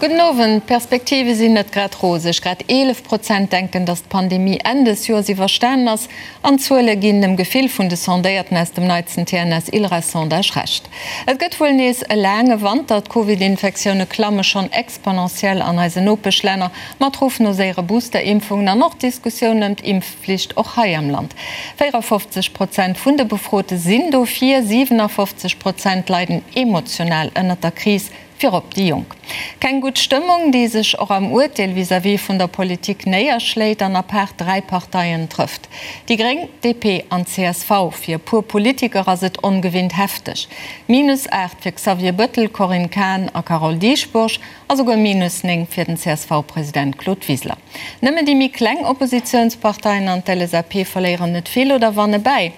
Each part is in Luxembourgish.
Gudden Owend. D'Perspektive sinn net grad roseg. Grad 11 Prozent denken, datt d'Pandemie Enn des Joers iwwerstanen ass. An d'Zuele ginn dem Gefill vun de Sondéierten aus dem neitsten TNS-ILReS-Sondage Recht. Et gëtt wuel nees e laange Wanter. D'Covid-Infektioune klamme schonn exponentiell an eisen Nopeschlänner, mat Ruff no séiere Booster-Impfungen an och Diskussioun ëm d'Impfflicht och hei am Land. 54 Prozent vun de Befrote sinn dofir, 57 Prozent leiden emotional ënnert der Kris. Virop déi Jonk. Keng gutt Stëmmung, déi sech och am Urteel vis-à-vis vun der Politik néierschléit an apaart 3 Parteien trëfft, déi Gréng, DP an csv. Fir e puer Politiker ass et ongewinnt hefteg. Minus 8 fir Xavier Bëttel, Corinne Cahen a Carole Dieschbourg a souguer minus 9 fir den CSV-President Claude Wiseler. Nëmmen déi méi kleng Oppositiounsparteien an d'LSAP verléieren net vill oder wanne bäi.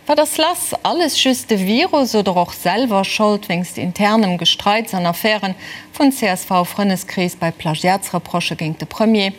Wat ass lass? Alles just de Virus oder och selwer Schold wéinst internem Gestreits an Affären vun CSV-Frënneskrees bei Plagiatsreprochë géint de Premier?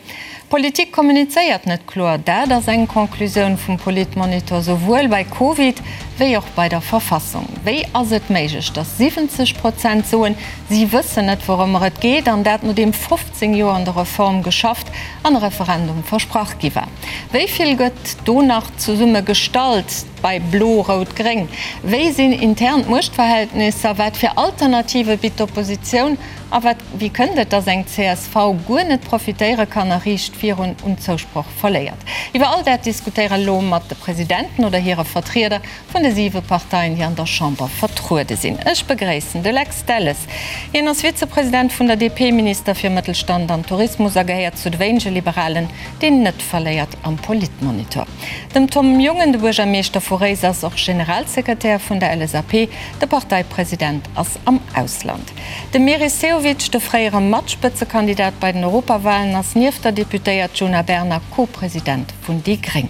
D'Politik kommunizéiert net kloer, dat ass eng Conclusioun vum Politmonitor souwuel bei Covid wéi och bei der Verfassung. Wéi ass et méiglech, datt 70 Prozent soen, si wëssen net wourëmmer et geet, an dat nodeem 15 Joer an der Reform geschafft an e Referendum versprach gi war? Wéi vill gëtt do nach zesumme gestallt bei Blo-Rout-Gréng? Wéi sinn intern d'Muechtverhältnisser? Wat fir Alternative bitt d'Oppositioun? A wat, wéi kënnt et, datt eng csv guer net profitéiere kann a riicht virun un Zousproch verléiert? Iwwer all dat diskutéiere elo mat de Presidenten oder hire Vertrieder vun de siwe Parteien, déi an der Chamber vertruede sinn. Ech begréissen de Lex Delles. Hien ass Vizepresident vun der DP, Minister fir Mëttelstand an Tourismus a gehéiert zu de wéinege Liberalen, deen net verléiert am Politmonitor. Dem Tom Jungen, de Buergermeeschter vu Réiser, ass och Generalsekretär vun der LSAP. De Parteipresident ass am Ausland. De Meris Sehovic, de fréiere Matspëtzekandidat bei den Europawalen, ass nieft der Deputéiert Djuna Bernard Co-President vun déi gréng.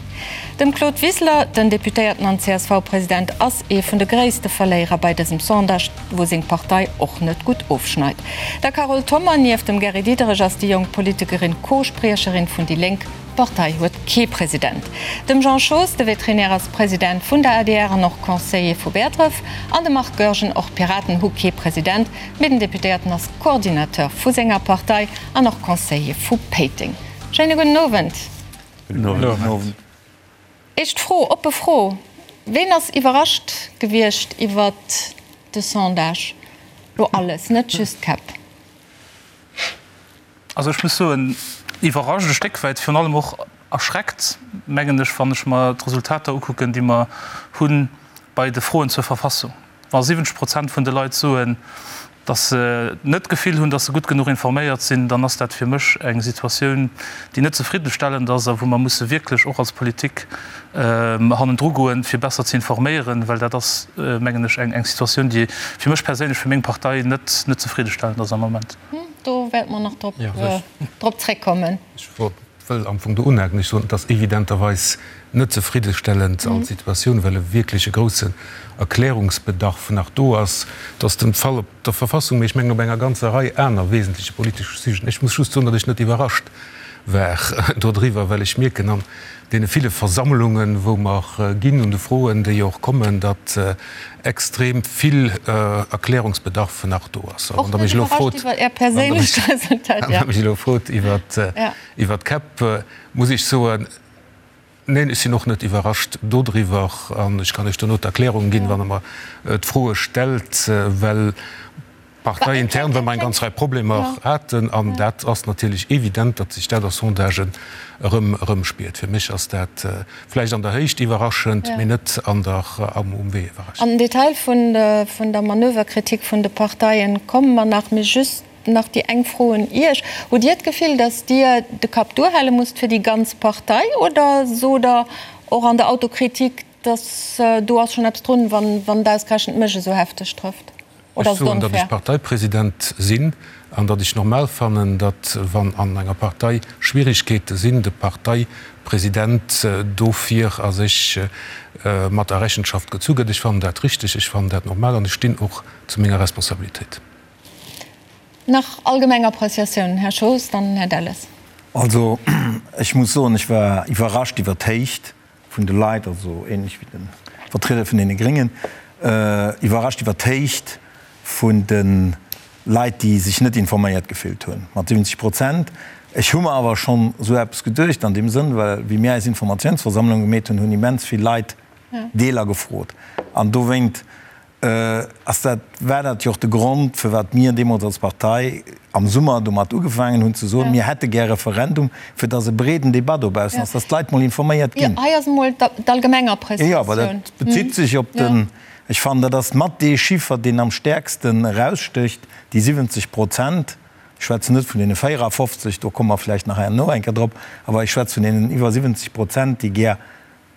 Dem Claude Wiseler, den Deputéierten an CSV-President, ass ee vun de gréisste Verléierer bei dësem Sondage, wou seng Partei och net gutt ofschneit. Der Carole Thommer, nieft dem Gary Diderich ass déi jonk Politikerin Co-Spriecherin vun déi Lénk. D'Partei huet kee President. Dem Jean Schoos, de Veterinär ass President vun der adr an och Conseiller vu Bäertref. An de Marc Goergen, och d'Piraten hu kee President, mee den Deputéierten ass Coordinateur vu senger Partei an och Conseiller vu Péiteng. Schéine gudden Owend. Gudden Owend. Éischt Fro, oppe Fro, Ween ass iwwerrascht gewiescht iwwert de Sondage? Lo alles, net just d'Käpp. Also ech muss soen, iwwerrascht e Stéck wäit, virun allem och erschreckt, mengen ech, wann ech mer d'Resultater ukucken, déi mer hu bei de Froen zur Verfassung. Wa 70 Prozent vun de Leit soen, datt se net d'Gefill hunn, datt se gutt genuch informéiert sinn, dann ass dat fir mech eng Situatioun, déi net zefriddenstellend ass a wou mer musse wierklech och als Politik hannendru goen, fir besser ze informéieren, well dat ass, mengen ech, eng Situatioun, déi fir mech perséinlech, fir meng Partei net net zefriddenstellend ass am Moment. Do wäerte mer nach drop zréckkommen. Wëll am Fong do unhaken. Ech soen, et ass evidenterweis net zefriddestellend als Situatioun, well e wierklech e groussen Erklärungsbedarf nach do ass. Et ass den Fall op der Verfassung, mee ech mengen op enger ganzer Rei aner wesentleche politesche Sujeten. Ech muss just soen, datt ech net iwwerrascht war dodriwwer, well ech mierken an deene ville Versammlungen, wou mer ginn, un de Froen, déi och kommen, datt extrem vill Erklärungsbedarf nach do ass. A wann Der mech elo frot, wann Der mech elo frot iwwert Iwwer d'Käpp muss ech soen, Neen, ech sinn och net iwwerrascht dodriwwer. An ech kann Iech dono d'Erklärung ginn, wann Der mer d'Froe stellt, well parteiintern, well mer eng ganz Rei Problemer haten. An dat ass natierlech evident, datt sech dat a Sondagen erëm erëmspiert. Fir mech ass dat vläicht an der Héicht iwwerraschend, mee net an der, um Wee iwwerraschend. An den Detail vun der Manöverkritik vun de Parteien komme mer nach. Mee just Nach déi eng Fro un Iech, Hutt Dir d'Gefill, datt Dir de Kapp duerhale musst fir déi ganz Partei oder sot Der och an der Autokritik, datt do ass schonn eppes drun, wann et ausgerechent mech esou hefteg trëfft? Oder ass et onfair? Ech soen, datt ech Parteipresident sinn an datt ech normal fannen, datt wann an enger Partei Schwierigkeete sinn, de Parteipresident dofir a sech mat a Rechenschaft gezu gëtt. Ech fannen dat richteg, ech fannen dat normal an ech stinn och zu menger Responsabilitéit. Nach allgemeng Appreciatiounen, Här Schoos, dann Här Delles. Also, ech muss soen, ech war iwwerrascht iwwert d'Héicht vun de Leit, also ähnlech wéi de Vertrieder vun deene Gréngen, iwwerrascht iwwert d'Héicht vun de. Leit, déi sech net informéiert gefillt hunn, mat 70 Prozent. Ech hu mer awer schonn esou eppes geduecht an deem Sënn, well wéi mir eis Informatiounsversammlung gemeet hunn, hunn immens vill Leit Deeler gefrot. An dowéint ass dat, war dat jo och de Grond, firwat mir deemools als Partei am Summer domat ugefaangen hunn ze soen, mir hätte gär e Referendum, fir datt e breeden Debat dobaussen ass, datt d'Leit mol informéiert ginn. Hei ass emol d'allgemeng Appreciatioun. Jo, awer dat bezitt sech op den, ech fannen, dat ass mat dee Chiffer, deen am stäerksten erausstécht, déi 70 Prozent. Ech schwätzen net vun deene 54, do komme mer vläicht nach herno eng Kéier drop, awer ech schwätze vun deenen iwwer 70 Prozent, déi gär,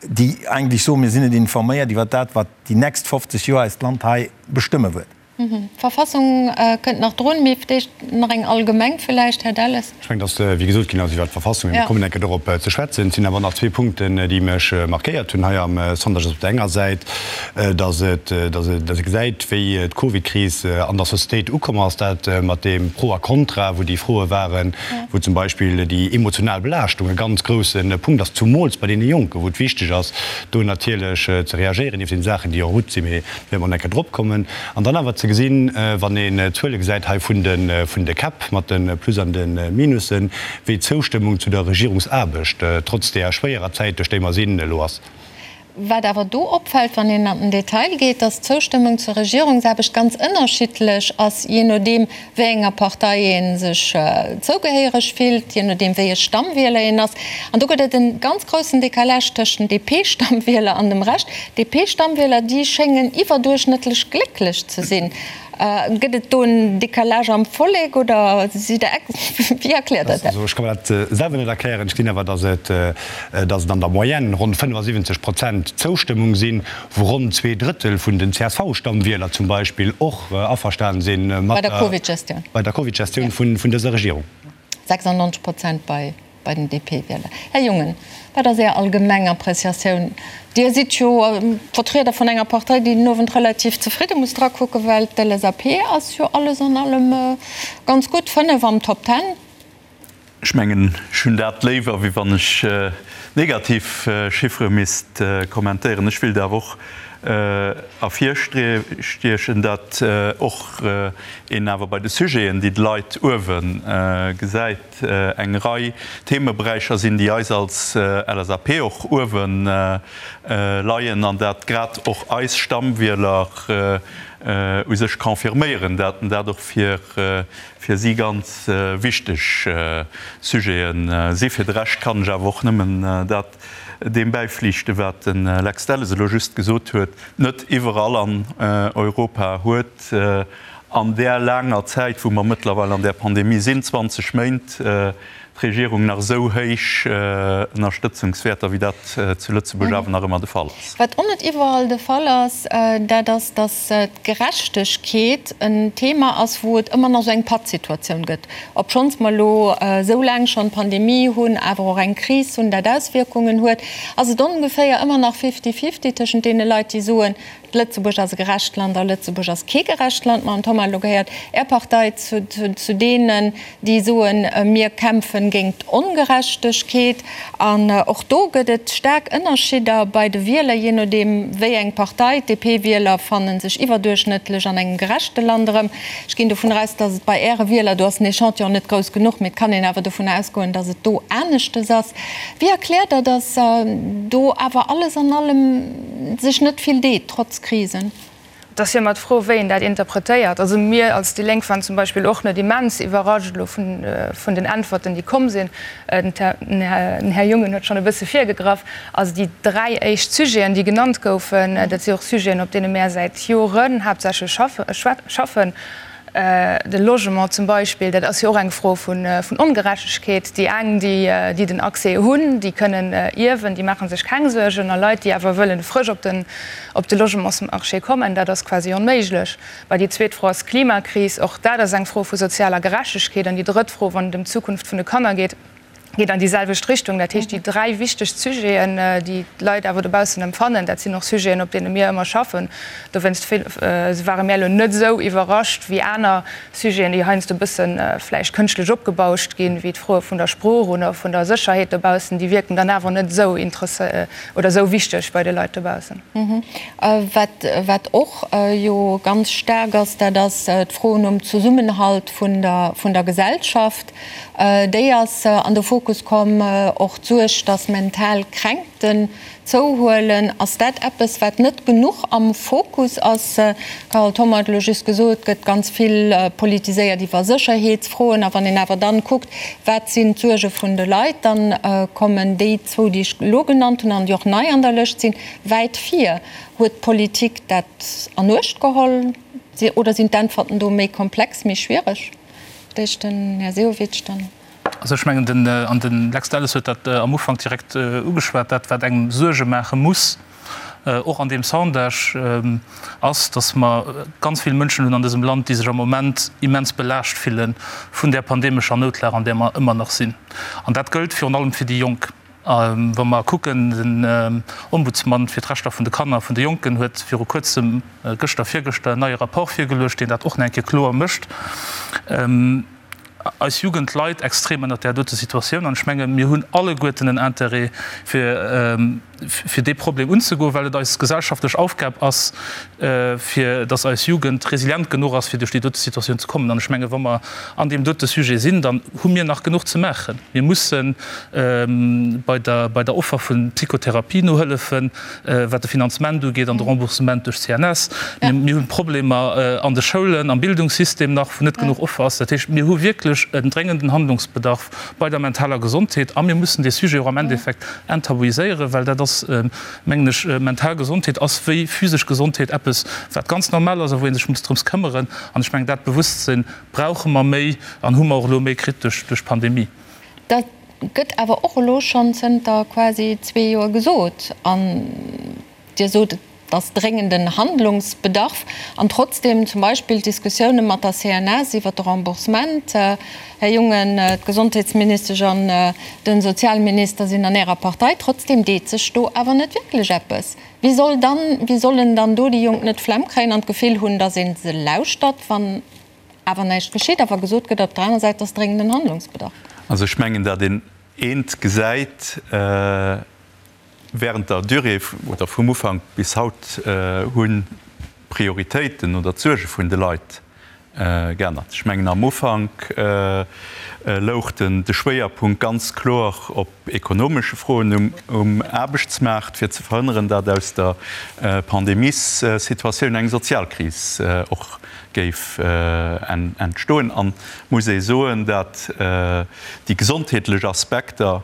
déi eigentlech soen, mir sinn net informéiert iwwer dat, wat déi nächst 50 Joer eist Land hei bestëmme wëllt. D'Verfassung kënnt nach drun, mee d'éischt nach eng allgemeng villäicht, Här Delles. Ech mengen, dass, wéi gesot ginn ass iwwert d'Verfassung, mir kommen eng Kéier dorop ze schwätzen. Et sinn awer nach zwee Punkten, déi mech markéiert hunn hei am Sondage. Op der enger Säit, dass et, dass ee gesäit, wéi d'Covidkris an der Societéit ukomm ass, dat mat deem Pro a Contra, wou déi Froe waren, wou zum Beispill déi emotional Belaaschtung e ganz grousse Punkt ass, zumools bei deene Jonken, wou et wichteg ass, do natierlech ze reagéieren, nieft den Saachen, déi en route sinn, mee do wäerte mer nach eng Kéier drop kommen. An dann awer ze gesinn, wann een d'Zuele gesäit hei vun de vun de Käpp mat de Plus an de Minussen, wéi d'Zoustëmmung zu der Regierungsaarbecht, trotz deeër schwéierer Zäit, duerch déi mer sinn, elo ass. Wat awer do opfält, wann een an den Detail geet, dass d'Zoustëmmung zur Regierungsaarbecht ganz ënnerschiddlech ass, jee nodeem wéi enger Partei ee sech zougehéiereg fillt, jee nodeem wéi e Stammwieler een ass. An do gëtt et e ganz groussen Décalage tëscht den DP-Stammwieler an dem Rescht. D'DP-Stammwieler, déi schéngen iwwerduerchschnëttlech glécklech ze sinn. Gëtt et do en Décalage am Vollek oder sidd Der ex? Wéi erkläert Der dat? Also ech ka mer dat selwer net erklären. Ech gesinn awer, datt et, datt et an der Moyenne ronn 75 Prozent Zoustëmmung sinn, wou ronn zweedrëttel vun den CSV-Stammwieler zum Beispill och averstanen si mat der Covid-Gestioun, bei der Covid-Gestioun vun dëser Regierung. 96 Prozent bei bei den DP-Wieler. Här Jungen, wat ass Är allgemeng Appreciatioun? Dir sidd jo Vertrieder vun enger Partei, déi den Owend relativ zefridde muss drakucken, well d'LSAP ass jo alles an allem ganz gutt, 5 am Top Ten. Ech mengen, ech hunn dat léiwer, wéi wann ech negativ Chiffere misst kommentéieren. Ech wéilt awer och ervirstiechen, datt och een awer bei de Sujeten, déi d'Leit uewe gesäit, eng Rei Themeberäicher sinn, déi eis als LSAP och uewe leien an dat grad och eis Stammwieler u sech confirméieren, dat dat och fir si ganz wichteg Sujete si. Fir de Rescht kann ech awer och nëmmen dat deem bäiflichten, wat de Lex Delles elo just gesot huet. Net iwwerall an Europa huet An där laanger Zäit, wou mer mëttlerweil an där Pandemie sinn, 20 Méint, d'Regierung nach esou héich Ënnerstëtzungswäerter, wéi dat zu Lëtzebuerg awer nach ëmmer de Fall ass. Wat och net iwwerall de Fall ass, dat ass, datt d'Gerechtegkeet en Thema ass, wou et ëmmer nach esou eng Pattsituatioun gëtt. Obschonns mer elo esou laang schonn d'Pandemie hunn, awer och eng Kris hunn, dat Auswierkungen huet, ass et ongeféier ëmmer nach fifty-fifty tëschent deene Leit, déi soen, Lëtzebuerg ass e gerecht Land a Lëtzebuerg ass kee gerecht Land. Mme Thoma, elo gehéiert Är Partei zu deenen, déi soen, mir kämpfen géint d'Ongerechtegkeet. An och do gëtt et staark Ënnerschidder bei de Wieler, jee nodeem wéi eng Partei. D'DP-Wieler fanne sech iwwerduerchschnëttlech an engem gerechte Land erëm. Ech ginn dovun aus, datt et bei Äre Wieler, do ass den Echantillon net grouss genuch, mee et kann een awer dovun ausgoen, datt et do aneschtes ass. Wéi erkläert Der, datt do awer alles an allem sech net vill deet, trotz Krisen? Et ass jo ëmmer d'Fro, wéi een dat interpretéiert. Also mir als déi Lénk waren zum Beispill och net immens iwwerrascht elo vun den Äntwerten, déi komm sinn. Den Här Jungen huet schonn e bësse virgegraff. Also déi dräi éischt Sujeten, déi genannt goufen, dat si och Sujeten, op deene mär säit Joren haaptsächlech schaffen. De Logement zum Beispill, dat ass jo och eng Fro vun Ongerechtegkeet. Déi eng, déi den Accès hunn, déi kënnen ierwen, déi maache sech keng Suergen. A Leit, déi awer wëllen frësch op den op de Logementsmarché kommen, dat ass quasi onméiglech. Bah, déi zweet Fro ass d'Klimakris. Och dat ass eng Fro vu sozialer Gerechtegkeet. An déi drëtt Fro, wann et ëm d'Zukunft vun de Kanner geet. Geet an déi selwecht Richtung. Dat heescht, déi dräi wichtegst Sujeten, déi d'Leit awer dobaussen empfannen, dat sinn och Sujeten, op deene mir ëmmer schaffen. Dowéinst ware mir elo net esou iwwerrascht wéi aner Sujeten, déi heiansdo e bësse vläicht kënschtlech opgebauscht ginn, wéi d'Froe vun der Sprooch oder vun der Sécherheet dobaussen. Déi wierken dann awer net esou oder esou wichteg bei de Leit dobaussen. Wat och jo ganz staark ass, dat ass d'Fro nom Zesummenhalt vun der Gesellschaft. Déi ass an de Fokus komm. Och d'Suerg, datt mental Kränkten zouhuelen. Ass dat eppes, wat net genuch am Fokus ass? D'Carole Thoma huet elo just gesot, et gëtt ganz vill politiséiert iwwer Sécherheetsfroen. A wann een awer dann kuckt, wat sinn d'Suerge vun de Leit, dann kommen déi zwou, déi ech elo genannt hunn an déi och nei an der Lëscht sinn, wäit vir. Huet d'Politik dat an Uecht geholl oder sinn d'Äntwerten do méi komplex, méi schwiereg? D'éischt den Här Sehovic, dann. Also ech mengen, den, an de Lex Delles huet dat am Ufank direkt ugeschwat, dat wat engem Suerge maache muss, och an deem Sondage, ass, datt mer ganz vill Mënschen hunn an dësem Land, déi sech am Moment immens belaascht fille vun där pandemescher Noutlag, an där mer ëmmer nach sinn. An dat gëllt virun allem fir déi Jonk. Wa mer kucken, den Ombudsman fir d'Rechter vun de Kanner a vun de Jonken huet viru kuerzem, gëschter, virgëschter, en neie Rapport virgeluecht, deen dat och nach eng Kéier kloer mécht. Eis Jugend leit extrem ënnert där dote Situatioun an ech menge mir hunn alleguerten en Intérêt, fir fir dee Problem unzegoen, well et eis gesellschaftlech Aufgab ass, fir datt eis Jugend resilient genuch ass, fir duerch déi dote Situatioun ze kommen. An ech menge wa mer an deem dote Sujet sinn, dann hu mir nach genuch ze maachen. Mir musse bei der bei der Offer vu Psychotherapie nohëllefen, wat de Finanzement ugeet an de Remboursement duerch d'CNS. Mir hu Problemer an de Schoulen, am Bildungssystem nach, wou net genuch Offer ass. Dat heescht, mir hu wierklech en dréngenden Handlungsbedarf bei der mentaler Gesondheet a mir mussen dee Sujet och am Endeffekt enttabuiséieren, well dat ass, mengen ech, mental Gesondheet ass wéi physesch Gesondheet eppes, wat ganz normal ass a wou ee sech muss drëms këmmeren. An ech mengen, dat Bewosstsinn brauche mer méi an hu mer och elo méi kritt duerch d'Pandemie. Dat gëtt awer och elo schonn zënter quasi zwee Joer gesot. An Dir sot, et ass dréngenden Handlungsbedarf. An trotzdem zum Beispill d'Diskussioune mat der CNS iwwert de Remboursement. Här Jungen, d'Gesondheetsministesch an de Sozialminister sinn an Ärer Partei. Trotzdem deet sech do awer net wierklech eppes. Wéi soll dann, wéi sollen dann do déi Jonk net d'Flemm kréien an d'Gefill hunn, datt ee se lauschtert, wann awer näischt geschitt, awer gesot gëtt op der anerer Säit, et ass dréngenden Handlungsbedarf? Also ech mengen, datt een eent gesäit, Während der Durée oder vum Ufank bis haut hunn d'Prioritéiten oder d'Suerge vun de Leit geännert. Ech mengen am Ufank louch den de Schwéierpunkt ganz kloer op ekonomesche Froen um Aarbechtsmaart, fir ze verhënneren, datt aus der Pandemiessituatioun eng Sozialkris och géif entstoen. An muss ee soen, datt déi gesondheetlech Aspekter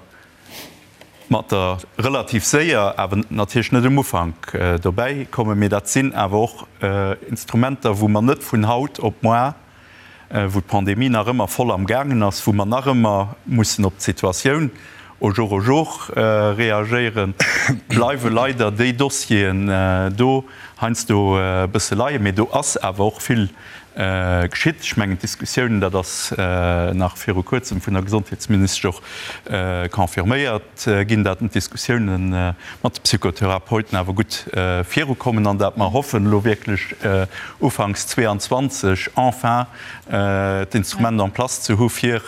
mat der relativ séier, awer natierlech net um Ufank dobäi kommen, mee dat sinn awer och Instrumenter, wou mer net vun haut op moar, wou d'Pandemie nach ëmmer voll am gaangen ass, wou mer nach ëmmer mussen op d'Situatioun au jour au jour reagéieren, bleiwe leider déi Dossieren do heiansdo e bësse leien. Mee do ass awer och vill Geschitt. Ech mengen, d'Diskussiounen, dat ass nach viru Kuerzem vun der Gesondheetsministesch och confirméiert ginn, datt d'Diskussiounen mat de Psychotherapeuten awer gutt virukommen an datt mer hoffen, elo wierklech ufanks 22 enfin d'Instrument en place ze hu fir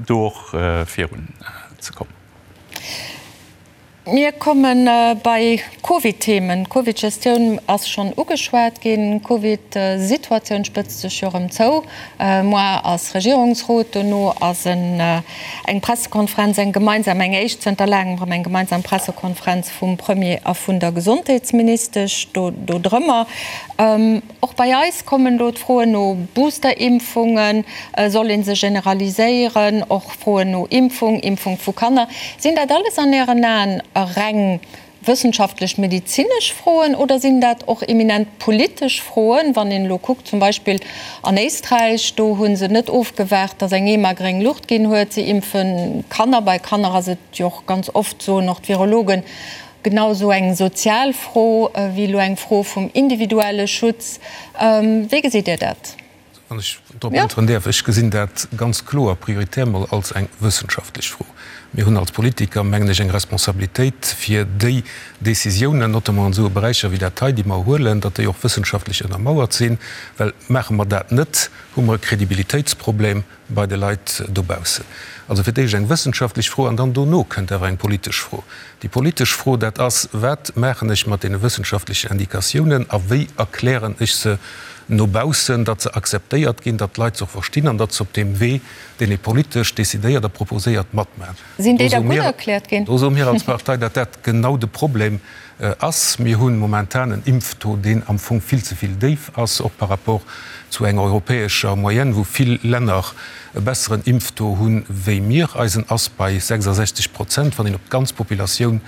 do och virunzekommen. Mir komme bei Covid-Themen. D'Covid-Gestioun ass schonn ugeschwat ginn. D'Covid-Situatioun spëtzt sech jo erëm zou. Moar ass Regierungsrot, dono ass eng Pressekonferenz, eng gemeinsam, eng éischt zënter laangem erëm eng gemeinsam Pressekonferenz vum Premier a vun der Gesondheetsministesch do drëmmer. Och bei eis kommen elo d'Froen no Boosterimpfungen, soll ee se generaliséieren, och Froen no Impfung, Impfung vu Kanner. Sinn dat alles an Ären Aen reng wëssenschaftlech-medezinesch Froen oder sinn dat och eminent politesch Froen? Wann een elo kuckt, zum Beispill an Éisträich, do hu se net ofgewaart, datt eng EMA gréng Luucht ginn huet, se impfe Kanner. Bei Kanner ass et jo och ganz oft, soen och d'Virologen, Genau esou eng sozial Fro wéi elo eng Fro vum individuelle Schutz. Wéi gesitt Dir dat? Wann ech drop äntweren däerf, Ech gesinn dat ganz kloer prioritär mol als eng wëssenschaftlech Fro. Mir hunn als Politiker, mengen ech, eng Responsabilitéit, fir déi Décisiounen, notamment an esou Beräicher wéi dat hei, déi mer huelen, datt déi och wëssenschaftlech ënnermauert sinn. Well maache mer dat net, hu mer e Kredibilitéitsproblem bei de Leit dobaussen. Also fir d'éischt eng wëssenschaftlech Fro an dann dono kënnt awer eng politesch Fro. Déi politesch Fro, dat ass, Wat maachen ech mat deene wëssenschaftlechen Indikatiounen a wéi erklären ech se no baussen, datt se akzeptéiert ginn, datt d'Leit se och verstinn an datt se op deem Wee, deen ee politesch decidéiert a proposéiert, matmaachen? Sinn déi da gutt erkläert ginn? Do soe mir als Partei, datt dat genau de Problem ass. Mir hu momentan en Impftaux, deen am Fong vill ze vill déif ass, och par rapport zu enger europäescher Moyenne, wou vill Länner e besseren Impftaux hu wéi mir. Eisen ass bei 66 Prozent, wann een op d'ganz Populatioun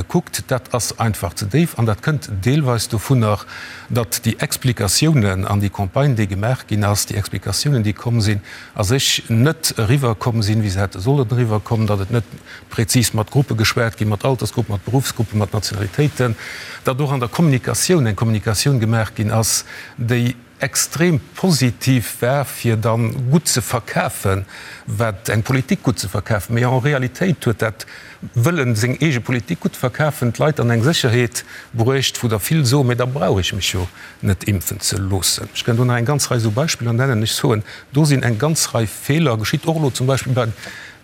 kuckt. Dat ass einfach ze déif an dat kënnt deelweis dovunner, datt déi Explikatiounen an déi Campagne, déi gemaach ginn ass, déi Explikatiounen, déi komm sinn, a sech net eriwwerkomm sinn, wéi se hätte sollen eriwwerkommen, datt et net prezis mat Gruppe geschwat ginn, mat Altersgruppen, mat Beruffsgruppen, mat Nationalitéiten, datt och an der Kommunikatioun eng Kommunikatioun gemaach ginn ass, déi extrem positiv war, fir da gutt ze verkafen, wat eng Politik gutt ze verkafen. Mee en Realitéit huet dat Wëllen, seng eege Politik gutt verkafen, d'Leit an eng Sécherheet bruecht, wou der vill soen, Mee da brauch ech mech jo net impfen ze loossen. Ech kënnt do nach eng ganz Rei esou Beispiller nennen. Ech soen, do sinn eng ganz Rei Feeler geschitt, och elo zum Beispill bei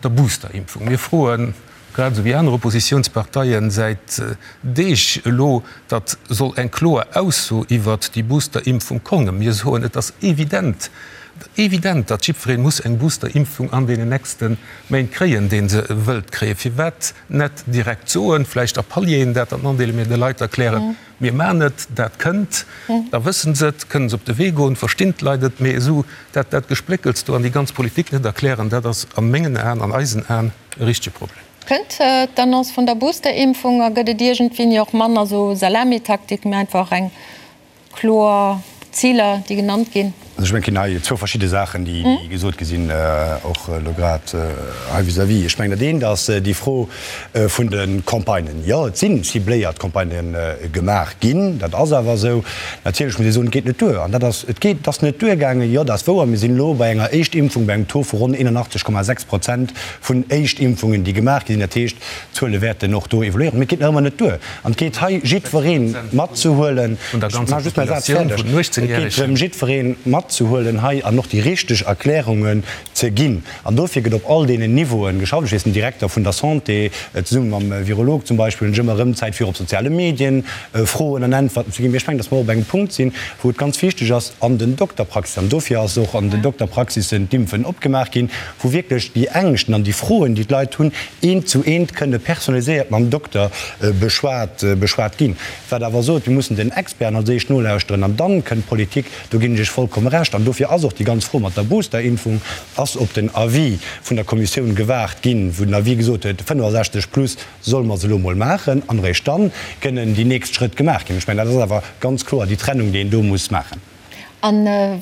der Boosterimpfung. Mir froen, grad esou wéi aner Oppositionsparteien, säit Deeg elo, datt soll eng kloer Ausso iwwert déi Boosterimpfung kommen. Mir soen, et ass evident, evident, datt jiddweree muss eng Boosterimpfung an deenen nächste Méint kréien, dee se wëllt kréien. Firwat net direkt soen, vläicht a Palieren dat dann andeelen, mee de Leit erklären, Mir maachen et, dat kënnt, da wësse se et, kënne se op de Wee goen, verstinn d'Leit et. Mee esou dat, dat Gespléckels do an déi ganz Politik net erklären, dat ass a mengen Aen, an eisen Aen e richtege Problem. Kënnt d'Annonce vun der Boosterimpfung a gëtt et iergendwéini och manner esou Salamitaktik, mee einfach eng kloer Ziler, déi genannt ginn? Also ech mengen, et ginn hei zwou verschidde Saachen, déi gesot gi sinn, och elo grad hei vis-à-vis. Ech mengen, dat eent ass déi Fro vun de Campagnen. Jo, et si cibléiert Campagnë gemaach ginn, dat ass awer esou. Natierlech muss ee soen, et geet net duer. An dat ass, et geet, et ass net duergaangen, jo, dat ass wouer. Mir sinn elo bei enger Éischtimpfung bei engem Taux vu ronn 81,6 Prozent vun Éischtimpfungen, déi gemaach gi sinn. Dat heescht, d'Zuele wäerten och do evoluéieren. Mee et geet nach ëmmer net duer. An et geet hei jiddweree matzehuelen, ech maache just mäi Saz fäerdeg, et geet drëm jiddweree matzehuelen hei an och déi richteg Erklärungen ze ginn. An dofir gëtt op all deenen Niveauen geschafft. Ech weess, den Direkter vun der Santé zesumme mam Virolog zum Beispill hunn ech ëmmer erëm Zäit fir op soziale Medien Froen an Äntwerten ze ginn. Mee ech mengen, datt mer och op engem Punkt sinn, wou et ganz wichteg ass an den Dokterpraxissen, an dofir ass och an den Dokterpraxissen d'Impfen opgemaach ginn, wou wierklech déi Ängschten an déi Froen, déi d'Leit hunn, eent zu eent kënne personaliséiert mam Dokter beschwat beschwat ginn. Wat awer sot, mir mussen den Experten als éischt nolauschteren an dann kënnt d'Politik, do ginn ech Iech vollkomme Recht. An dofir ass och déi ganz Fro mat der Boosterimpfung ass op den Avis vun der Kommissioun gewaart ginn, wou den Avis gesot huet, 65 plus solle mer se elo emol maachen an eréischt dann kënnen déi nächst Schrëtt gemaach ginn. Ech mengen, dat ass awer ganz kloer déi Trennung, déi een do muss maachen. A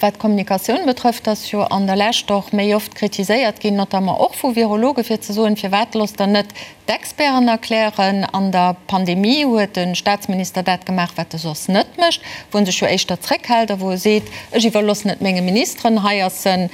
wat d'Kommunikatioun betrëfft, ass jo an der Lescht och méi oft kritiséiert ginn, notamment och vu Virologen, fir ze soen, Firwat loosst Der net d'Experten erklären? An der Pandemie huet de Staatsminister dat gemaach, wat e soss net mécht, wou en sech jo éischter zréckhält a wou e seet, Ech iwwerloossen et menge Ministeren. Hei ass e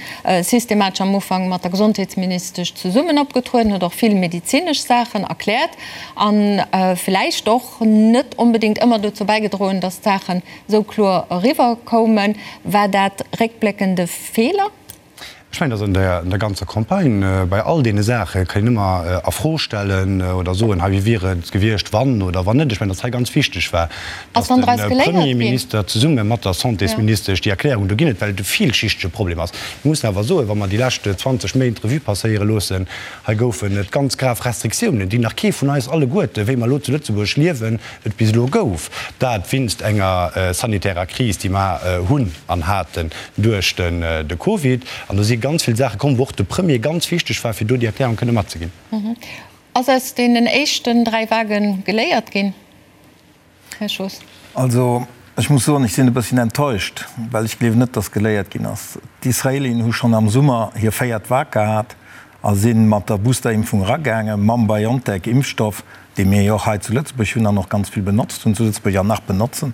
systematesch am Ufank mat der Gesondheetsministesch zesummen opgetrueden, huet och vill medezinesch Saachen erkläert a vläicht och net onbedéngt ëmmer dozou bäigedroen, datt d'Saachen esou kloer eriwwer koumen. War dat réckbléckend e Feeler? Ech mengen, dass an der ganzer Campagne, bei all deene Saache kann een ëmmer a Fro stellen oder soen, hei, wéi wier et gewiescht, wann oder wann net. Ech mengen, dass hei ganz wichteg war, dass de Premierminister zesumme mat der Santésministesch déi Erklärung do ginn huet, well et e villschichtege Problem ass. Mir mussen awer soen, wa mer déi lescht 20 Méint Revue passéiere loossen, hei goufen et ganz grav Restriktiounen, déi nach kee vun eis alleguerte, wéi mer elo zu Lëtzebuerg liewen, et bis elo gouf, dat winst enger sanitärer Kris, déi mer hunn an haten duerch de Covid. An do si ganz vill Saache komm, wou och de Premier ganz wichteg war, fir do déi Erklärung kënne matzeginn. Ass aus deenen éischten 3 Vague geléiert ginn, Här Schoos? Also, ech muss soen, ech sinn e bësschen enttäuscht, well ech gleewen net, dass geléiert ginn ass. D'Israelien hu schonn am Summer hir véiert Vague gehat a si mat der Boosterimpfung eragaangen, mam BioNTech-Impfstoff, dee mir jo och hei zu Lëtzebuerg hunn an och ganz vill benotzt hunn zu Lëtzebuerg an nach benotzen.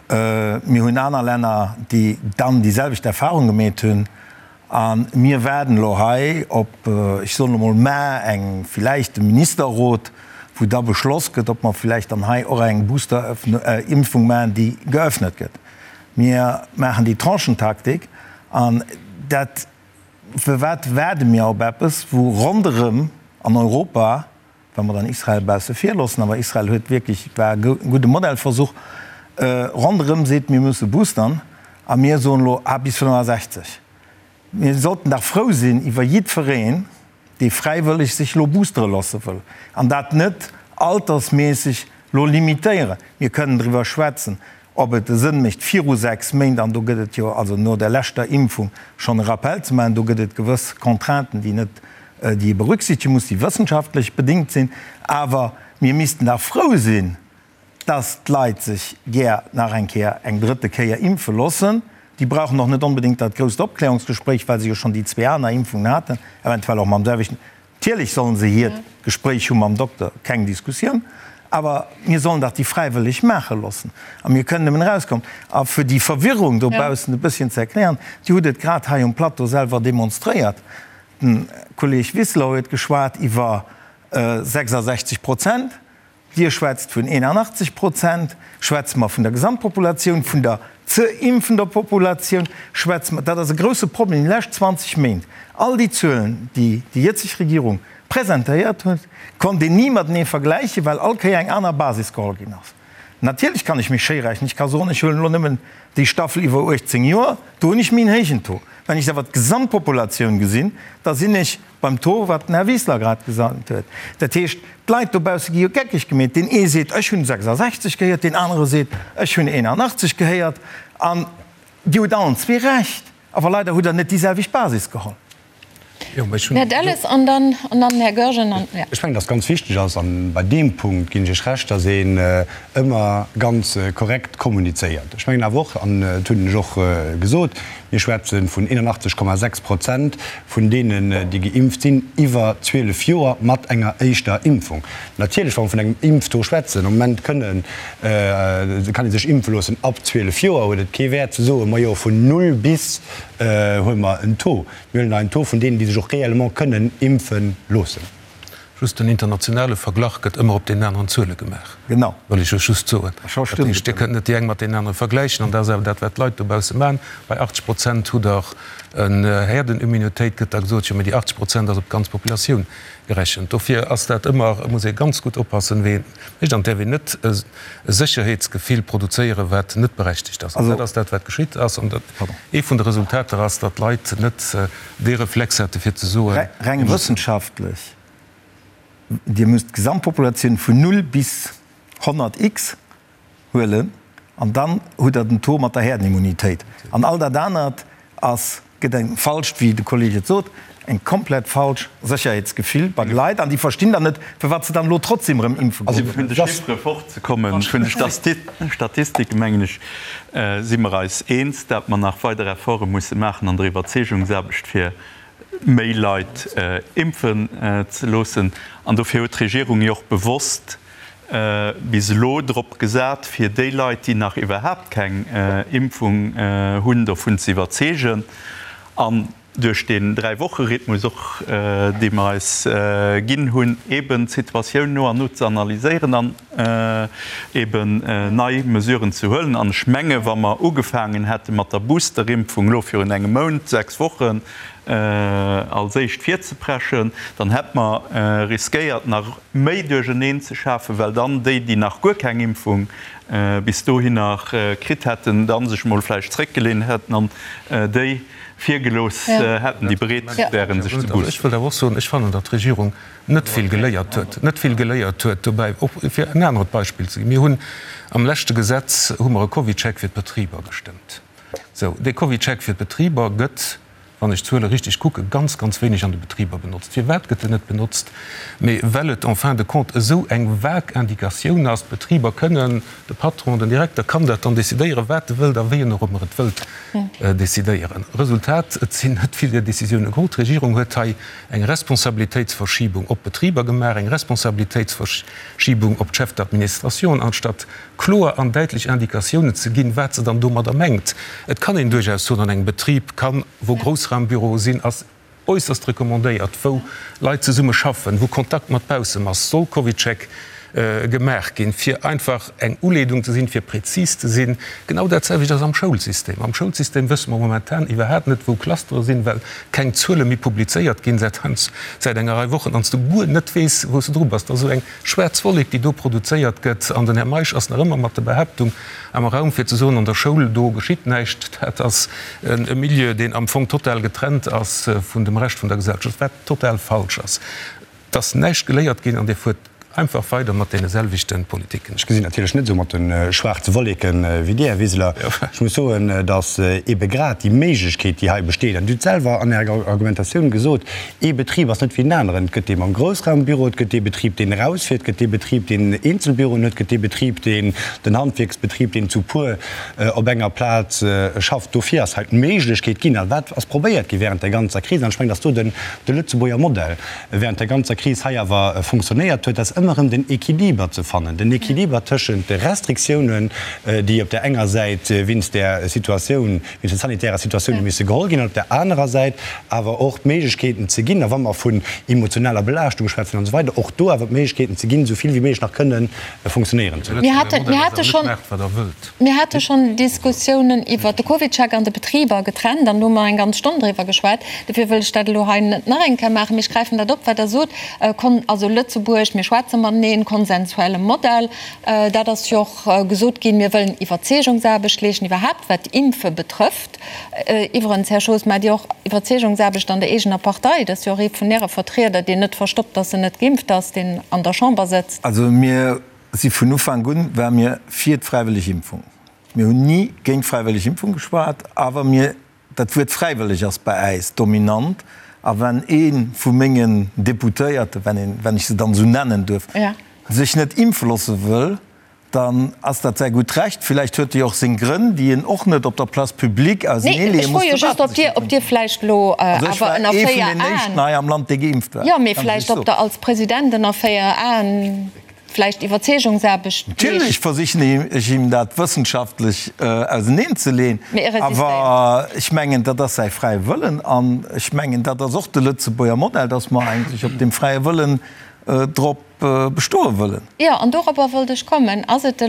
Mir hunn aner Länner, déi dann déi selwecht Erfahrung gemeet hunn. A mir waarden elo hei op, ech soen elo mol mar, eng villäicht e Ministerrot, wou da beschloss gëtt, ob mer villäicht dann hei och eng Booster-Impfung maachen, déi geöffnet gëtt. Mir maachen déi Tranchentaktik an dat, firwat waarde mir op eppes, wou ronderëm an Europa, wa mer dann Israel bausse vir loossen, awer Israel huet wierklech, war e gudde Modellversuch, ronderëm seet, mir musse boostern a mir soen elo, ah, bis 65. Mir sollten dach frou sinn iwwer jiddwereen, dee fräiwëlleg sech elo boostere loosse wëll an dat net altersméisseg elo limitéieren. Mir kënnen driwwer schwätzen, ob et e Sënn mécht, viru 6 Méint, an do gëtt et jo, also no der leschter Impfung, schonn e Rappel ze maachen. Do gëtt et gewëss Contrainten, déi net, déi ee berücksichtege muss, déi wëssenschaftlech bedéngt sinn. Awer mir missten dach frou sinn, dass d'Leit sech gär nach eng Kéier, eng drëtte Kéier impfe loossen. Déi brauchen och net onbedéngt dat grousst Opklärungsgespréich, well se jo schonn déi zwee aner Impfungen haten, eventuell och mam selwechten. Natierlech sollen se hiert Gespréich hu mam Dokter, keng Diskussioun, awer mir sollen dach déi fräiwëlleg maache loossen a mir kënnen nëmmen erauskommen. A fir déi Verwirrung dobaussen e bësschen ze erklären, Dir hutt et grad hei um Plateau selwer demonstréiert, de Kolleeg Wiseler huet geschwat iwwer 66 Prozent, Dir schwätzt vun 81 Prozent. Schwätze mer vun der Gesamtpopulatioun, vun der ze impfender Populatioun? Schwätze mer, dat ass e grouse Problem déi lescht 20 Méint, all déi Zuelen, déi déi jëtzeg Regierung presentéiert huet, konnt een ni matenee vergläichen, well all Kéier eng aner Basis geholl ginn ass. Natierlech kann ech mech schéi rechnen, ech ka soen, ech huelen elo nëmmen déi Staffel iwwer 18 Joer, do hunn ech méi en héijen Taux. Wann ech awer d'Gesamtpopulatioun gesinn, da sinn ech Beim Taux, wat den Här Wiseler grad gesot huet. Dat heescht, d'Leit dobausse gi jo geckeg gemeet. Deen ee seet, ech hunn 66 gehéiert, deen anere seet, ech hunn 81 gehéiert. An Dir hutt allen zwee Recht, awer leider hutt Der net déi selwecht Basis geholl. Här Delles an dann den Här Goergen. Ech mengen, dass ganz wichteg ass, a bei deem Punkt ginn ech Iech Recht, dass een ëmmer ganz korrekt kommunizéiert. Ech mengen awer och, an dat hunn ech och gesot, Mir schwätze vun 81,6 Prozent vun deenen, déi geimpft sinn, iwwer 12 Joer mat enger éischter Impfung. Natierlech, wa mer vun engem Impftaux schwätzen, am Moment kënnen, kann ee sech impfe loossen ab 12 Joer, huet et kee Wäert ze soen, majo vun null bis huele mer en Taux. Mir huelen hei en Taux vun deenen, déi sech och réellement kënnen impfe loossen. Just den internationale Verglach gëtt ëmmer op deenen aneren Zuele gemaach. Genau. Wëll ech lech just soen. Dat heescht, Dir kënnt net déi eng mat deenen anere vergläichen. An dat ass awer dat, wat d'Leit dobausse maachen. Bei 80 Prozent hutt Der en Herdenimmunitéit, gëtt da gesot. Jo, mee déi 80 Prozent ass op d'ganz Populatioun gerechent. Dofir ass dat ëmmer, muss ee ganz gutt oppassen, wéi een et mécht. An et däerf een net e Sécherheetsgefill produzéieren, wat net berechtegt ass. An dat ass dat, wat geschitt ass. An ee vun de Resultater ass, datt d'Leit net dee Reflex hätte fir ze soen. Reng wëssenschaftlech, Dir musst d'Gesamtpopulatioun vun 0 bis 100 X huelen an dann hutt Der den Taux mat der Herdenimmunitéit. An all dat anert ass, gëtt eng falscht, wéi de Kolleg et sot, eng komplett falsch Sécherheetsgefill bei de Leit an déi verstinn dann net, firwat se dann elo trotzdem erëm impfe goen. Also fir vun de Chiffere fortzekommen, vun de Statistiken, mengen ech, si mer eis eens, dat mer nach weider Efforte musse maachen an der Iwwerzeegungsaarbecht, fir méi Leit impfen ze loossen. An dofir huet d'Regierung jo och bewosst bis elo drop gesat, fir déi Leit, déi nach iwwerhaapt keng Impfung hunn, dovun ze iwwerzeegen. An duerch deen Dräi-Woche-Rhythmus och, dee mer eis ginn hunn, eeben d'Situatioun no an no ze analyséieren an eeben nei Mesuren ze huelen. An ech menge wa mer ugefaangen hätte mat der Boosterimpfung elo virun engem Mount, sechs Wochen, als éischt virzepreschen, dann hätt mer riskéiert nach méi Duercherneen ze schafen, well dann déi, déi nach guer keng Impfung bis dohinner kritt hätten, da sech mol vläicht zréckgelehnt hätten an déi virgelooss hätten, déi bereet wären, sech ze boosten. Ech wëllt awer och soen, ech fannen, datt d'Regierung net vill geléiert huet, net vill geléiert huet dobäi. Och fir en anert Beispill ze ginn, Mir hunn am leschte Gesetz hu mer e CovidCheck fir d'Betriber gestëmmt. Sou, dee CovidCheck fir d'Betriber gëtt, wann ech d'Zuele richtig kucken, ganz, ganz wéineg an de Betriber benotzt. Firwat gëtt en net benotzt? Mee well et en fin de compte esou eng vague Indikatioun ass. D'Betriber kënnen, de Patron, den Direkter kann dat dann decidéieren, wat e wëllt a wéi en och ëmmer et wëllt. Decidéieren. Resultat, Et sinn net vill där Décisioune geholl. D'Regierung huet hei eng Responsabilitéitsverschiebung op d'Betriber gemaach, eng Responsabilitéitsverschiebung op d'Chefs d'administration, anstatt kloer an däitlech Indikatiounen ze ginn, wat se dann domadder mengt. Et kann een duerchaus soen, an engem Betrib kann, wou Groussraumbüroe sinn, ass äusserst recommandéiert, wou Leit zesumme schaffen, wou Kontakt mat baussem ass, soll CovidCheck gemaach ginn, fir einfach eng Uleedung ze sinn, fir prezis ze sinn. Genau dat selwecht ass am Schoulsystem. Am Schoulsystem wësse mer momentan iwwerhaapt net, wou Clustere sinn, well keng Zuele méi publizéiert ginn säit säit enger Rei Wochen an s du guer net weess, wou s de dru bass. Dat ass esou eng schwaarz Wollek, déi do produzéiert gëtt. An den Här Meisch ass nach ëmmer mat der Behaaptung am Raum, fir ze soen, an der Schoul, do geschitt näischt. Dat ass e Milieu, deen am Fong total getrennt ass vun dem Rescht vun der Gesellschaft, wat total falsch ass. Et ass näischt geléiert ginn an Dir fuert einfach weider mat deene selwechte Politiken. Ech gesinn natierlech net esou mat de schwaarze Wolleke wéi Dir, Här Wiseler. Ech muss soen, datt eebe grad déi Méiglechkeet, déi hei besteet, an Dir hutt selwer an Ärer Argumentatioun gesot, Ee Betrib ass net wéi en aneren. Et gëtt dee mam Groussraumbüro, et gëtt dee Betrib, deen erausfiert, et gëtt dee Betrib, deen Eenzelbüroen huet, et gëtt dee Betrib, deen den Handwierksbetrib, deen zu puer op enger Plaz schafft. Dofir ass hei d'Méiglechkeet ginn, a wat ass probéiert gi während der ganzer Kris, an ech mengen, dass do de Lëtzebuerger Modell während der ganzer Kris hei awer funktionéiert huet, ass ëmmer erëm den Equiliber ze fannen, den Equiliber tëschent de Restriktiounen, déi op där enger Säit wéinst där Situatioun, wéinst der sanitärer Situatioun hu misse geholl ginn, an op där anerer Säit awer och d'Méiglechkeeten ze ginn, a wa mer vun emotionaler Belaaschtung schwätzen an esou weider, och do awer d'Méiglechkeeten ze ginn, esou vill wéi méiglech nach kënnen funktionéieren ze loossen. Mir hate schonn, mir hate schonn Diskussiounen iwwert de CovidCheck an de Betriber getrennt, an do hu mer eng ganz Stonn driwwer geschwat. Dofir wëll ech dat elo hei net nach eng Kéier maachen, mee ech gräifen dat op, wat Der sot, also Lëtzebuerg, mir schwätze mateneen, konsensuelle Modell, dat ass jo och, Gesot ginn, mir wëllen Iwwerzeegungsaarbecht leeschten, iwwerhaapt wat d'Impfe betrëfft. Iwwerens, Här Schoos, maacht Dir och Iwwerzeegungsaarbecht an der eegener Partei? Dat ass jo och ee vun Äre Vertrieder, deen net verstoppt, datt en net geimpft ass, deen an der Chamber sëtzt. Also mir si vun Ufank un, ware mir fir d'fräiwëlleg Impfung. Mir hunn ni géint d'fräiwëlleg Impfung geschwat, awer mir, dat Wuert fräiwëlleg ass bei äis dominant. A wenn ee vu mengen Deputéierten, wenn een, wenn ech se dann esou nennen duerf, sech net impfe loosse wëll, dann ass dat säi gutt Recht. Villäicht huet e jo och seng Grënn, déi en och net op der Place publique auseneeleeë muss. Ech froe jo just, ob Dir, ob Dir vläicht elo awer ënner 4 Aen. Also ech war ee vun den éischten hei am Land, dee geimpft war. Jo, mee vläicht ob Der als President ënner 4 Aen vläicht Iwwerzeegungsaarbecht leescht. Natierlech versichen ech him dat wëssenschaftlech auseneenzeleeën, awer ech mengen, dat ass säi fräie Wëllen an ech mengen, dat ass och de Lëtzebuerger Modell, dass mer eigentlech op deem fräie Wëllen drop bestoe wëllen. Jo, an dorobber wollt ech kommen. Ass et de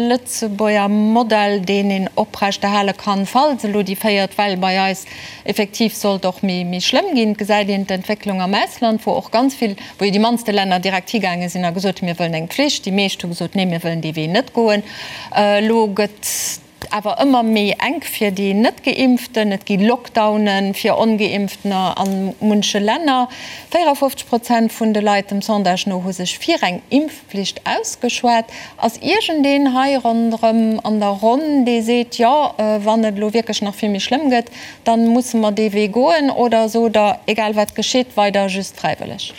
Lëtzebuerger Modell, deen een oprechterhale kann, falls elo déi véiert Well bei eis effektiv sollt och méi schlëmm ginn? Et gesäit een d'Entwécklung am Ausland, wou och ganz vill, wou jo déi mannste Länner direkt higaange sinn a gesot hunn, mir wëllen eng Pflicht. Déi meescht hu gesot, nee, mir wëllen dee Wee net goen. Elo gëtt awer ëmmer méi enk fir déi Net-Geimpften. Et gi Lockdowne fir Ongeimpftener a munche Länner. 54 Prozent vun de Leit dem Sondage no hu sech fir eng Impfpflicht ausgeschwat. Ass iergendeen hei ronderëm an der Ronn, dee seet, jo, wann et elo wierklech nach vill méi schlëmm gëtt, da musse mer dee Wee goen? Oder sot Der, egal wat geschitt, weider just fräiwëlleg?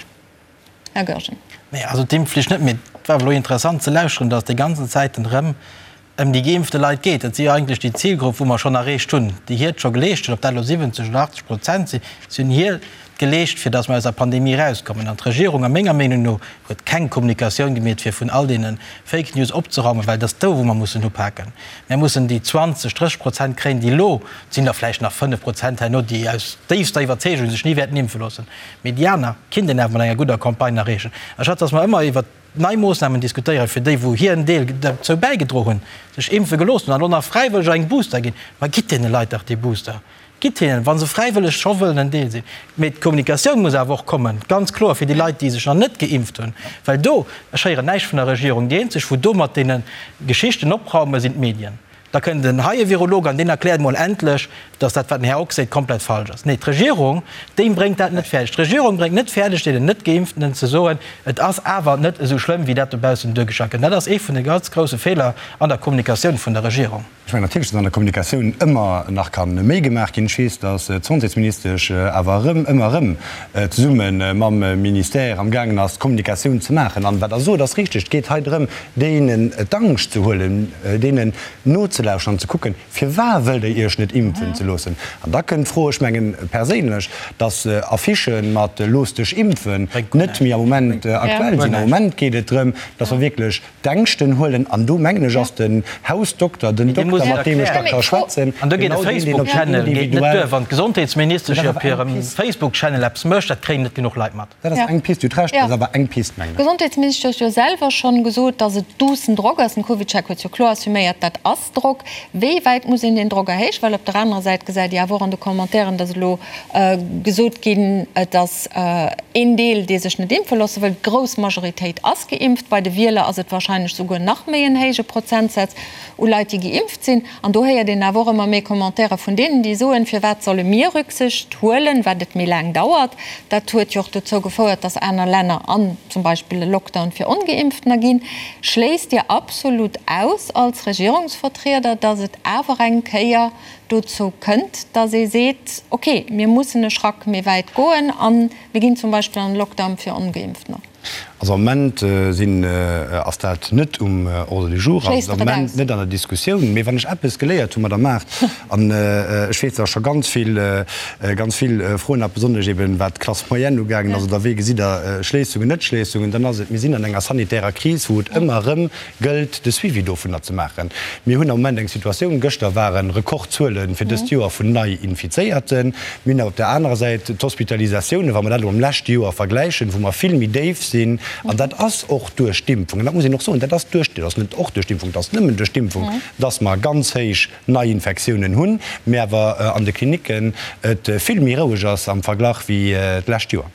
Här Goergen. Nee, also d'Impfflicht net. Mee et war awer elo interessant ze lauschteren, datt déi ganzen Zäiten erëm ëm déi geimpfte Leit geet. Dat si jo eigentlech déi Zilgrupp, wou mer schonn erreecht hunn, déi hiert scho geleescht hunn, ob dat elo 70 oder 80 Prozent sinn, si hunn hiert geleescht, fir datt mer aus der Pandemie erauskommen. An d'Regierung, a menger Meenung no, huet keng Kommunikatioun gemeet, fir vun all deene Fake News opzeraumen, well et ass do, wou mer mussen upaken. Mir mussen déi 20, 30 Prozent kréien, déi elo, et sinn der vläicht nach 5 Prozent herno, déi aus déifster Iwwerzeegung sech ni wäerten impfe loossen, mee déi aner kinnt een awer mat enger gudder Campagne erreechen. Anstatt datt mer ëmmer iwwert nei Moossnamen diskutéieren, fir déi, wou hiren Deel derzou bäigedro hunn, sech impfe gelooss hunn an elo nach fräiwëlleg eng Booster ginn. Ma gitt deene Leit dach dee Booster! Gitt hinnen, wa se fräiwëlleg scho wëllen en Deel sinn. Mee d'Kommunikatioun muss awer och kommen, ganz kloer, fir déi Leit, déi sech nach net geimpft hunn. Well do, ech héieren näischt vun der Regierung, déi eenzeg, wou do mat deene Geschichten opraumen, sinn d'Medien. Da kënnt en hei e Virolog an deen erkläert emol endlech, dass dat, wat den Här Ock seet, komplett falsch ass. Nee, d'Regierung, déi bréngt dat net fäerdeg. D'Regierung bréngt net fäerdeg, deenen Net-Geimpftenen ze soen, et ass awer net esou schlëmm, wéi dat dobaussen duergestallt gëtt. Dat ass ee vun de ganz grousse Feeler an der Kommunikatioun vun der Regierung. Ech mengen natierlech, dass an der Kommunikatioun ëmmer nach ka méi gemaach ginn. Ech weess, dass d'Santésministesch awer erëm, ëmmer erëm zesumme mam Ministère amgaangen ass, d'Kommunikatioun ze maachen. An wat Der sot, ass richteg, Et geet hei drëm, deenen d'Angscht ze huelen, deenen no. nozelauschteren an ze kucken, Firwar wëllt Der Iech net impfen ze loossen? An da kënnt d'Fro, ech mengen perséinlech, dass Affichë mat Looss dech impfen net méi am Moment aktuell sinn. Am Moment geet et drëm, dass mer wierklech d'Ängschten huelen. An do, mengen ech, ass den Hausdokter, den Dokter, mat deem ech da ka schwätzen, An do geet e genau deen, deen op Facebook-Channel geet net duer. Wann d'Gesondheetsministesch op hirem Facebook-Channel eppes mécht, dat kréien net genuch Leit mat. Dat ass eng Pist, Dir hutt Recht, dat ass awer eng Pist, mengen ech. D'Gesondheetsministesch huet jo selwer schonn gesot, datt et duussen Drock ass. Den CovidCheck huet jo kloer assuméiert, dat ass Drock. Wéi wäit muss een deen Drock erhéijen? Well op der anerer Säit gesäit Dir awer och an de Commentairen, datt elo gesot ginn, et ass een Deel, dee sech net impfe loosse wëll. D'grouss Majoritéit ass geimpft. Bei de Wieler ass et warscheinlech souguer nach méi en héije Prozentsaz u Leit, déi geimpft sinn. An do héiert een awer och ëmmer méi Commentaire vun deenen, déi soen, Firwat solle mir Rücksicht huelen, wat et méi laang dauert? Dat huet jo och dozou gefouert, dass aner Länner an zum Beispill e Lockdown fir Ongeimpftener ginn. Schléisst Dir absolut aus als Regierungsvertrieder, dass et awer eng Kéier dozou kënnt, dass ee seet, Okay, mir mussen e Schrack méi wäit goen a mir ginn zum Beispill an e Lockdown fir Ongeimpftener? Also am Moment sinn, ass dat net um Ordre du jour, ass et am Moment net an der Diskussioun. Mee wann ech eppes geléiert hu Madame Mart, an ech weess, datt scho ganz vill, ganz vill Froen hat, besonnesch eben wat d'Classe moyenne ugaangen ass, oder wéi gesitt Der Schléissungen, Net-Schléissungen, dann ass et, mir sinn an enger sanitärer Kris, wou et ëmmer erëm gëllt de Suivi dovunner ze maachen. Mir hunn am Moment eng Situatioun, gëschter ware Rekordzuele fir dëst Joer vun Nei-Infizéierten. Mir hunn awer op der anerer Säit d'Hospitalisatiounen, wa mer dat elo mam leschte Joer vergläichen, wou mer vill méi déif sinn. An dat ass och duerch d'Impfung, an dat muss een och soen, dat ass duerch, dat ass net och duerch d'Impfung, dat ass nëmmen duerch d'Impfung, dass mer ganz héich Neiinfektiounen hunn, mä awer an de Klinicken et vill méi roueg ass am Verglach wéi d'lescht Joer.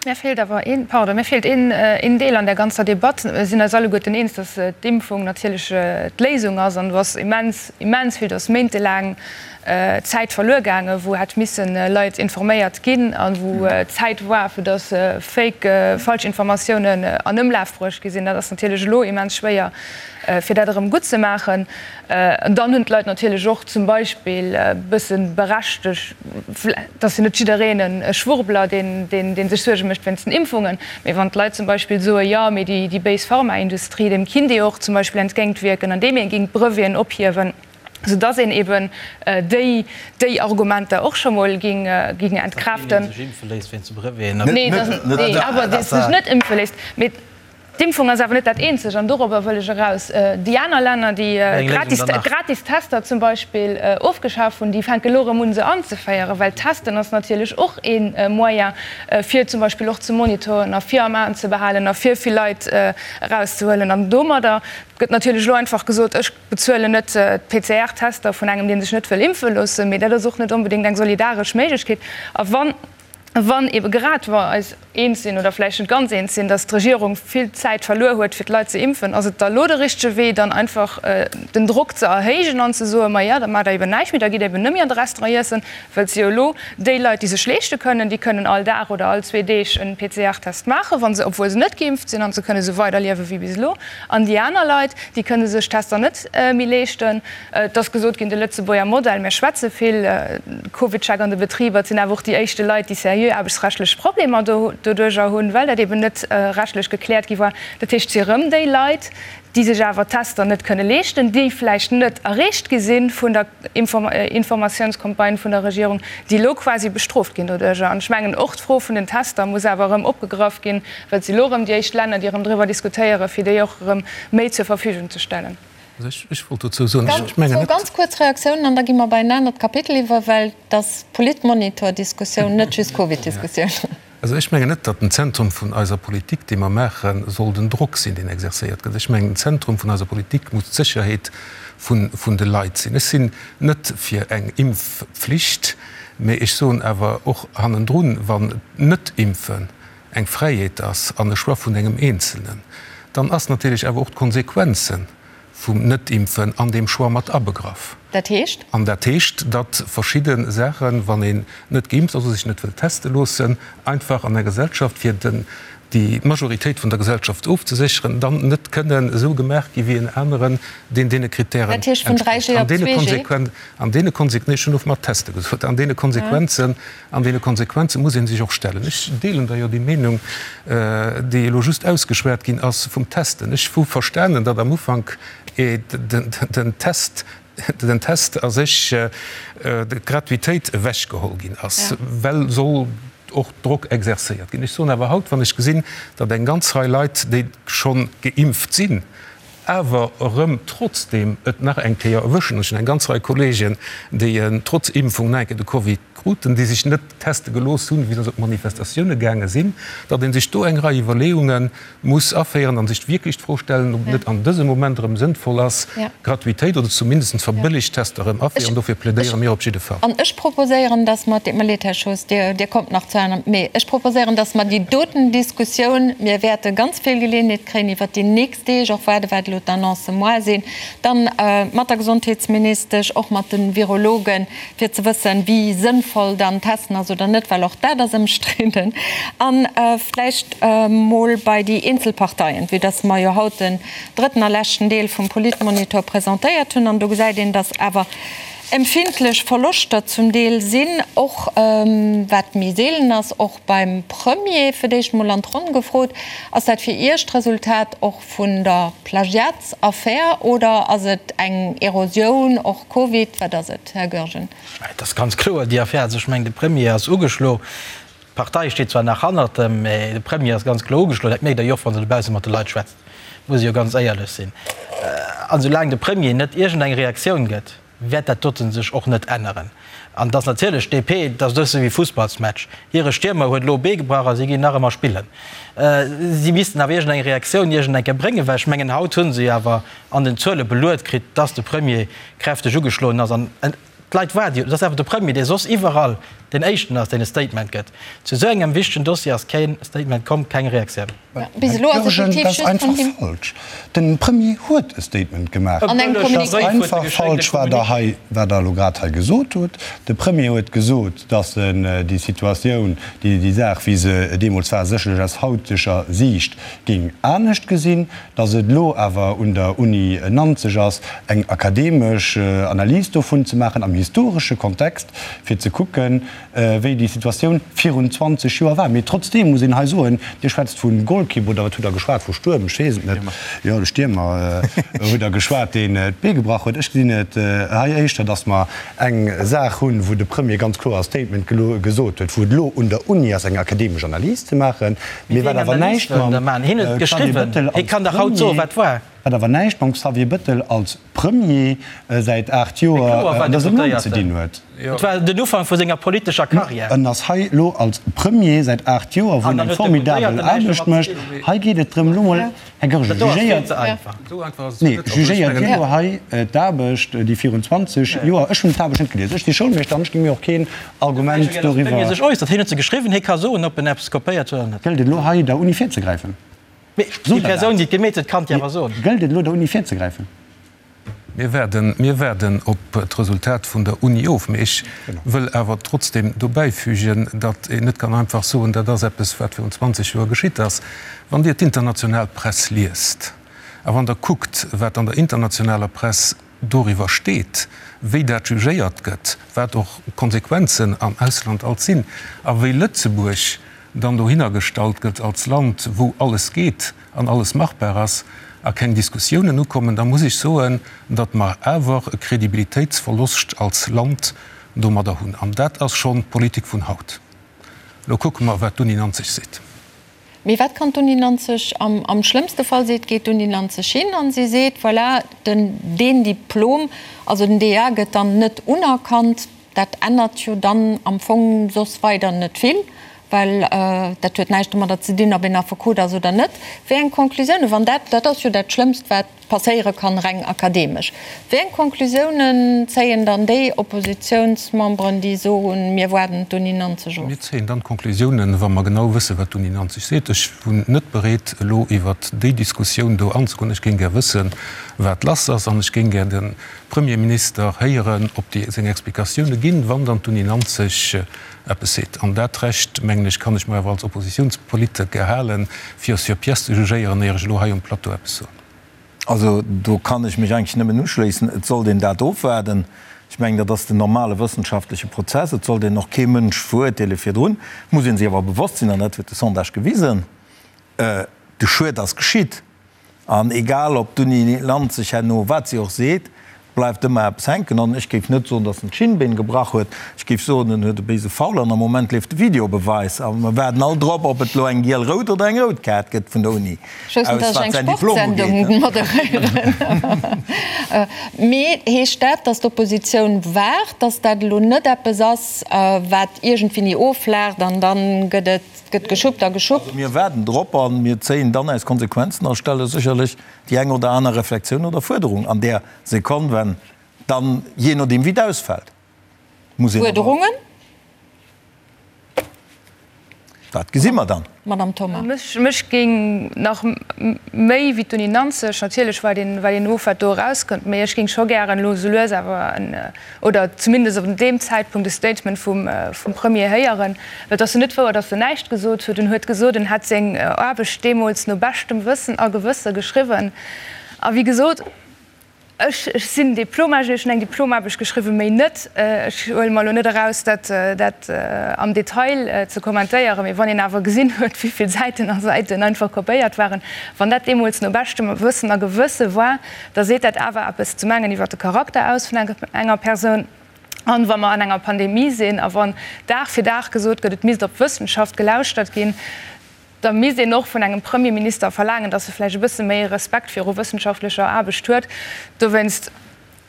Mir feelt awer een, pardon, mir feelt een, een Deel an där ganzer Debatt. Mir sinn eis alleguerten eens, dass d'Impfung natierlech d'Léisung ass. An do ass immens, immens vill, do ass méintelaang Zäit verluer gaangen, wou hätt missen Leit informéiert ginn a wou Zäit war, fir dass Fake, falsch Informatiounen an Ëmlaf bruecht gi sinn. Dat ass natierlech elo immens schwéier, fir dat erëm guttzemaachen. An dann hunn d'Leit natierlech och zum Beispill e bësse berechtegt, et ass jo net jiddereen e Schwurbler, deen sech Suerge mécht wéinst den Impfungen, mee wann d'Leit zum Beispill soe jo, mee déi béis Pharmaindustrie, deem kinnt ee och zum Beispill entgéintwierken, andeem ee géing d'Breveten ophiewen, soudass een eben déi Argumenter och scho mol géing entkräften. Datt keen ee sech impfe léisst wéinst de Breveten. Nee, awer dee sech net impfe léisst. Mee D'Impfung ass awer net dat eenzegt, an dorobber wëll ech eraus. Déi aner Länner, déi gratis Tester zum Beispill ofgeschaf hunn, déi fänke elo erëm un, se anzeféieren, well Testen ass natierlech och ee Moyen, fir zum Beispill och ze monitoren a fir am Aen ze behalen a fir vill Leit erauszehuelen. An domadder gëtt natierlech elo einfach gesot, ech bezuelen net d'PCR-Tester vun engem, dee sech net wëll impfe loossen, mee dat ass och net onbedéngt eng solidaresch Méiglechkeet. A wann. Wann ebe grad mer eis eens sinn, oder vläicht net ganz eens sinn, datt d'Regierung vill Zäit verluer huet, fir d'Leit ze impfen, ass et da lo de richtege Wee, dann einfach den Drock ze erhéijen an ze soen, Ma ja, da maacht Der eben näischt méi, da gitt Der eben net méi an de Restaurant iessen, well si jo elo déi Leit, déi sech leeschte kënnen, déi kënnen all Dag oder all zwee Deeg en PCR-Test maachen, wa se, obwuel se net geimpft sinn, an se kënne esou weiderliewe wéi bis elo. An déi aner Leit, déi kënne sech d'Tester net méi leeschten. Et ass gesot ginn, de Lëtzebuerger Modell, mir schwätze vill, CovidCheck an de Betriber, et sinn awer och déi éischte Leit, déi seriö aarbechtsrechtlech Problemer doduerjer hunn, well dat eben net rechtlech gekläert gi war. Dat heescht, et si erëm déi Leit, déi sech awer d'Tester net kënne leeschten, déi vläicht net erreecht gi si vun der Informatiounscampagne vun der Regierung, déi elo quasi bestrooft ginn doduerjer. An ech mengen, och d'Fro vun den Tester muss awer erëm opgegraff ginn, well et si elo erëm déi éischt Länner, déi erëm driwwer diskutéieren, fir déi och erëm méi zur Verfügung ze stellen. Also ech wollt dozou soen, ech mengen net. Zwou ganz kuerz Reaktiounen an da gi mer bei en anert Kapitel iwwer, well et ass Politmonitor-Diskussioun, net just Covid-Diskussioun. Also ech mengen net, datt den Zentrum vun eiser Politik, déi mer maachen, soll den Drock sinn, deen exerzéiert gëtt. Ech mengen, den Zentrum vun eiser Politik muss d'Sécherheet vun de Leit sinn. Ech sinn net fir eng Impfpflicht, mä ech soen awer och hannendrun, wann d'Net-Impfen eng Fräiheet ass an e Choix vun engem Eenzelnen, dann ass natierlech awer och d'Konsequenze vum Net-Impfen an deem Choix mat abegraff. Dat heescht? An dat heescht, datt verschidde Saachen, wann een net geimpft ass oder sech net wëll teste loossen, einfach an der Gesellschaft, fir den, déi Majoritéit vun der Gesellschaft ofzesécheren, dann net kënnen esou gemaach gi wéi en aneren, deen deene Kritären Dat heescht vun 3G op 2G? An deene Konse-, nee, ech hunn of mat teste gesot, an deene Konsequenzen, An deene Konsequenze muss ee sech och stellen. Ech deelen da jo déi Meenung, déi elo just ausgeschwat ginn ass vum Testen. Ech hu verstanen, datt am Ufank. den Test, den Test a sech, d'Gratuitéit ewechgeholl ginn ass, well soll och Drock exercéiert ginn. Ech soen awer haut, wann ech gesinn, datt eng ganz Rei Leit, déi scho geimpft sinn, awer erëm trotzdeem et nach eng Kéier erwëschen, ech hunn eng ganz Rei Kollegen, déi trotz Impfung nach eng Kéier de Covid kruten, déi sech net teste gelooss hunn, wéi se op Manifestatioune gaange sinn, datt ee sech do eng Rei Iwwerleeunge muss aféieren a sech wierklech d'Fro stellen, ob et net an dësem Moment erëm sënnvoll ass, Gratuitéit oder zumindest verbëllegt Tester erëm aféieren. Dofir plädéiere mir op jidde Fall. An ech proposéieren, datt mer, et deet mer leed, Här Schoos, Dir, Dir kommt nach zu aner, mee ech proposéieren, datt mer déi doten Diskussioun, mir wäerte ganz vill Geleeënheet kréien iwwert déi nächst Deeg, och waarde wat elo d'Annoncë moar sinn, dann mat der Gesondheetsministesch, och mat de Virologen, fir ze wëssen, wéi sënnvoll dann Testen ass oder net, well och dat ass ëmstridden. A vläicht mol bei déi eenzel Parteien, vue dass mer jo haut den drëtten a leschten Deel vum Politmonitor presentéiert hunn, an do gesäit een, dass awer empfindlech Verloschter zum Deel sinn, och wat méi seelen ass, och beim Premier. Fir d'éischt mol an d'Ronn gefrot, Ass dat fir Iech d'Resultat och vun der Plagiatsaffär oder ass et eng Erosioun, och Covid, wat ass et, Här Goergen? Et ass ganz kloer déi Affär. Also ech mengen, de Premier ass ugeschlo. D'Partei steet zwar nach hannert em, mä de Premier ass ganz kloer ugeschlo. Dat mierkt Der jo och, wann Der dobausse mat de Leit schwätzt, muss ee jo ganz éierlech sinn. An soulaang de Premier net iergendeng Reaktioun gëtt, wäert dat doten sech och net änneren. An et ass natierlech d'DP, et ass e bësse wéi Fussballsmatch, hire Stiermer huet elo e Bee gebrach a si ginn nach ëmmer spillen. Si missten awer iergendeng Reaktioun iergendeng Kéier bréngen, well ech mengen, haut hu se jo awer an den Zuele beluet kritt, dass de Premier kräfteg ugeschloen ass. An d'Leit waarde jo, et ass awer de Premier, dee soss iwwerall deen Éischten ass, deen e Statement gëtt. Zu esou engem wichtegen Dossier ass kee Statement komm, keng Reaktioun. Bis elo ass Jürgen, effektiv dat ass just einfach vun him. falsch. Den Premier huet e Statement gemaach. An engem Dat ass Communiqué. einfach falsch, wat Der hei, wat Der elo grad hei gesot hutt. De Premier huet gesot, datt en déi Situatioun, déi, déi Saach, wéi se deemools war, sécherlech aus hauteger Siicht géing anescht gesinn, datt et elo awer un der Uni Nanzeg ass, eng akademesch Analys dovun ze maachen am historesche Kontext, fir ze kucken, wéi déi Situatioun virun 20 Joer war. Mee trotzdeem muss een hei soen, Dir schwätzt vu Golkipp, oder wat hutt Der geschwat, vu Stuerm, ech weess et net, jo, de Stiermer hutt Der geschwat, deen d'Bee gebrach huet. Ech gesinn et hei éischter, datt mer eng Saach hunn, wou de Premier ganz kloer e Statement gesot huet, wou et elo un der Uni ass, eng akademesch Analys ze maachen, mee wat awer näischt mam Xavier Bettel als Premier, wat awer näischt mam Xavier Bettel als Premier säit 8 Joer an dësem Land ze dinn huet. Et war den Ufank vu senger politescher Karriär. En ass hei elo als Premier säit 8 Joer, wou en eng formidabel Aarbecht mécht. Hei geet et drëm, elo mol, Här Goergen, jugéiert, nee, jugéiert Dir elo hei d'Aarbecht, déi virun 20 Joer, ech hunn d'Aarbecht net gelies, ech si Schoulmeeschter an ech gi mir och keen Argument doriwwer. Sech äussert. Hien huet se geschriwwen, hie ka soen, ob en eppes kopéiert huet oder net. Gëllt et elo hei der Uni virzegräifen? Mee déi Persoun, déi et gemeet huet, kann et jo awer soen. Gëllt et elo der Uni virzegräifen? Mir waarden, mir waarden op d'Resultat vun der Uni of. Mee ech wëll awer trotzdem dobäifügen, datt een net kann einfach soen, dat ass eppes, wat virun 20 Joer geschitt ass. Wann Dir d'international Press liest a wann Der kuckt, wat an der internationaler Press doriwwer steet, wéi dat jugéiert gëtt, wat och d'Konsequenzen am Ausland alt sinn a wéi Lëtzebuerg dann dohinner gestallt gëtt als Land, wou alles geet an alles machbar ass a keng Diskussiounen ukommen, da muss ech soen, datt mer awer e Kredibilitéitsverloscht als Land domadder hunn. An dat ass schonn d'Politik vun haut. Elo kucke mer, wat d'Uni Nanzeg seet. Mee wat kann d'Uni Nanzeg am, am schlëmmste Fall seet, geet d'Uni Nanzeg hin an si seet, voilà, den, deen Diplom, also den DEA gëtt dann net unerkannt. Dat ännert jo dann am Fong soss weider net vill, well dat huet näischt domadder ze dinn, ob een Affekot ass oder net. Wéi eng Conclusiounen, wann dat, dat ass jo dat Schlëmmst, wat passéiere kann, reng akademesch, wéi eng Conclusiounen zéien dann déi Oppositionsmemberen, déi soen, mir waarden d'Uni Nanzeg of? Mir zéien dann d'Conclusiounen, wa mer genau wëssen, wat d'Uni Nanzeg seet. Ech wunn net bereet, elo iwwert déi Diskussioun do anzegoen. Ech géing gär wëssen, wat lass ass, an ech géing gär de Premierminister héieren, ob déi seng Explikatioune ginn, wann dann d'Uni Nanzeg eppes seet. An dat Recht, mengen ech, kann ech mer awer als Oppositiounspoliteker halen, fir sur pièce ze jugéieren, éier ech elo hei um Plateau eppes soen. Also do kann ech mech eigentlech nëmmen uschléissen. Et sollt een dat ofwaarden. Ech mengen, dat ass den normale wëssenschaftleche Prozess. Et sollt een och kee Mënsch verurteele virdrun. Et muss ee sech awer bewosst sinn, an dat huet de Sondage gewisen, de Schued ass geschitt. An egal ob d'Uni Nanzeg herno wat si och seet, bleift ëmmer eppes hänken. An ech géif net soen, datt en d'Schinnbeen gebrach huet. Ech géif soen, en huet e béise Foul an am Moment leeft de Videobeweis a mer waarden all drop, ob et elo eng giel-rout oder eng rout Kaart gëtt vun der Uni Ech wousst net, aus, datt ech wat eng säin Diplom Sportsendung ugeet. moderéieren. Mee heescht dat, datt d'Oppositioun waart, datt dat elo net eppes ass, wat iergendwéini offlaacht an da gëtt et gëtt geschuppt a geschuppt? Also mir waarden drop a mir zéien dann eis Konsequenzen a stelle sécherlech déi eng oder aner Reflexioun oder Fuerderung an där Sekonn, wenn dann, jee nodeem wéi et ausfält, muss een awer. Fuerderungen? Dat gesi mer dann. Madame Thoma. Mech géing nach méi wéi d'Uni Nanzeg, natierlech wat een, wat een of wat do erauskënnt, mee ech géing scho gären elo esou lues awer en, oder zumindest op deem Zäitpunkt e Statement vum, vum Premier héieren, well et ass jo net wouer, datt en näischt gesot huet. En huet gesot, en hätt seng Aarbecht deemools no beschtem Wëssen a Gewësse geschriwwen. A wéi gesot, Ech sinn Diplomingenieur, ech hunn eng Diplomaarbecht geschriwwen, méi net. Ech huele mer elo net eraus, dat dat am Detail ze kommentéieren, mee wann een awer gesinn huet, wéi vill Säiten a Säiten einfach kopéiert waren, wann dat deemools no beschtem Wëssen a Gewësse war, da seet dat awer eppes zum engen iwwer de Charakter aus vun enger Persoun. An wa mer an enger Pandemie sinn a wann Dag fir Dag gesot gëtt, et misst op d'Wëssenschaft gelauschtert ginn, da misst een och vun engem Premierminister verlaangen, datt e vläicht e bësse méi Respekt viru wëssenschaftlecher Aarbecht huet. Dowéinst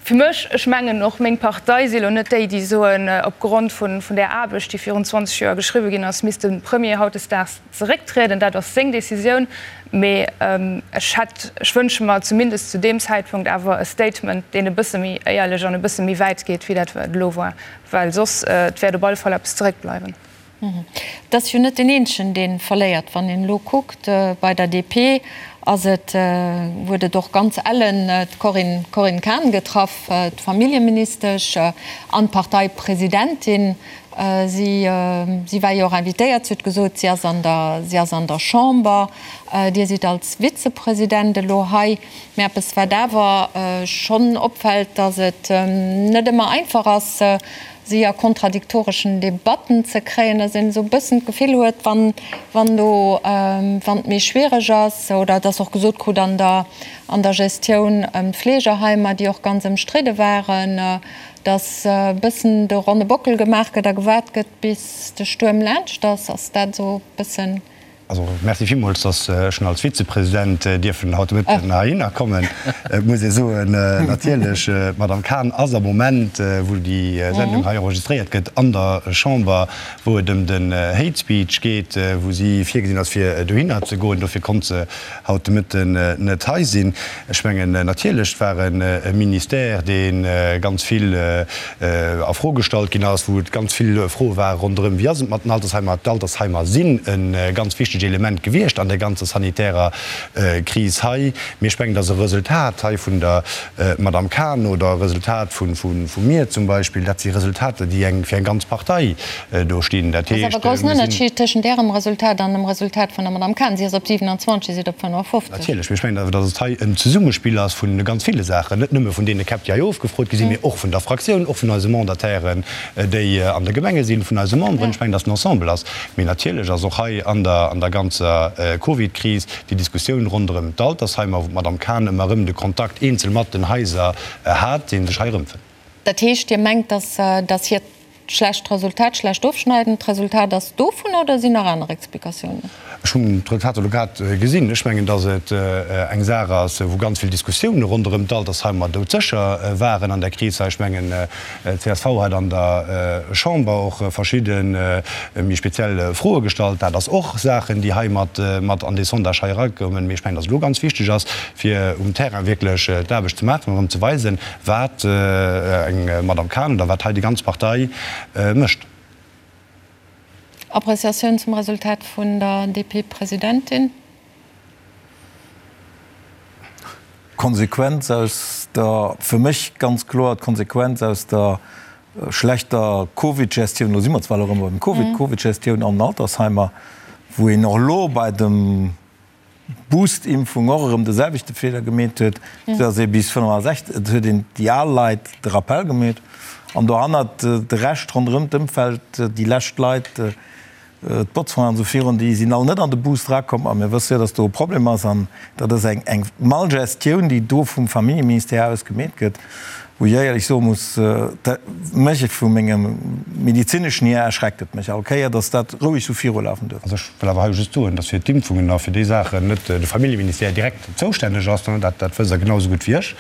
fir mech, ech mengen och meng Partei si lo net déi, déi soen, opgrond vun där Aarbecht, déi virun 20 Joer geschriwwe ginn ass, misst de Premier hautdesdaags zerécktrieden. Dat ass seng Decisioun. Mee ech hätt, ech wënsche mer zumindest zu deem Zäitpunkt awer e Statement, deen e bësse méi éierlech an e bësse méi wäit geet, wéi dat wat elo war, well soss, et wäert op alle Fall eppes zeréckbleiwen. Et ass jo net deen eenzegen, dee verléiert. Wann een elo kuckt, bei der DP ass et, huet et och ganz ellen d'Corinne, Corinne Cahen getraff, d'Familljeministesch an d'Parteipresidentin. Si, si war jo och invitéiert, si huet gesot, si ass an der, si ass an der Chamber. Dir sidd als Vizepresident elo hei. Mä eppes, wat awer schonn opfält, datt et net ëmmer einfach ass, si a kontradiktoreschen Debatten ze kréien, dass een esou e bëssen d'Gefill huet, wann, wann do, wann et méi schwiereg ass, oder dass och gesot krut an der, an der Gestioun ëm d'Fleegerheimer, déi och ganz ëmstridde waren, dass e bëssen de ronne Bockel gemaach gëtt a gewaart gëtt, bis de Stuerm laanscht ass. Ass dat esou e bëssen Also, merci villmools, dass ech als Vizepresident dierfen haut de Mëtten heihinner kommen. Et muss ee soen, natierlech, d'Madame Cahen ass am Moment, wou déi Sendung hei enregistréiert gëtt, an der Chamber, wou et ëm den Hate Speech geet, wou si virgesinn ass, fir dohinner ze goen. Dofir konnt se haut de Mëtten net hei sinn. Ech mengen, natierlech, et war e Ministère, dee ganz vill a Fro gestallt ginn ass, wou et ganz vill Froe ware ronderëm, Wéi ass et mat den Altersheimer? D'Altersheimer sinn e ganz wichtegt Element gewiescht an där ganzer sanitärer Kris hei. Mee ech mengen, dass e Resultat hei vun der Madame Cahen oder e Resultat vu mir zum Beispill, dat si Resultater, déi eng fir eng ganz Partei do stinn. Dat Ass awer heescht, e groussen mir sinn. Ënnerscheed tëschent Ärem Resultat an dem Resultat vun der Madame Cahen. Si ass op 27, Dir sidd op 55. Natierlech, mee ech mengen awer, datt et hei en Zesummespill ass vu ganz ville Saachen, net nëmme vun deene Käpp, déi hei ofgefrot gi sinn, mee och vun der Fraktioun, och vun eise Mandatairen, déi an de Gemenge sinn, vun eise Memberen. Ech mengen, datt en Ensemble ass. Mee natierlech ass och hei an der an der ganzer Covidkris déi Diskussioun ronderëm d'Altersheimer, wou d'Madame Cahen ëmmer erëm de Kontakt eenzel mat den Haiser hat, dee sech hei erëmfënnt. Dat heescht, Dir mengt, datt hiert Schlecht Resultat, schlecht Ofschneiden, d'Resultat ass dovun oder sinn nach aner Explikatiounen? Ech hunn d'Resultater elo grad gesinn. Ech mengen, datt et eng Saach ass, wou ganz vill Diskussioune ronderëm d'Altersheimer doudsécher waren an där Kris hei. Ech mengen, csv hat an der Chamber och verschidde méi speziell Froe gestallt. Dat ass och Saachen, déi hei mat an dee Sondage hei erakommen. Mee ech mengen, datt et elo ganz wichteg ass, fir um Terrain wierklech d'Aarbecht ze maachen an erëm ze weisen, Wat eng Madame Cahen oder wat hei déi ganz Partei mécht. Appreciatioun zum Resultat vun der DP-Presidentin? D'Konsequenz aus der, fir mech ganz kloer d'Konsequenz aus der schlechter Covid-Gestioun, elo si mer zwar elo erëm beim Covid, Covid-Gestioun an den Altersheimer, wou een och elo bei dem Boost-Impfung och erëm de selwechte Feeler gemeet huet, sou datt ee bis 65, et huet een déi al Leit de Rappel gemeet an dohannert de Rescht ronderëm d'Ëmfeld, déi lescht Leit. D'Botzfongen an esou virun, déi sinn all net an de Boost erakomm. A mir wësse jo, datt do e Problem ass. An dat ass eng, eng Malgestioun, déi do vum Familljeministère aus gemeet gëtt, wou ech éierlech soe muss, dat mech vu mengem medezineschen hier erschreckt et mech all Kéier, datt dat roueg esou virulafen duerf. Also ech wëll awer hei just soen, datt fir d'Impfungen a fir déi Saachen net de Familljeministère direkt zoustänneg ass. Dat, dat wësst Der genau esou gutt wéi ech.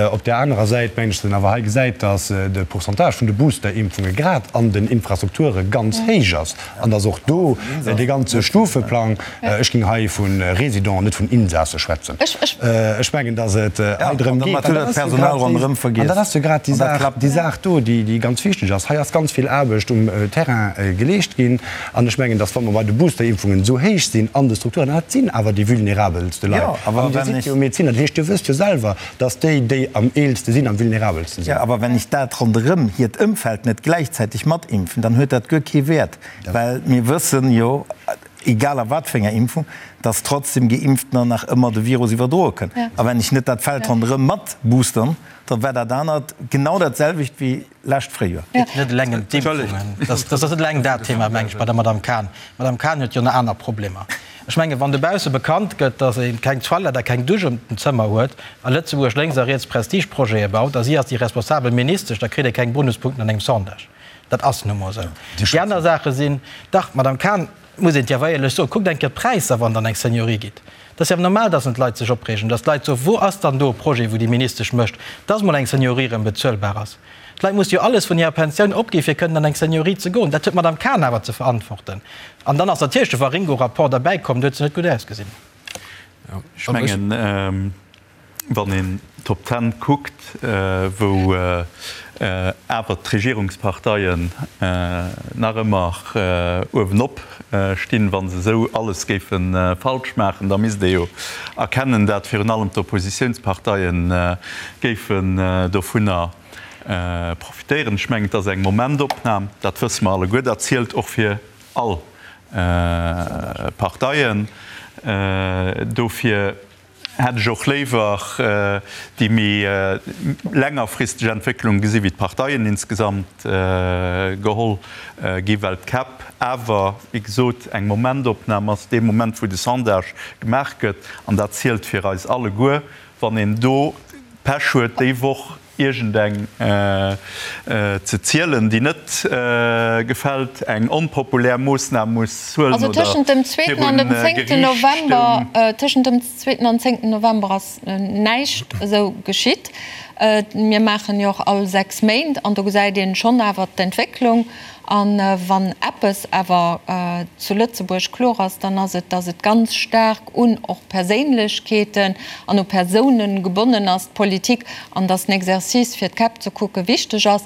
Op där anerer Säit mengen ech, datt een awer hei gesäit, datt de Pourcentage vun de Booster-Impfunge grad an den Infrastrukture ganz héich ass an datt och do dee ganze Stufeplang, ech géing hei vu Résidenten, net vun Insasse schwätzen, ech mengen, datt et hei drëm geet, an dat ass jo grad déi Saach do, déi ganz wichteg ass. Hei ass ganz vill Aarbecht um Terrain geleescht ginn. An ech mengen, dass, wa mer bei de Boosterimpfungen esou héich sinn an de Strukturen, an dat sinn awer déi vulnerabelste Leit, an Dir sidd jo Medeziner, dat heescht, Dir wësst jo selwer, dass déi, déi am eelste sinn, am vulnerabelste sinn. Jo, awer wenn ech dat ronderëm hiert Ëmfeld net gläichzäiteg matimpfen, dann huet dat guer kee Wäert, well mir wëssen jo, egal a wat fir enger Impfung, dass trotzdem Geimpftener nach ëmmer de Virus iwwerdroe kënnen. A wenn ech net dat Feld ronderëm mat boostern, da war dat anert genau dat selwecht wéi Lescht Fréijoer. Et geet net eleng ëm d'Impfungen. Dat ass net eleng dat Thema, meng ech, bei der Madame Cahen. D'Madame Cahen huet jo nach aner Problemer. Ech mengen, wann dobausse bekannt gëtt, datt ee keng Toilette a keng Dusch ëm den Zëmmer huet a Lëtzebuerg lénks a riets Prestigeprojete baut a si ass déi responsabel Ministesch, da kritt ee keng Bonuspunkten an engem Sondage. Dat ass nu mol esou. Déi aner Saache sinn, dach, Madame Cahen, muss een et jo awer éierlech soen, kuckt eng Kéier d'Präisser, wann Der an eng Seniorie gitt. Et ass jo awer normal, dass d'Leit sech opreegen, dass d'Leit soen, Wou ass dann do e Projet, wou déi Ministesch mécht, dass mol eng Seniorie erëm bezuelbar ass? D'Leit musse jo alles vun hirer Pensioun opgi fir kënnen an eng Seniorie ze goen. Dat huet d'Madame Cahen awer ze verantworten. An dann ass natierlech de Waringo-Rapport derbäikomm, do huet se net gutt ausgesinn. Ech mengen, Wann een d'Top Ten kuckt, wou awer d'Regierungsparteien nach ëmmer uewenop stinn, wa se esou alles géife falsch maachen, da misst ee jo erkennen, dat virun allem d'Oppositiounsparteie géifen dovunner profitéieren. Ech mengen, et ass eng Momentopnam, dat wësse mer alleguer, dat zielt och fir all Parteien. Dofir hätt ech och léiwer déi méi längerfristeg Entwécklung gesi wéi d'Parteien insgesamt geholl gi, well d'Käpp awer, wéi gesot, eng Momentopnam ass, dee Moment wou de Sondage gemaach gëtt, an dat zielt fir eis alleguer, wann een do Pech huet déi Woch iergendeng ze zielen, déi net gefält, eng onpopulär Moossnam muss huelen Also oder tëschent dem zweeten an dem virun zéngten Geriicht November, stoung. tëschent dem zweeten an zéngten November ass näischt esou geschitt. Mir maachen jo och all 6 Méint an do gesäit een schonn awer d'Entwécklung. A wann eppes awer zu Lëtzebuerg kloer ass, dann ass et, datt et ganz staark un och Perséinlechkeeten an u Persounen gebonnen ass, d'Politik, an datt den Exercice fir d'Käpp ze kucke wichteg ass.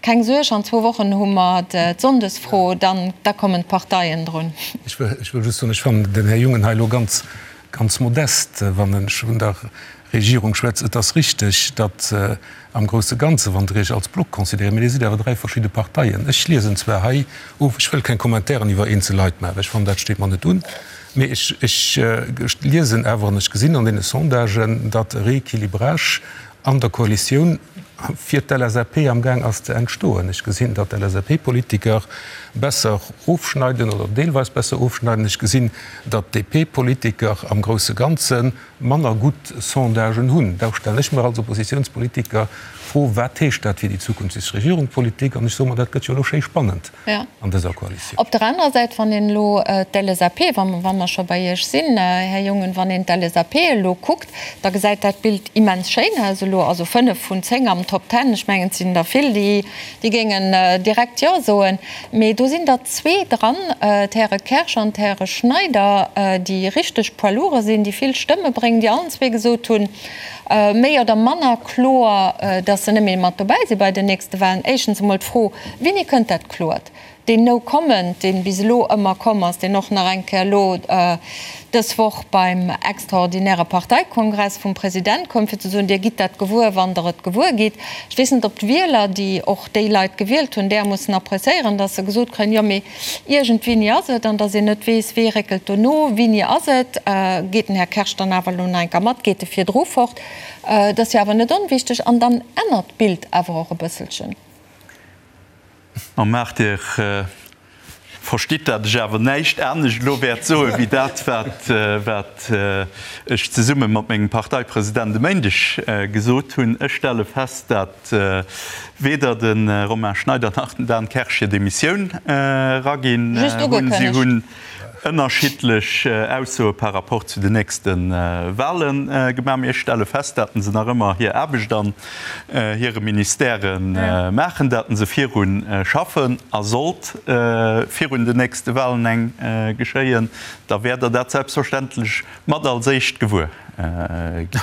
Keng Suerg, an zwou Wochen hu mer d'Sonndesfro, dann da kommen d'Parteien drun. Ech wëll just soen, ech fannen den Här Jungen hei elo ganz, ganz modest, wann en vun der Regierung schwätzt. Et ass richteg, datt am grousse Ganze, wann Der Iech als Block considéiert, mee Dir sidd awer dräi verschidde Parteien. Ech liesen zwar hei of, ech wëll keng Kommentairen iwwer eenzel Leit maachen, ech fannen, dat steet mer net un, mee ech, ech liesen awer an ech gesinn an deene Sondagen, datt e Rééquilibrage an der Koalitioun fir d'LSAP amgaang ass ze entstoen. Ech gesinn, datt d'LSAP-Politiker besser ofschneiden oder deelweis besser ofschneiden. Ech gesinn, datt d'DP-Politiker am grousse Ganze manner gutt Sondagen hunn. Da stellen ech mer als Oppositionspolitiker d'Fro, Wat heescht dat fir déi zukünfteg Regierungpolitik? An ech soe mer, dat gëtt jo elo schéi spannend an dëser Koalitioun. Op der anerer Säit, wann een elo d'LSAP, wa mer scho bei Iech sinn, Här Jungen, wann een d'LSAP elo kuckt, da gesäit dat Bild immens schéin aus elo. Also 5 vun 10 am Top Ten, ech mengen, et sinn der vill, déi géingen direkt Jo soen. Mee do sinn der zwee dran, d'Häre Kersch an d'Häre Schneider, déi richteg Poids lourds sinn, déi vill Stëmme bréngen, déi allen zwee gesot hunn, méi oder manner kloer, datt se net méi mat dobäi si bei den nächste Wahlen. Éischtens emol d'Fro, Wéini kënnt dat Kloert? Deen No Comment, dee bis elo ëmmer komm ass, deen och nach eng Kéier elo dës Woch beim extraordinäre Parteikongress vum President koum, fir ze soen, Dir gitt dat gewuer, wann Der et gewuer gitt. Ech weess net, ob d'Wieler, déi och déi Leit gewielt hunn, där mussen appréciéieren, datt se gesot kréien, jo, mee iergendwéini ass et, an datt een net weess, wee réckelt do no, wéini ass et, geet den Här Kersch dann awer elo nach eng Kéier mat, geet e virdru fort? Dat ass jo awer net onwichteg. An dann ännert d'Bild awer och e bësselchen. A maacht Dir. Verstitt, dat ech awer näischt anescht elo wäert soe wéi dat, wat ech zesumme mat mengem Parteipresident e Méindeg gesot hunn. Ech stelle fest, dat weder de Romain Schneider nach den Dan Kersch hir Demissioun eraginn hunn. Si hunn ënnerschiddlech Aussoe par rapport zu den nächste Wahle gemaach. Mee ech stelle fest, datt se nach ëmmer hir Aarbecht an hire Ministèrë maachen, datt se viru schaffen. A sollt virun den nächste Wahlen eng geschéien, da wäert Der dat selbstverständlech mat als éischt gewuer ginn.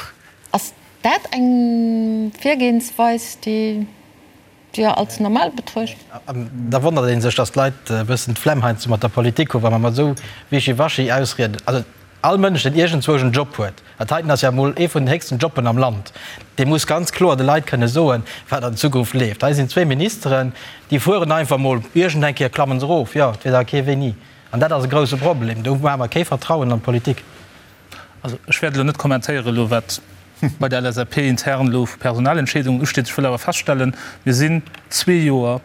Ass dat eng Virgehensweis, déi Dir als normal betruecht? An da wonnert ee sech, datt d'Leit e bëssen d'Flemm heiansdo mat der Politik hunn, wa mer mat esou Wischiwaschi Ausrieden. Also all Mënsch, deen iergendzwousch en Job huet, dat heiten ass ja emol ee vun den héchsten Jobben am Land, dee muss ganz kloer de Leit kënne soen, wat an Zukunft leeft. Hei sinn zwee Ministeren, déi fueren einfach emol, iergendeng Kéier klammen se erof, jo, et weess awer kee wéini. An dat ass e grouse Problem. Do maache mer kee Vertrauen an d'Politik. Also ech wäert elo net kommentéieren elo wat bei der LSAP intern elo vu Personalentscheedungen usteet. Ech wëll awer feststellen, mir sinn zwee Joer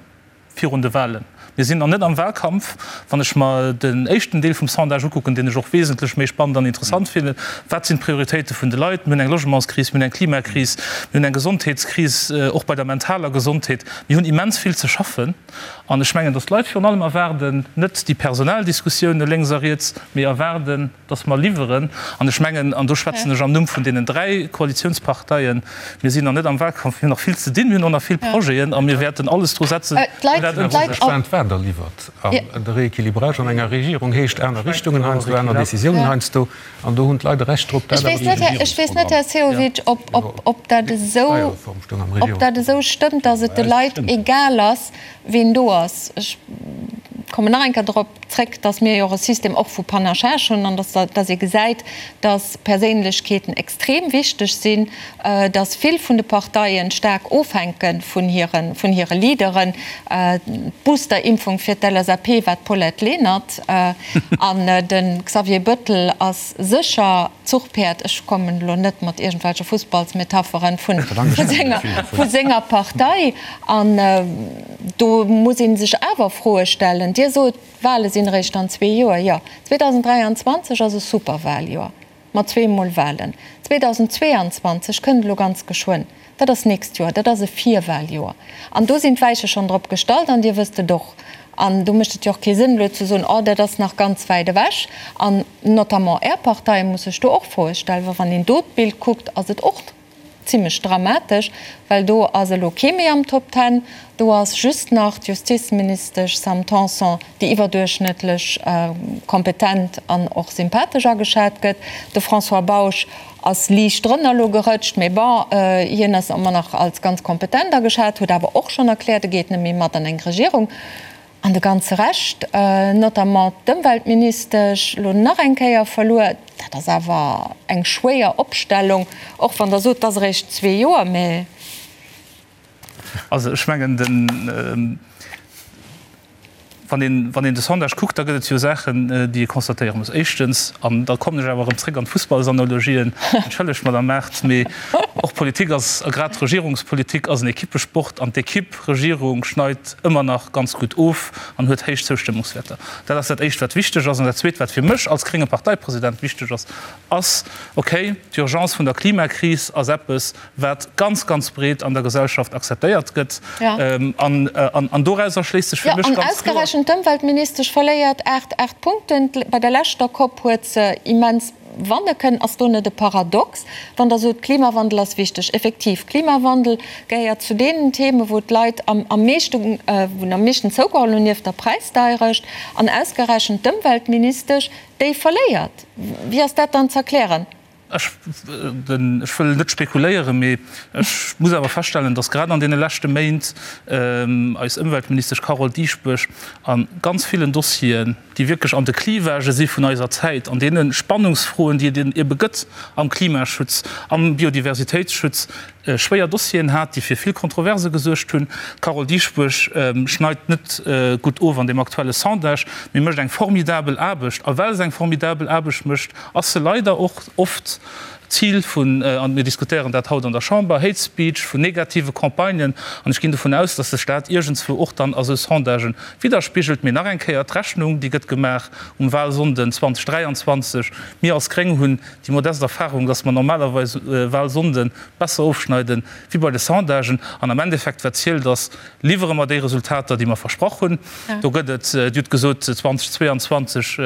virun de Wahlen. Mir sinn nach net am Wahlkampf. Wann ech mer den éischten Deel vum Sondage ukucken, deen ech och wesentlech méi spannend an interessant fannen, wat sinn d'Prioritéite vun de Leit? Mir hunn eng Logementskris, mir hunn eng Klimakris, mir hunn eng Gesondheetskris, och bei der mentaler Gesondheet. Mir hunn immens vill ze schaffen. An ech mengen, datt d'Leit virun allem erwaarden, net déi Personaldiskussioune lénks a riets, mee erwaarden, datt mer liwweren. An ech mengen, an do schwätzen ech am Numm vun deenen 3 Koalitionsparteien, mir sinn nach net am Wahlkampf, mir hunn nach vill ze dinn, mir hunn och nach vill Projeten a mir wäerten alles dru setzen, fir dat ëmzesetzen. Gespaant, wat Der liwwert. An de Rééquilibrage an enger Regierung heescht aner Richtungen heiansdo, aner Décisiounen heiansdo. An do hunn d'Leit e Recht drop, dat awer duerch e Regierungsprogramm. Ech weess net, Här Sehovic, ob dat esou stëmmt, datt et de Leit egal ass, ween do ass. Ech kommen nach eng Kéier drop zréck, datt mir jo och e System och vu Panachage hunn an datt ee gesäit, datt Perséinlechkeeten extrem wichteg sinn, datt vill vun de Parteien staark ofhänke vun hire Leaderen. D'Boosterimpfung fir d'LSAP war d'Paulette Lenert. An de Xavier Bëttel ass sécher d'Zuchpäerd, ech kommen elo net mat iergendwelche Fussballsmetapheren, vu senger Partei. An do muss ee sech awer Froe stellen. Dir sot, d'Wale sinn eréischt an zwee Joer. Jo, 2023 ass e Superwaljoer. Mat zweemol Walen. 2022 kënnt elo ganz geschwënn. Dat ass d'nächst Joer. Dat ass e Virwaljoer. An do sinn d'Weiche schonn drop gestallt an Dir wësst et och. An do mécht et jo och kee Sënn elo ze soen, oh dat ass nach ganz wäit ewech. An notamment Är Partei muss sech do och Froe stellen, well wann een do d'Bild kuckt, ass et och zimlech dramatesch, well do ass elo kee méi am Top Ten, do ass just nach d'Justizministesch Sam Tanson, déi iwwerduerchschnëttlech kompetent an och sympathesch ageschat gëtt. De François Bausch ass liicht drënner elo gerëtscht, mee bon, hien ass ëmmer nach als ganz kompetent ageschat, huet awer och schonn erkläert, e geet net méi mat an eng Regierung. An de ganze Rescht, notamment d'Ëmweltministesch, elo nach eng Kéier verluer. Dat ass awer eng schwéier Opstellung, och wann Der sot, et ass eréischt zwee Joer, mä. Also ech mengen, den, wann een, wann een de Sondage kuckt, da gëtt et jo Saachen, déi ee constatéiere muss. Éischtens, an da kommen ech awer erëm zréck an d'Fussballsanalogien, entschëllegt, Madame Mart, mee och Politik ass, a grad Regierungspolitik ass en Ekippesport an d'Ekipp Regierung schneit ëmmer nach ganz gutt of an huet héich Zoustëmmungswäerter. Dat ass dat Éischt, wat wichteg ass. An dat Zweet, wat fir mech als grénge Parteipresident wichteg ass, ass, okay, d'Urgence vun der Klimakris ass eppes, wat ganz, ganz breet an der Gesellschaft akzeptéiert gëtt. An dorauser schléisst sech fir mech ganz kloer. Jo, an ausgerechent d'Ëmweltministesch verléiert 8, 8 Punkten. Bei der leschter Cop huet se immens Wanne kënnen. Ass do net e Paradox, wann Der sot, Klimawandel ass wichteg? Effektiv, Klimawandel gehéiert zu deenen Themen, wou d'Leit am meeschten, wou am meeschten zougeholl hunn, nieft der Präisdeierecht. An ausgerechent d'Ëmweltministesch, déi verléiert. Wéi ass dat dann z'erklären? Ech wëll net spekuléieren, mee ech muss awer feststellen, datt grad an deene leschte Méint eis Ëmweltministesch Carole Dieschbourg a ganz villen Dossieren, déi wierklech an de Clivagë si vun eiser Zäit, an deene Spannungsfroen, déi et ebe gëtt am Klimaschutz, am Biodiversitéitsschutz, schwéier Dossieren hat, déi fir vill Kontroverse gesuergt hunn. D'Carole Dieschbourg schneit net gutt of an deem aktuelle Sondage, mee mécht eng formidabel Aarbecht. A well se eng formidabel Aarbecht mécht, ass se leider och oft. Zil vun, an mir diskutéieren dat haut an der Chamber, Hate Speech, vun negative Campagnen. An ech ginn dovun aus, dass sech dat iergendswou och dann a sou Sondagen widderspigelt. Mee nach eng Kéier, D'Rechnung, déi gëtt gemaach um Wahlsonnden 2023. Mir als Gréng hunn déi modest Erfahrung, dass mer normalerweis Wahlsonnde besser ofschneiden wéi bei de Sondagen. An am Endeffekt, wat zielt, ass, Liwwere mer déi Resultater, déi mer versprach hunn? Do gëtt et, Dir hutt gesot, 2022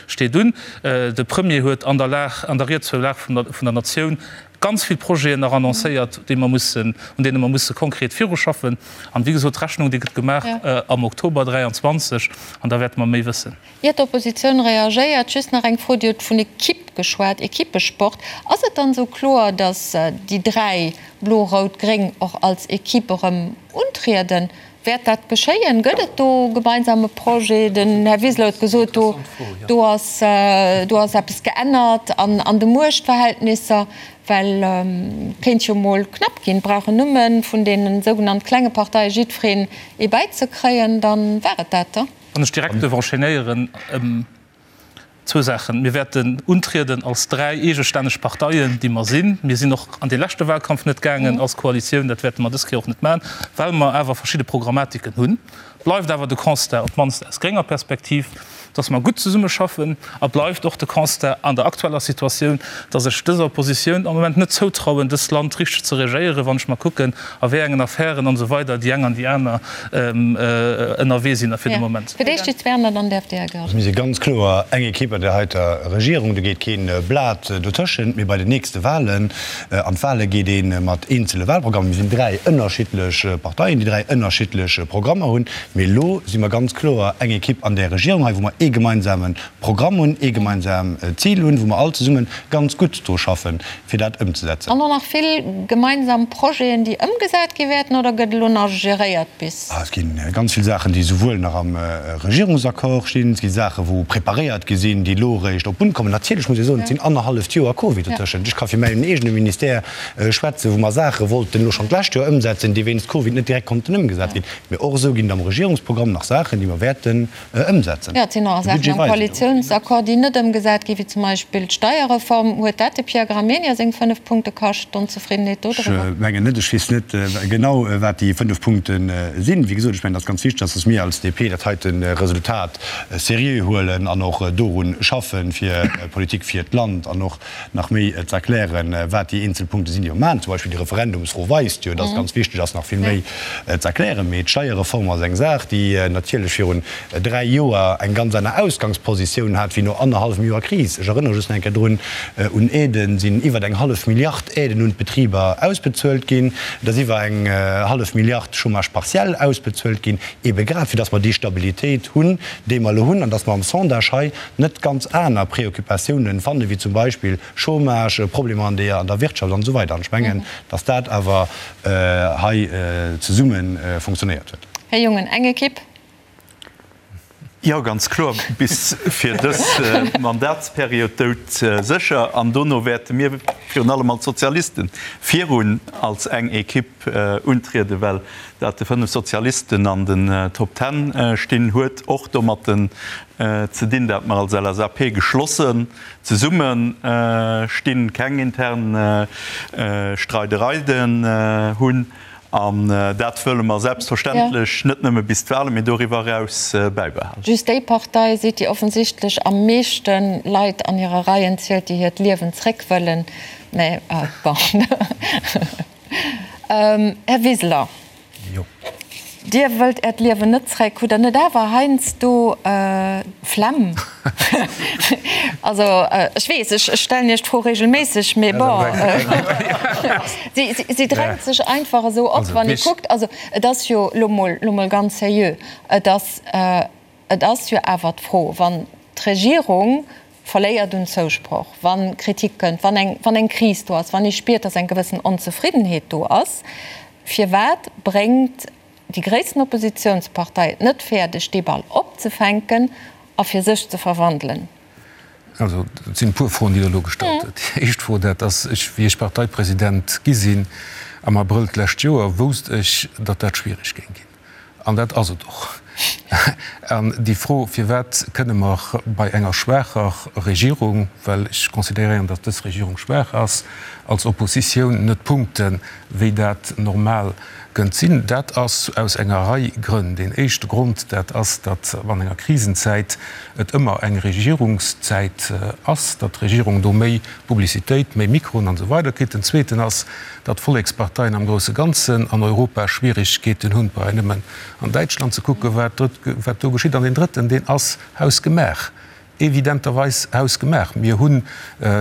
steet un. De Premier huet an der Lag, an der Ried zur Lag vun der Natioun ganz vill Projeten nach annoncéiert, déi mer mussen, un deene mer musse konkret viruschaffen. An, wéi gesot, d'Rechnung, déi gëtt gemaach am Oktober 23 an da wäerte mer méi wëssen. Ier d'Oppositioun reagéiert, just nach eng Fro, Dir hutt vun Equipe geschwat, Equipesport. Ass et dann esou kloer, datt déi 3, Blo, Rout, Gréng, och als Equipe erëm untrieden? Wäert dat geschéien? Gëtt et do e gemeinsame Projet? Den Här Wiseler huet gesot, do do ass do ass eppes geännert an an de Muechtverhältnisser, well kéint jo mol knapp ginn. Brauchen nëmme vun deene sougenannt klenge Parteie jiddwereen ee bäizekréien, dann war et dat da. Wann ech direkt duerf enchaînéieren, zwou Saachen. Mir wäerten untrieden als dräi eegestänneg Parteien, déi mer sinn. Mir sinn och an dee leschte Wahlkampf net gaangen als Koalitioun. Dat wäerte mer dës Kéier och net maachen, well mer awer verschidde Programmatiken hunn. Bleift awer de Constat, op d'mannst aus grénger Perspektiv, dass mer gutt zesummeschaffen. A bleift och de Constat an der aktueller Situatioun, dass ech dëser Oppositioun am Moment net zoutrauen, dëst Land richteg ze regéieren, wann ech mer kucken, a wéi engen Affären an esou weider déi eng an déi aner ënnerwee sinn fir de Moment. Fir d'éischt déi Zwerner, dann däerft Dir, Här Goergen. Also mir si ganz kloer eng Ekipp an där heiter Regierung, do geet kee Blat dotëschent. Mee bei den nächste Wahlen, an d'Wahle geet ee mat eenzele Wahlprogrammen, mir sinn dräi ënnerschiddlech Parteien, déi dräi ënnerschiddlech Programmer hunn, mee elo si mer ganz kloer eng Ekipp an där Regierung hei, wou mer ee gemeinsame Programm hunn, ee gemeinsam Zil hunn, wou mer all zesumme ganz gutt dru schaffen, fir dat ëmzesetzen. An och nach vill gemeinsam Projeten, déi ëmgesat gi wäerten, oder gëtt elo nach geréiert bis? Et gi ganz vill Saachen, déi souwuel nach am Regierungsaccord stinn, et gi Saachen, wou preparéiert gi sinn, déi elo eréischt op d'Bunn kommen. Natierlech muss ee soen, et sinn annerhalleft Joer Covid dotëschent. Ech ka fir mäin eegene Ministère schwätzen, wou mer Saache wollten elo schonn d'lescht Joer ëmsetzen, déi wéinst Covid net direkt konnten ëmgesat ginn. Mee och esou ginn et am Regierungsprogramm nach Saachen, déi mer wäerten ëmsetzen. Jo, et sinn och Saachen am Koalitiounsaccord, déi net ëmgesat ginn, wéi zum Beispill d'Steierreform. Huet dat de Pierre Gramegna seng 5 Punkte kascht, d'Onzefriddenheet do driwwer? Ech mengen net. Ech weess net genau, wat déi 5 Punkte sinn. Wéi gesot, ech mengen, et ass ganz wichteg, dass mir als DP dat heite Resultat seriö huelen an och doru schaffen, fir Politik fir d'Land an och nach méi ze erklären, wat déi eenzel Punkte sinn, déi mer maachen. Zum Beispill déi Referendumsfro weist jo, dass et ganz wichteg ass, nach vill méi ze erklären. Mee d'Steierreform ass eng Saach, déi natierlech virun dräi Joer eng ganz aner Ausgangspositioun hat wéi no annerhallwem Joer Kris. Ech erënnere just nach eng Kéier drun, Un Aiden sinn iwwer eng hallef Milliard Aiden un d'Betriber ausbezuelt ginn. Et ass iwwer eng hallef Milliard Chômage partiel ausbezuelt ginn, eebe grad fir dass mer déi Stabilitéit hunn, déi mer elo hunn, an dass mer am Sondage hei net ganz aner Préoccupatiounen fannen, wéi zum Beispill Chômage, Problemer an der an der Wirtschaft an esou weider. An ech mengen, dass dat awer hei zesumme funktionéiert huet. Här Jungen, eng Ekipp? Jo, ganz kloer, bis fir dës Mandatsperiod doudsécher. An dono wäerte mir virun allem als Sozialisten virun als eng Ekipp untrieden, well dat de 5 Sozialisten an den Top Ten stinn, huet och domatten ze dinn, dat mer als LSAP geschlossen zesumme stinn, keng intern Streidereien hunn. An dat wëlle mer selbstverständlech net nëmme bis d'Wahlen, mee doriwwer eraus bäibehalen. Just déi Partei sidd, déi offensichtlech am meeschte Leit an hire Reien zielt, déi hiert Liewen zréck wëllen. Mä bon. Här Wiseler, Dir wëllt Äert Liewen net zréck. Hutt Der net awer heiansdo d'Flemm? Also, ech weess, ech stellen Iech d'Fro regelméisseg, mee bon, si drängt sech einfach esou op, wann ee kuckt. Also, et ass jo elo mol, elo mol ganz seriö, et ass, et ass jo awer d'Fro, wann d'Regierung verléiert un Zousproch, wa Kritik kënnt, wann eng, wann eng Kris do ass, wann ee spiert, datt eng gewëssen Onzefriddenheet do ass, firwat bréngt déi gréissten Oppositionspartei et net fäerdeg, dee Ball opzefänken a fir sech ze verwandelen? Also, et sinn e puer Froen, déi Der elo gestallt hutt. Déi éischt Fro, dat ass, ech, wéi ech Parteipresident gi sinn am Abrëll d'lescht Joer, wousst ech, datt dat schwierig géing ginn. An dat ass et och. An déi Fro, Firwat kënne mer bei enger schwaacher Regierung, well ech consideréieren, datt dës Regierung schwaach ass, als Oppositioun net punkten, wéi dat normal kënnt sinn? Dat ass aus enger Rei Grënn. Deen éischte Grond, dat ass, datt an enger Krisenzäit et ëmmer eng Regierungszäit ass, datt d'Regierung do méi Publicitéit, méi Mikroen an esou weider kritt. Den zweeten ass, datt d'Volleksparteien am grousse Ganzen an Europa Schwierigkeeten hunn, brauch een nëmmen an Däitschland ze kucken, wat do geschitt. An deen drëtten, deen ass hausgemaach, evidenterweis hausgemaach. Mir hunn,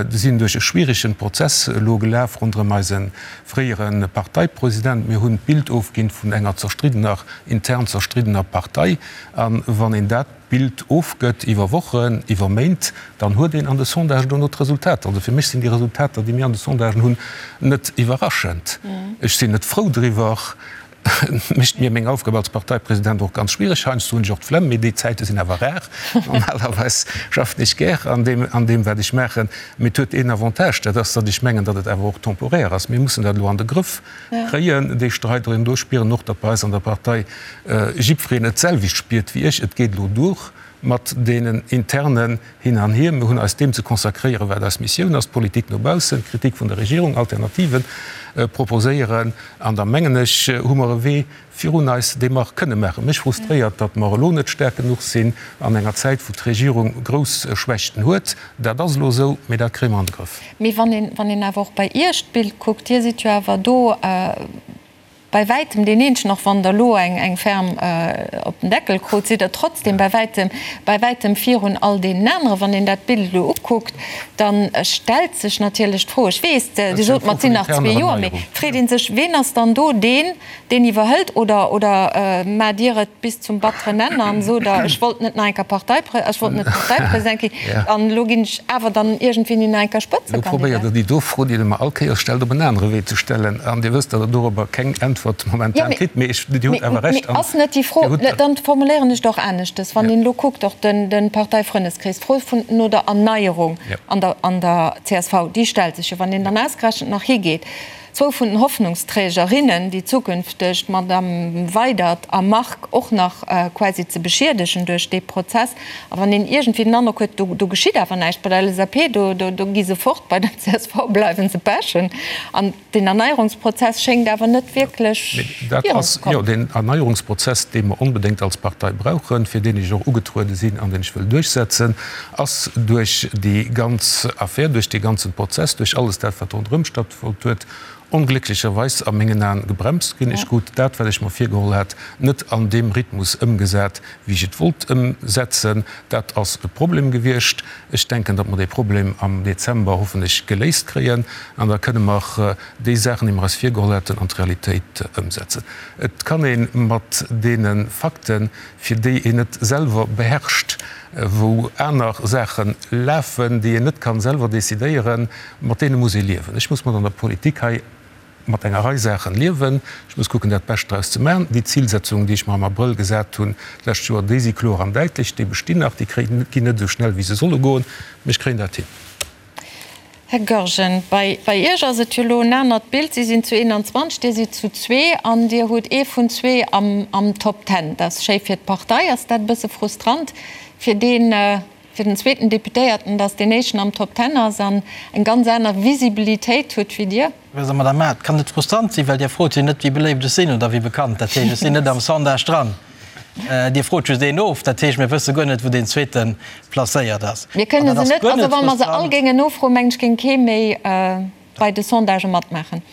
sinn duerch e schwieregen Prozess elo gelaf ronderëm eise fréiere Parteipresident. Mir hunn d'Bild ofginn vun enger zerstriddener, intern zerstriddener Partei. A wann een dat Bild ofgëtt iwwer Wochen, iwwer Méint, dann huet een an de Sondagen dono d'Resultater. Also fir mech sinn déi Resultater, déi mir an de Sondagen hunn, net iwwerraschend. Ech sinn net frou driwwer. Et mécht mir meng Aufgab als Parteipresident och ganz schwiereg. Heiansdo hunn ech och d'Flemm, mee déi Zäite sinn awer rar. Normalerweis schaffen ech gär an deem, an deem wat ech maachen. Mee et huet een Avantage, dat ass, datt ech mengen, datt et awer och temporaire ass. Mir mussen dat elo an de Grëff kréien, déi Streidereen. Do spieren och, datt bei eis an der Partei jiddwereen et d'selwecht spiert wéi ech. Et geet elo duer mat deenen internen Hin an Hier. Mir hunn eis deem ze consacréieren, wat eis Missioun ass, d'Politik no baussen, d'Kritik vun der Regierung, Alternative proposéieren. An da mengen ech, hu mer e Wee virun eis, dee mer kënne maachen. Mech frustréiert, datt mer elo net staark genuch sinn an enger Zäit, wou d'Regierung grouss Schwächten huet. Dat ass elo esou, mee dat kréie mer an de Grëff. Mee wann een awer och bei Iech d'Bild kuckt, Dir sidd jo awer do, Bei wäitem deen eenzegen, och wann der elo eng ferm op den Deckel krut, sidd der trotzdem bei wäitem, bei wäitem virun all deenen aneren. Wann een dat Bild elo ukuckt, da stellt sech natierlech d'Fro, ech weess, Dir sot mer, et sinn nach zwee Joer, mee et freet ee sech, ween ass dann do deen, deen iwwerhëlt? Oder, oder maacht Dir et bis zum batteren Enn an sot Der, ech wollt net nach eng Kéier Parteiprä, ech wollt net Parteipresident ginn an elo ginn ech awer dann iergendwéini nach eng Kéier Elo probéiert Der déi do Fro, déi Der mer all Kéiers stellt, op en anere Wee ze stellen. An Dir wësst, datt Der dorobber keng Äntwert momentan kritt. Mee ech, Dir hutt awer Recht. Mee ass net déi Fro, dann formuléieren ech et och aneschtes, wann een elo kuckt, och de Parteifrëndeskrees, d'Fro vun no der Erneierung an der an der csv, déi stellt sech jo, wann een dann ausgerechent nach higeet, zwou vun den Hoffnungsträgerinnen, déi zukünfteg, d'Madame Weydert a Margue, och nach quasi ze beschiedegen duerch dee Prozess. A wann een iergendwéi den Androck huet, do do geschitt awer näischt bei der LSAP, do do do gi se fort, bei der csv bleiwe se pechen. An deen Erneierungsprozess schéngt awer net wierklech virunzekommen. Jo, deen Erneierungsprozess, dee mer onbedéngt als Partei brauchen, fir deen ech och ugetruede sinn an deen ech wëll duerchsetzen, ass duerch déi ganz Affär, duerch dee ganzen Prozess, duerch alles dat, wat ronderëm stattfonnt huet, onglécklecherweis a mengen Aen gebremst ginn. Ech krut dat, wat ech mer virgeholl hat, net an deem Rhythmus ëmgesat, wéi ech et wollt ëmsetzen. Dat ass e Problem gewiescht. Ech denken, datt mer dee Problem am Dezember hoffentlech geléist kréien an da kënne mer déi Saachen, déi mer eis virgeholl haten, an d'Realitéit ëmsetzen. Et kann ee mat deene Fakten, fir déi een net selwer beherrscht, wou aner Saache lafen, déi een net kann selwer decidéieren, mat deene muss ee liewen. Ech muss mat an der Politik hei mat enger Rei Saachen liewen. Ech muss kucken, dat Bescht draus ze maachen. Déi Zilsetzungen, déi ech mer am Abrëll gesat hunn d'lescht Joer, déi si kloer an däitlech, déi bestinn nach. Déi ginn net esou schnell, wéi se solle goen, mee ech kréien dat hin. Här Goergen, bei Iech ass et jo elo en anert Bild. Si sinn zu 21, Dir sidd zu zwee an Dir hutt ee vun zwee am Top Ten. Dat ass schéi fir d'Partei. Ass dat e bësse frustrant fir deen, fir den zweeten Deputéierten, datt deen éischten am Top Ten ass an eng ganz aner Visibilitéit huet wéi Dir? Also, Madame Mart, et kann net frustrant sinn, well Dir frot jo net, wéi beléift ech sinn oder wéi bekannt. Dat heescht, ech sinn net am Sondage dran. Dir frot just een of. Dat heescht, mir wësse guer net, wou deen zweete placéiert ass. Mir kënne se net, also wa mer se all géingen nofroen, mengen ech, géing kee méi bei de Sondagë matmaachen.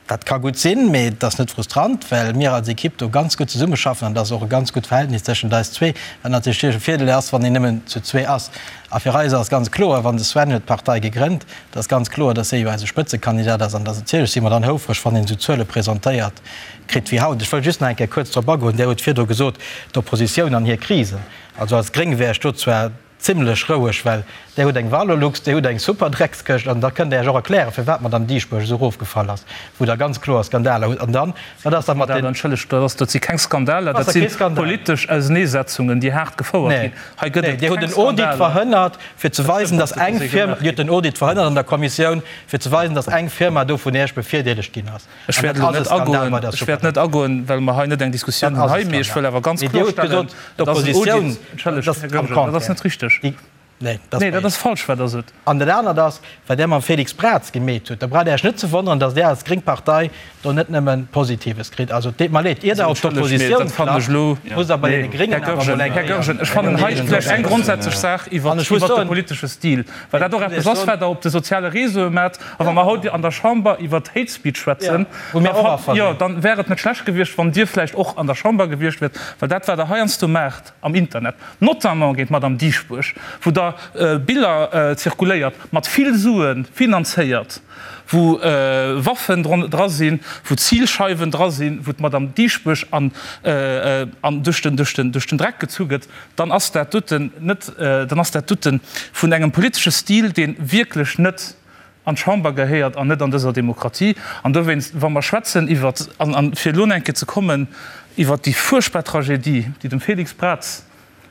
Dat ka gutt sinn, mee et ass net frustrant, well mir als Ekipp do ganz gutt zesummeschaffen an et ass och e ganz gutt Verhältnis tëschent eis zwee, wat natierlech e Virdeel ass, wann een nëmmen zu zwee ass. A fir eis ass ganz kloer, wann de Sven huet d'Partei gegrënnt, et ass ganz kloer, dass hie jo eise Spëtzekandidat ass an dass natierlech si mer dann houfreg, wann een esou Zuele presentéiert kritt wéi haut. Ech wëll just nach eng Kéier kuerz drop agoen, Dir hutt virdru gesot, d'Oppositioun an hir Krisen. Also als Gréng wär ech do zwar. Zimlech roueg, well där hutt eng Valorlux, dir hutt eng super Dreckskëscht an da kënnt Der Iech och erklären, firwat d'Madame Dieschbourg esou erofgefall ass, wou Der ganz kloer Skandaler hutt. An dann, wat ass da mat den. Entschëllegt, dat ass, dat si keng Skandaler, dat si politesch Auseneesetzungen, déi haart gefouert ginn. Hei gëtt et keng Skandaler. Dir hutt den Audit verhënnert, fir ze weisen, datt eng Firma, Dir hutt den Audit verhënnert an der Kommissioun, fir ze weisen, datt eng Firma do vun Iech bevirdeelegt ginn ass. Ech wäert elo net agoen, ech wäert net agoen, well mer hei net eng Diskussioun hunn hei, mee ech wëll awer ganz kloerstellen, et ass en Audit, entschëllegt, Här Goergen, dat ass net richteg. Nee, dat ass falsch, wat Der sot. An dat anert ass, wat Der mam Félix Braz gemeet hutt, da braucht Der Iech net ze wonneren, datt Der als gréng Partei do net nëmme Positives kritt. Also, et deet mer leed, ier Der op d'Oppositioun klappt, musst Der bei deene Gréngen awer emol eng Här Goergen, ech fannen hei vläicht eng grondsätzlech Saach iwwert de politesche Stil, well dat och eppes ass, wat Der op de soziale Réseaue maacht. A wa mer haut an der Chamber iwwert Hate Speech schwätzen, jo, dann wär et net schlecht gewiescht, wann Dir vläicht och an der Chamber gewiescht wiert, well dat, wat Der heiansdo maacht am Internet, notamment géint d'Madame Dieschbourg, wou Der Biller zirkuléiert, mat vill Sue finanzéiert, wou Waffen dra sinn, wou Zilscheiwen dra sinn, wou d'Madame Dieschbourg an duerch den Dreck gezu gëtt, dann ass dat doten net, dann ass dat dote vun engem politesche Stil, dee wierklech net an d'Chamber gehéiert an net an dëser Demokratie. An dowéinst, wa mer schwätzen iwwert, an fir elo nach eng Kéier ze kommen, iwwert déi fuerchtbar Tragedie, déi dem Félix Braz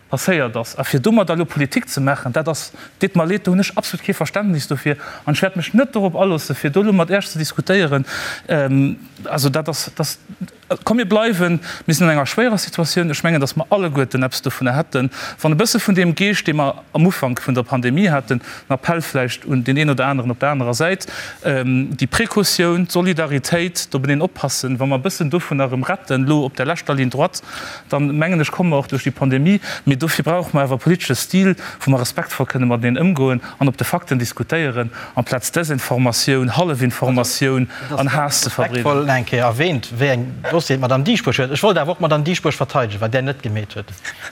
passéiert ass, a fir domadder elo Politik ze maachen, dat ass, deet mer leed, do hunn ech absolut kee Verständnis dofir an ech wäert mech net dorop aloossen, fir do elo mat Iech ze diskutéieren. Also dat ass, dat ass. Komm mir bleiwen, mir sinn an enger schwéierer Situatioun. Ech mengen, datt mer alleguerten eppes dovunner hätten, wann e bësse vun deem Geescht, dee mer am Ufank vun der Pandemie haten, en Appell vläicht un deen een oder aneren op der anerer Säit, déi Precautioun, d'Solidaritéit, d'openeen oppassen, wa mer e bëssen dovunner erëm retten, elo op der leschter Ligne droite, dann, mengen ech, komme mer och duerch déi Pandemie. Mee dofir brauche mer awer e politesche Stil, wou mer respektvoll kënne mateneen ëmgoen an op de Fakten diskutéieren, amplaz Desinformatioun, Hallefinformatioun an Haass ze verbreeden. Respektvoll nach eng Kéier erwähnt, wéi eng Dossieren d'Madame Dieschbourg huet. Ech wollt awer och d'Madame Dieschbourg verteidegen, wat där net gemeet huet.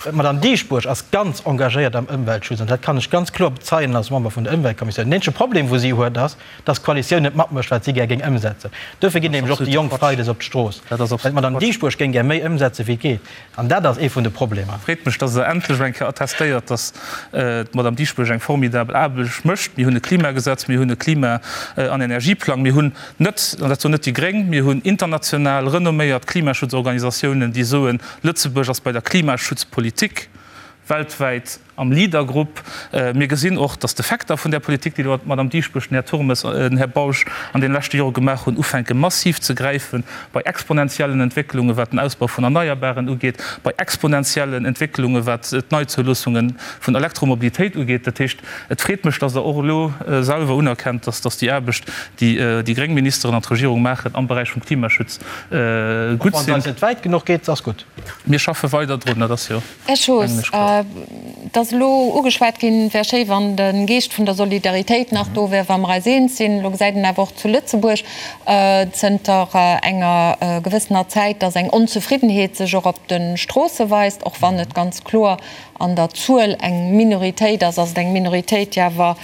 D'Madame Dieschbourg ass ganz engagéiert am Ëmweltschutz an dat kann ech ganz kloer bezeien als Member vun der Ëmweltkommissioun. Den eenzege Problem, wou si huet, ass, dass d'Koalitioun net matmécht, wat si gär géing ëmsetzen. Duerfir ginn nämlech och déi Jonk freides op d'Strooss, well d'Madame Dieschbourg géing gär méi ëmsetzen, wéi et geet. An dat ass ee vun de Problemer. Freet mech, dass Der endlech eng Kéier attestéiert, dass d'Madame Dieschbourg eng formidabel Aarbecht mécht. Mir hunn e Klimagesetz, mir hunn e Klima an Energieplang, mir hunn net, an dat soen net déi Gréng, mir hunn international renomméiert Klimaschutzorganisatiounen, déi soen, Lëtzebuerg ass bei der Klimaschutzpolitik weltwäit am Leadergrupp. Mir gesinn och, dass d'Effekter vun där Politik, déi elo d'Madame Dieschbourg, den Här Turmes, den Här Bausch an deene leschte Jore gemaach hunn, ufänke massiv ze gräifen bei exponentiellen Entwécklungen, wat den Ausbau vun Erneierbaren ugeet, bei exponentiellen Entwécklungen, wat d'Neizouloossungen vun Elektromobilitéit ugeet. Dat heescht, et freet mech, dass Der och elo selwer unerkennt, dass déi Aarbecht, déi déi gréng Ministeren an d'Regierung maachen am Beräich vum Klimaschutz, gutt sinn. Och wann se eis net wäit genuch geet, se ass gutt. Mir schaffe weider drun, dat ass jo. Här Schoos, et ass elo ugeschwat ginn, et wär schéi, wann de Geescht vun der Solidaritéit nach do wär, wa mer eis eens sinn. Elo gesäit een awer och zu Lëtzebuerg zënter enger gewëssener Zäit, datt eng Onzefriddenheet sech och op de Stroosse weist, och wann et ganz kloer an der Zuel eng Minoritéit ass, ass et eng Minoritéit, déi awer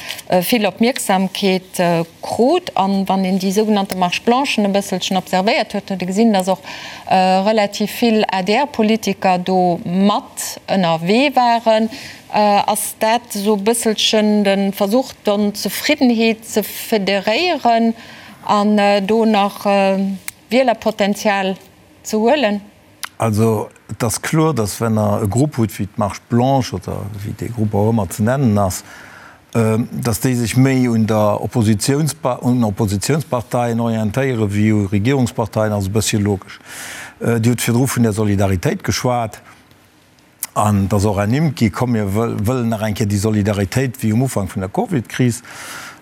vill Opmierksamkeet krut. An wann een déi sougenannte Marche blanchen e bësselchen observéiert huet, huet ee gesinn, datt och relativ vill ADR-Politiker do mat ënnerwee waren. Ass dat esou e bësselchen de Versuch, d'Onzefriddenheet ze federéieren an do nach Wielerpotenzial ze huelen? Also et ass kloer, datt wenn Der e Grupp hutt wéi d'Marche blanche oder wéi dee Grupp och ëmmer ze nennen ass, datt déi sech méi un der un Oppositionsparteien orientéiere wéi u Regierungsparteien, ass e bëssche logesch. Dir hutt virdru vun der Solidaritéit geschwat an et ass och ernimmt gi, komm mir wëllen nach eng Kéier déi Solidaritéit wéi um Ufank vun der Covidkris.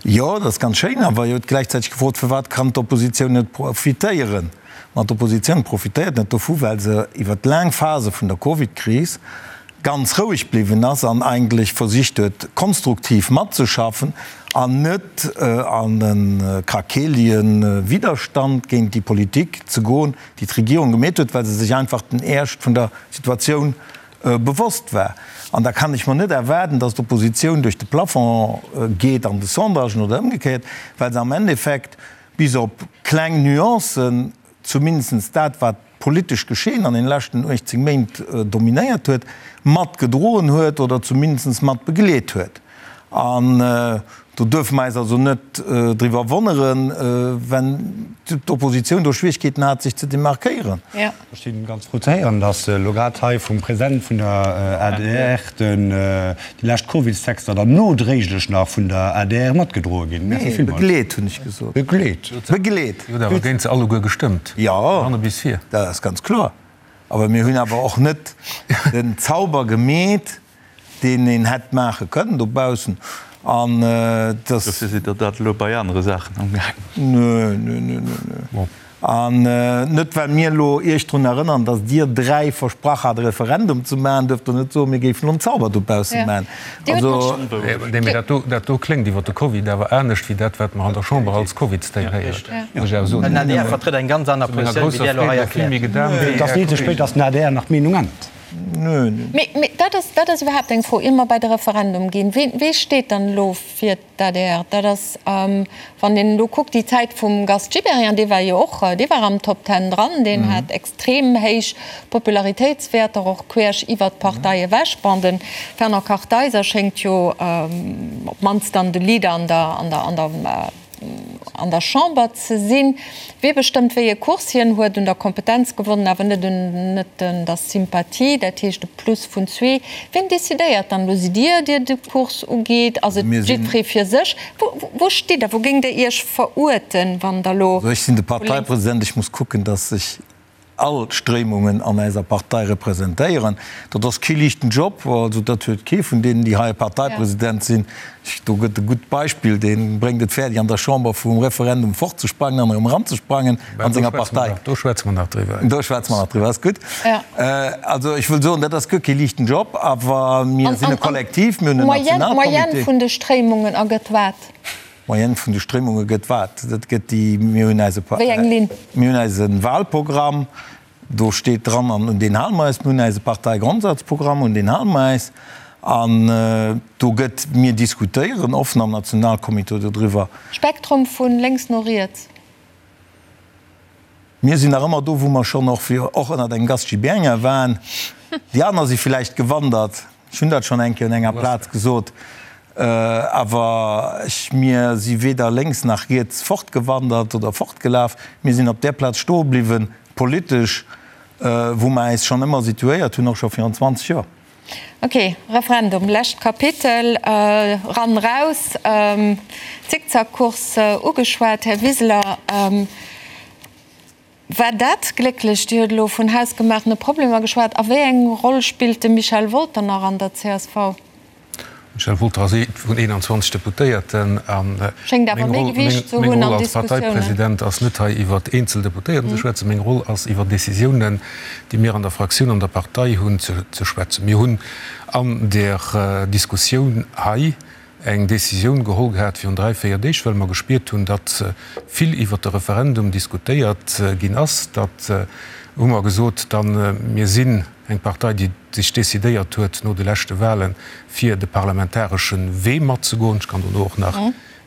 Jo, dat ass ganz schéin, awer Dir hutt gläichzäiteg gefrot, firwat kann d'Oppositioun net profitéieren? Ma d'Oppositioun profitéiert net dovu, well se iwwert laang Phase vun der Covidkris ganz roueg bliwwen ass an eigentlech versicht huet, konstruktiv matzeschaffen an net an e krakeelige Widderstand géint déi Politik ze goen, déi d'Regierung gemeet huet, well se sech einfach den Eescht vun der Situatioun bewosst war. An da kann ech mer net erwaarden, dass d'Oppositioun duerch de Plafond geet an de Sondagen oder ëmgekéiert, well se am Endeffekt bis op kleng Nuancen, zumindest dat, wat. d'politescht Geschehen an den leschten 18 Méint dominéiert huet, mat gedroen huet oder zumindest mat begleet huet. An do duerfe mer eis also net driwwer wonneren, wenn d'Oppositioun do Schwierigkeeten hat, sech ze demarkéieren. Ech si ganz frou ze héieren, datt elo grad hei vum President vun der adr déi lescht Covidstexter dann nodréiglech nach vun der adr matgedroe ginn. Merci villmools. Begleet, hunn ech gesot. Begleet. Begleet. Dir hutt awer géint se alleguer gestëmmt, vun hanne bis vir. Jo, dat ass ganz kloer. Awer mir hunn awer och net den Zauber gemeet, deen een hätt maache kënnen dobaussen an dass. Dofir sidd Der dat elo bei anere Saachen amgaangen. Nö, nö, nö, nö, nö. An net well mir elo Iech drun erënnern, dass Dir 3 versprach hat e Referendum ze maachen, duerft Der net soen, mir géifen elo en Zauber dobausse maachen. Also. Nee, mee dat do, dat do kléngt iwwer de Covid awer anescht wéi dat, wat mer an der Chamber als Covidstay héieren, muss ech awer soen. Den adr vertrëtt eng ganz aner Positioun, wéi Dir elo hei erkläert. Et ass ni ze spéit, dass den adr nach d'Meenung ännert. Nö, nö. Mee, mee dat ass, dat ass iwwerhaapt eng Fro, ier mer bei de Referendum ginn. Wee, wee steet dann elo fir d'ADR? Dat ass, wann een elo kuckt, déi Zäit vum Gast Gibéryen, dee war jo och, dee war am Top Ten dran, deen hat extrem héich Popularitéitswäerter, och queesch iwwert d'Partei ewech. Bon, de Fernand Kartheiser schéngt jo op d'mannst dann de Leader an der, an der, an der, an der Chamber ze sinn. Wee bestëmmt, wéi e Kurs hien huet un der Kompetenz gewonnen, awer net un net un der Sympathie, dat heescht e Plus vun zwee. Wien decidéiert dann elo? Sidd Dir, dir de Kurs ugeet? Ass et jiddweree fir sech? Wou stitt Der? Wou géingt Der Iech veruerten, wann Der elo. Also ech sinn de Parteipresident, ech muss kucken, datt ech all Stréimungen an eiser Partei representéieren. Dat ass kee liichten Job, also dat huet kee vun deenen, déi hei Parteipresident sinn. Do gëtt e gutt Beispill, dee bréngt et fäerdeg an der Chamber vum Referendum fortzesprangen an erëm eranzesprangen an senger Partei. Do schwätze mer nach driwwer. Do schwätze mer nach driwwer, ass gutt. Also ech wëll soen, dat ass guer kee liichten Job, awer mir sinn e Kollektiv, mir hunn en Nationalcomité. D'Moyenne vun de Stréimungen ergëtt wat? D'Moyenne vun de Stréimunge gëtt wat? Dat gëtt déi, mir hunn eise, Wéi eng Linn? mir hunn eise Wahlprogramm, do steet dran, an un deen hale mer eis. Mir hunn eise Parteigrondsatzprogramm, un deen hale mer eis. An do gëtt, mir diskutéieren offen am Nationalcomité dodriwwer. Spektrum vu lénks no riets. Mir sinn nach ëmmer do, wou mer schonn och, och ënnert engem Gast Gibéryen waren. Déi aner si villäicht gewandert. Ech hunn dat schonn eng Kéier un enger Plaz gesot. Awer ech, mir si weder lénks nach riets fortgewandert oder fortgelaf. Mir sinn op där Plaz stoe bliwwen, politesch, wou mer äis schonn ëmmer situéiert hunn, och scho virun 20 Joer. Ok, Referendum, lescht Kapitel, ran, raus, Zickzackcourse ugeschwat. Här Wiseler, war dat glécklech? Dir hutt elo vun hausgemaachene Problemer geschwat. A wéi eng Roll spillt de Michel Wolter nach an der csv? Michel Wolter ass ee vun 21 Deputéierten a Schéngt awer meng méi Roll, Gewiicht ze meng hunn Roll an als Diskussiounen. Parteipresident ass net hei iwwert eenzel Deputéierten ze schwätzen. Meng Roll ass iwwer Décisiounen, déi mir an der Fraktioun, an der Partei hunn, ze schwätzen. Mir hunn an där Diskussioun hei eng Décisioun geholl gehat virun dräi, véier Deeg, well mer gespiert hunn, datt vill iwwert de Referendum diskutéiert ginn ass. Datt hu mer gesot, dann, mir sinn eng Partei, déi sech decidéiert huet no de leschte Wahlen, fir de parlamentaresche Wee matzegoen. Ech kann dono och nach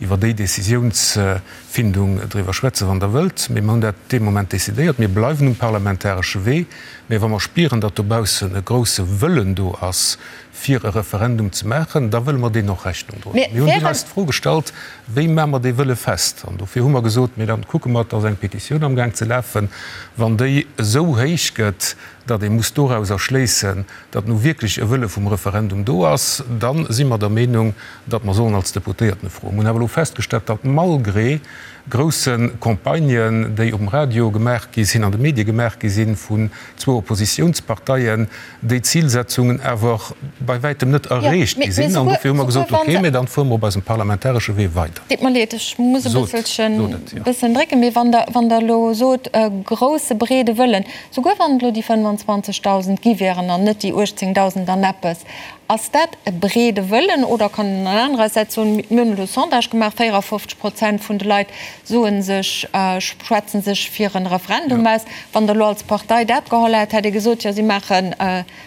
iwwer déi Décisiounsfindung driwwer schwätzen, wann Der wëllt. Mee mer hunn dat dee Moment decidéiert. Mir bleiwen um parlamentaresche Wee. Mee wa mer spieren, datt dobaussen e grousse Wëllen do ass, fir e Referendum ze maachen, da wëlle mer deem och Rechnung droen. Mir hunn dunn eis d'Fro gestallt, Wéi maache mer dee Wëlle fest? An dofir hu mer gesot, Mee dann kucke mer, et ass eng Petitioun amgaang ze lafen, wann déi esou héich gëtt, datt ee muss dorauser schléissen, datt nu wierklech e Wëlle vum Referendum do ass, da si mer der Meenung, datt mer sollen als Deputéierten e froen. Mer hunn awer elo festgestallt, datt malgré grousse Campagnen, déi um Radio gemaach gi sinn, an de Medie gemaach gi sinn, vun zwou Oppositiounsparteien, déi Zilsetzungen awer bei wäitem net erreecht gi sinn. An dofir hu mer gesot, okay, mä dann fuere mer op eisem parlamentaresche Wee weider. Deet mer leed, ech muss e bësselchen, bëssen drécken, mee wann Der, wann Der elo sot, e grousse breede Wëllen, souguer wann et elo déi 25.000 gi wieren an net déi 18.000 an eppes, ass dat e breede Wëllen oder kann een anerersäits soen, mir hunn elo e Sondage gemaach, 54 Prozent vun de Leit soe sech, schwätze sech fir e Referendum aus. Wann Der elo als Partei dat geholl hätt, hätt Dir gesot, jo si maache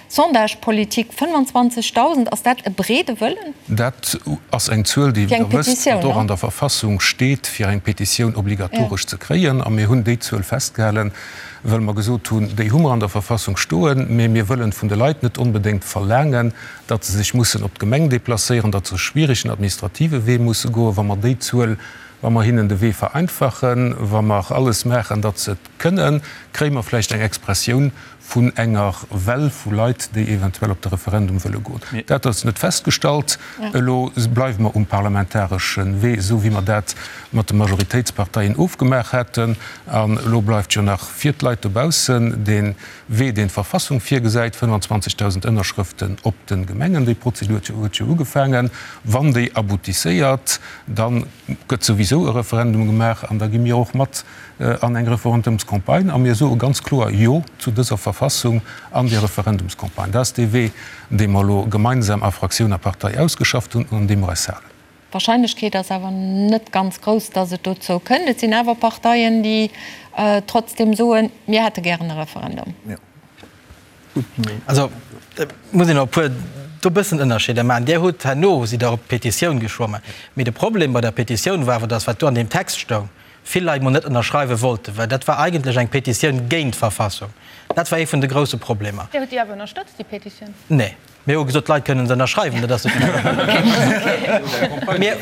Sondagepolitik. 25.000, ass dat e breede Wëllen? Dat ass eng Zuel, déi, wéi Der wësst, wat och an der Verfassung steet, fir eng Petitioun obligatoresch ze kréien. A mir hunn déi Zuel festgehalen. Well mer gesot hunn, déi hu mer an der Verfassung stoen, mä mir wëllen vun de Leit net onbedéngt verlaangen, datt se sech mussen op d'Gemeng déplacéieren, datt se e schwierigen administrative Wee musse goen. Wa mer déi Zuel, wa mer hinnen de Wee vereinfachen, wa mer alles maachen, datt se et kënnen, kréie mer vläicht eng Expressioun vun enger Well vu Leit, déi eventuell op de Referendum wëlle goen. Dat ass net festgestallt. Elo bleiwe mer um parlamentaresche Wee, esou wéi mer dat mat de Majoritéitsparteien ofgemaach haten. An elo bleift jo nach fir d'Leit dobaussen dee Wee, deen d'Verfassung virgesäit, 25.000 Ënnerschrëften op de Gemengen. Déi Prozedur huet jo ugefaangen. Wann déi aboutisséiert, da gëtt souwisou e Referendum gemaach an da gi mir och mat an eng Referendumscampagne a mir soe ganz kloer Jo zu dëser Verfassung an déi Referendumscampagne. Dat ass dee Wee, dee mer elo gemeinsam a Fraktioun a Partei ausgeschafft hunn an un deem mer eis halen. D'Wahrscheinlechkeet ass awer net ganz grouss, datt et dozou kënnt. Et sinn awer Parteien, déi trotzdem soen, mir hätte gären e Referendum. Also, et muss een och e puer do e bëssen Ënnerscheeder maachen. Dir hutt herno, sidd Der op d'Petitioun geschwommen. Mee de Problem bei der Petitioun war awer, datt wat do an deem Text stoung, vill Leit mol net ënnerschreiwe wollten, well dat war eigentlech eng Petitioun géint d'Verfassung. Dat war ee vun de grousse Problemer. Dir hutt déi awer ënnerstëtzt, déi Petitioun? Nee. Mir hu gesot, d'Leit kënnen se ënnerschreiwen. Dat ass Mir,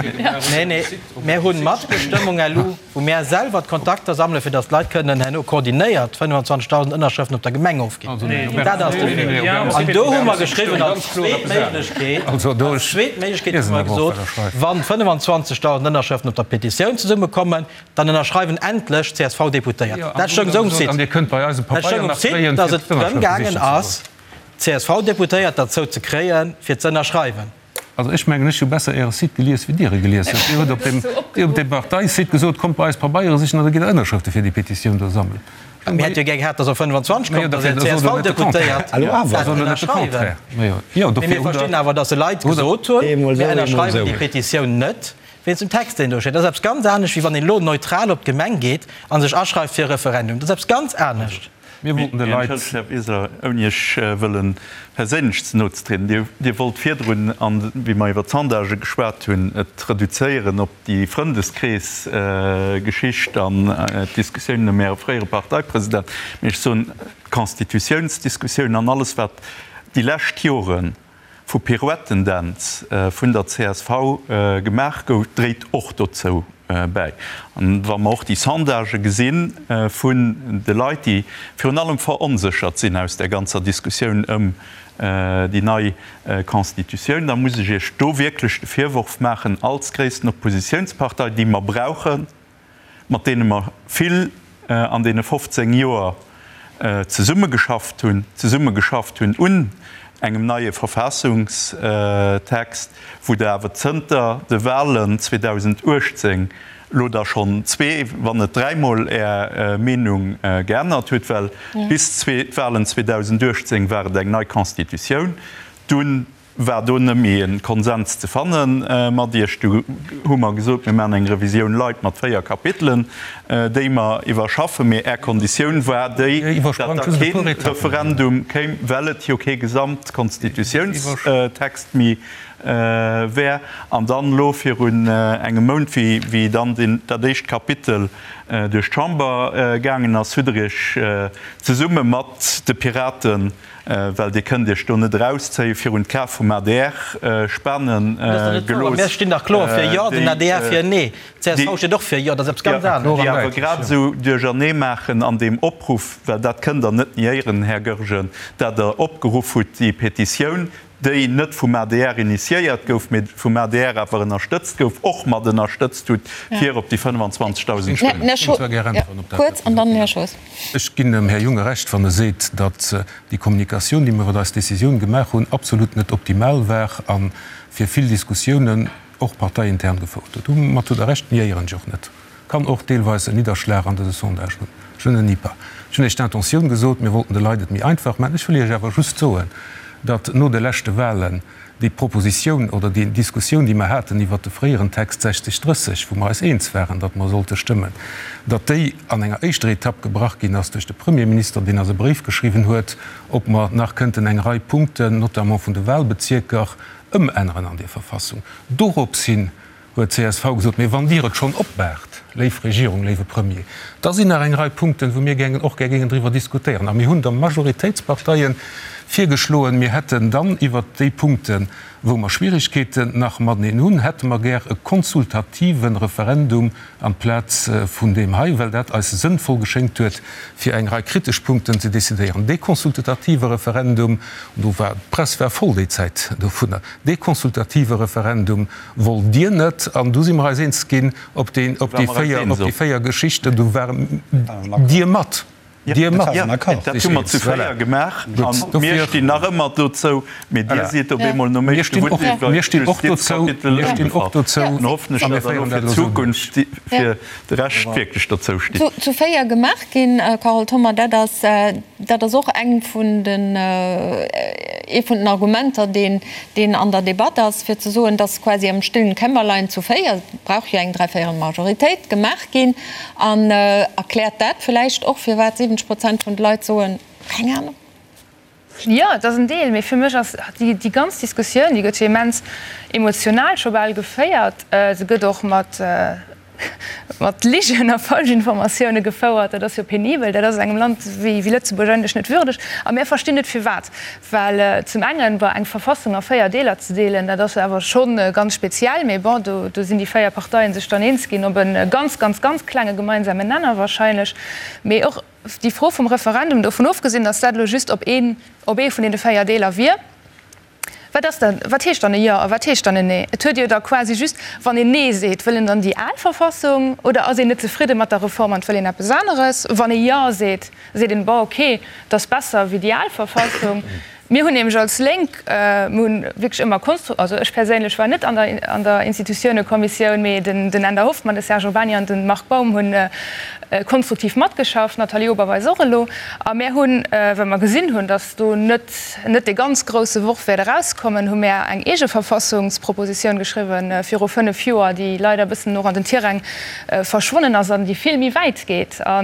nee, nee, mir hunn Matbestëmmung elo, wou mär selwer d'Kontakter sammelen, fir datt d'Leit kënnen herno koordinéiert 25.000 Ënnerschrëften op der Gemeng ofginn. Dat ass de Wee. An do hu mer geschriwwen als zweet Méiglechkeet, als zweet Méiglechkeet hu mer gesot, wann 25.000 Ënnerschrëften op der Petitioun zesummekommen, dann ënnerschreiwen endlech d'CSV-Deputéiert. Dat stoung esou um Site. Dat stoung um Site, datt et drëm gaangen ass, d'CSV-Deputéiert derzou ze kréien, fir ze ënnerschreiwen. Also ech mengen, ech hu besser Äre Site gelies, wéi Dir e gelies hutt. Dir hutt op dem, Dir hutt op dem Parteisite gesot, kommt bei eis Pabeiere sichen an da gitt Der Ënnerschrëfte fir déi Petitioun do sammelen. Mir hätt jo gär gehat, datt op 25 kommt, datt är CSV-Deputéiert dat ënnerschreiwen. Mee mir verstinn awer, datt se Leit gesot hunn, mir ënnerschreiwen déi Petitioun net wéinst dem Text, deen do steet. Dat ass eppes ganz anescht, wéi wann een elo neutral op d'Gemeng geet a sech aschreift fir e Referendum. Dat ass eppes ganz anescht. Mir wollten de Leit. Entschëllegt, Här Wiseler, ouni Iech wëlle perséinlech ze no ze trieden, Dir wollt virdrun, wéi mer iwwer d'Sondagë geschwat hunn, et reduzéieren op déi Frëndeskrees-Geschicht an d'Diskussiounen ëm Äre fréiere Parteipresident. Mee ech soen, d'Constitutiounsdiskussioun an alles, wat déi lescht Jore vu Pirouettendänz vun der csv gemaach gouf, dréit och dozou bäi. An wa mer och déi Sondagë gesi vun de Leit, déi virun allem veronséchert sinn aus där ganzer Diskussioun ëm déi nei Constitutioun, da muss ech Iech do wierklech de Virworf maachen, als gréissten Oppositiounspartei, déi mer brauchen, mat deene mer vill an deene 15 Joer zesummegeschafft hunn, zesummegeschafft hunn un engem neie Verfassungstext, wou Der awer zënter de Wahlen 2018 elo da schonn zwee, wann net dräimol Är Meenung geännert hutt, well bis d'Wahlen 2018 war et eng nei Constitutioun, dunn war do net méi e Konsens ze fanne mat Iech. Du hu mer gesot, mir maachen eng Revisioun light mat 4 Kapitelen, déi mer iwwerschaffen. Mee Är Konditioun war déi, datt da kee Referendum kéim, well et jo kee Gesamtkonstitutiounstext méi wär. An dann elo virun engem Mount, wéi dann dat éischt Kapitel duerch d'Chamber gaangen ass, hutt Der Iech zesumme mat de Piraten, Well Dir kënnt Iech do net erauszéien, virun d'Ka vum adr spane gelooss. Mir stinn dach kloer fir Jo, den adr fir Nee. D'CSV steet och fir Jo, dat ass eppes ganz anescht. Déi awer grad esou duerchernee maachen an deem Opruff, well dat kënnt Der net niéieren, Här Goergen, dat Der opgeruff hutt, déi Petitioun, déi net vum adr initiéiert gouf, mee vum adr awer ënnerstëtzt gouf, och mat ënnerstëtzt hutt, fir op déi 25.000 Stëmmen. Ech ginn dem Här Junge Recht, wann e seet, datt déi Kommunikatioun, déi mir iwwer eis Décisioun gemaach hunn, absolut net optimal war a fir vill Diskussiounen, och parteiintern, gefouert huet. Domat hutt Der Recht, niéieren ech och net. Kann och deelweis en Nidderschlag an dëse Sondage hunn. Je ne nie pas. Ech hunn Iech d'Intentioun gesot, mir wollten de Leit et méi einfach maachen. Ech wëll Iech awer just soen, datt no de leschte Wahlen déi Propositioun oder déi Diskussioun, déi mer haten iwwert de fréieren Text 60, 30, wou mer eis eens waren, datt mer sollte stëmmen, datt déi an enger éischter Etapp gebrach ginn ass duerch de Premierminister, deen eis e Bréif geschriwwen huet, ob mer nach kënnten eng Rei Punkten, notamment vun de Wahlbezierker, ëmänneren an där Verfassung. Doropshin huet csv gesot, Mee wann Dir et schonn opmaacht. Léif Regierung, léiwe Premier, da sinn nach eng Rei Punkten, wou mir gängen, och gär géingen driwwer diskutéieren. A mir hunn der Majoritéitsparteien virgeschloen, mir hätten dann iwwert déi Punkten, wou mer Schwierigkeeten nach mateneen hunn, hätte mer gär e konsultative Referendum amplaz vun deem hei, well dat eis sënnvoll geschéngt huet, fir eng Rei kritesch Punkten ze decidéieren. Dee consultative Referendum, do war, d'Press war voll déi Zäit dovunner, dee consultative Referendum wollt Dir net an du si mer eis eens ginn op déi, op déi 4, op déi 4 Geschichten. Do ware Dir mat. Dir mat. Dat hu mer zu 4 gemaach a mir stinn nach ëmmer dozou. Mee Dir sidd op eemol nom éischte Wuert iwwer d'Justizkapitel ëmgefall. Dann hoffen ech, datt Der elo fir d'Zukunft fir de Rescht wierklech dozou stitt. Zu 4 gemaach ginn, Carole Thoma, dat ass, dat ass och eng vun den, ee vun den Argumenter, deen, deen an der Debatt ass, fir ze soen, dass quasi am stillen Kämmerlein zu 4, et brauch jo eng dräivéierel Majoritéit, gemaach ginn. An erkläert dat vläicht och, firwat 70 Prozent vun de Leit soen, keng Ahnung? Jo, et ass en Deel, mee fir mech ass déi ganz Diskussioun, déi gëtt jo immens emotional scho bal geféiert. Se gëtt och mat mat Ligen a Falschinformatioune gefouert. Dat ass jo penibel. Dat ass engem Land wéi Lëtzebuerg eigentlech net würdeg. A mär verstinn net firwat. Well zum engen, bon, eng Verfassung a 4 Deeler ze deelen, dat ass awer scho ganz speziell. Mee bon, do do sinn déi 4 Parteien sech dann eens ginn op e ganz, ganz, ganz klenge gemeinsamen Nenner wahrscheinlech. Mee och déi Fro vum Referendum, dovun ofgesinn, datt dat elo just op een op ee vun deene 4 Deeler wier, Wat ass dann, wat heescht dann e Jo a wat heescht dann en Nee? Et huet jo da quasi just, wann een Nee seet, wëll en dann déi al Verfassung oder ass een net zefridde mat der Reform an et wëll een eppes aneres? Wann ee Jo seet, seet een, bon, okay, et ass besser wéi déi al Verfassung. Mir hunn nämlech als Lénk, mir hunn wierklech ëmmer konstru-, also ech perséinlech war net an der, an der Institutiounekommissioun, mee den, den Änder Hoffmann, de Serge Urbany an de Marc Baum hunn konstruktiv matgeschafft, d'Nathalie Oberweis och elo. A mär hunn, well mer gesinn hunn, datt do net, net dee ganz grousse Worf wäert erauskommen, hu mär eng eege Verfassungspropositioun geschriwwen viru 5 Joer, déi leider e bëssen och an den Tiräng verschwonnen ass an déi vill méi wäit geet a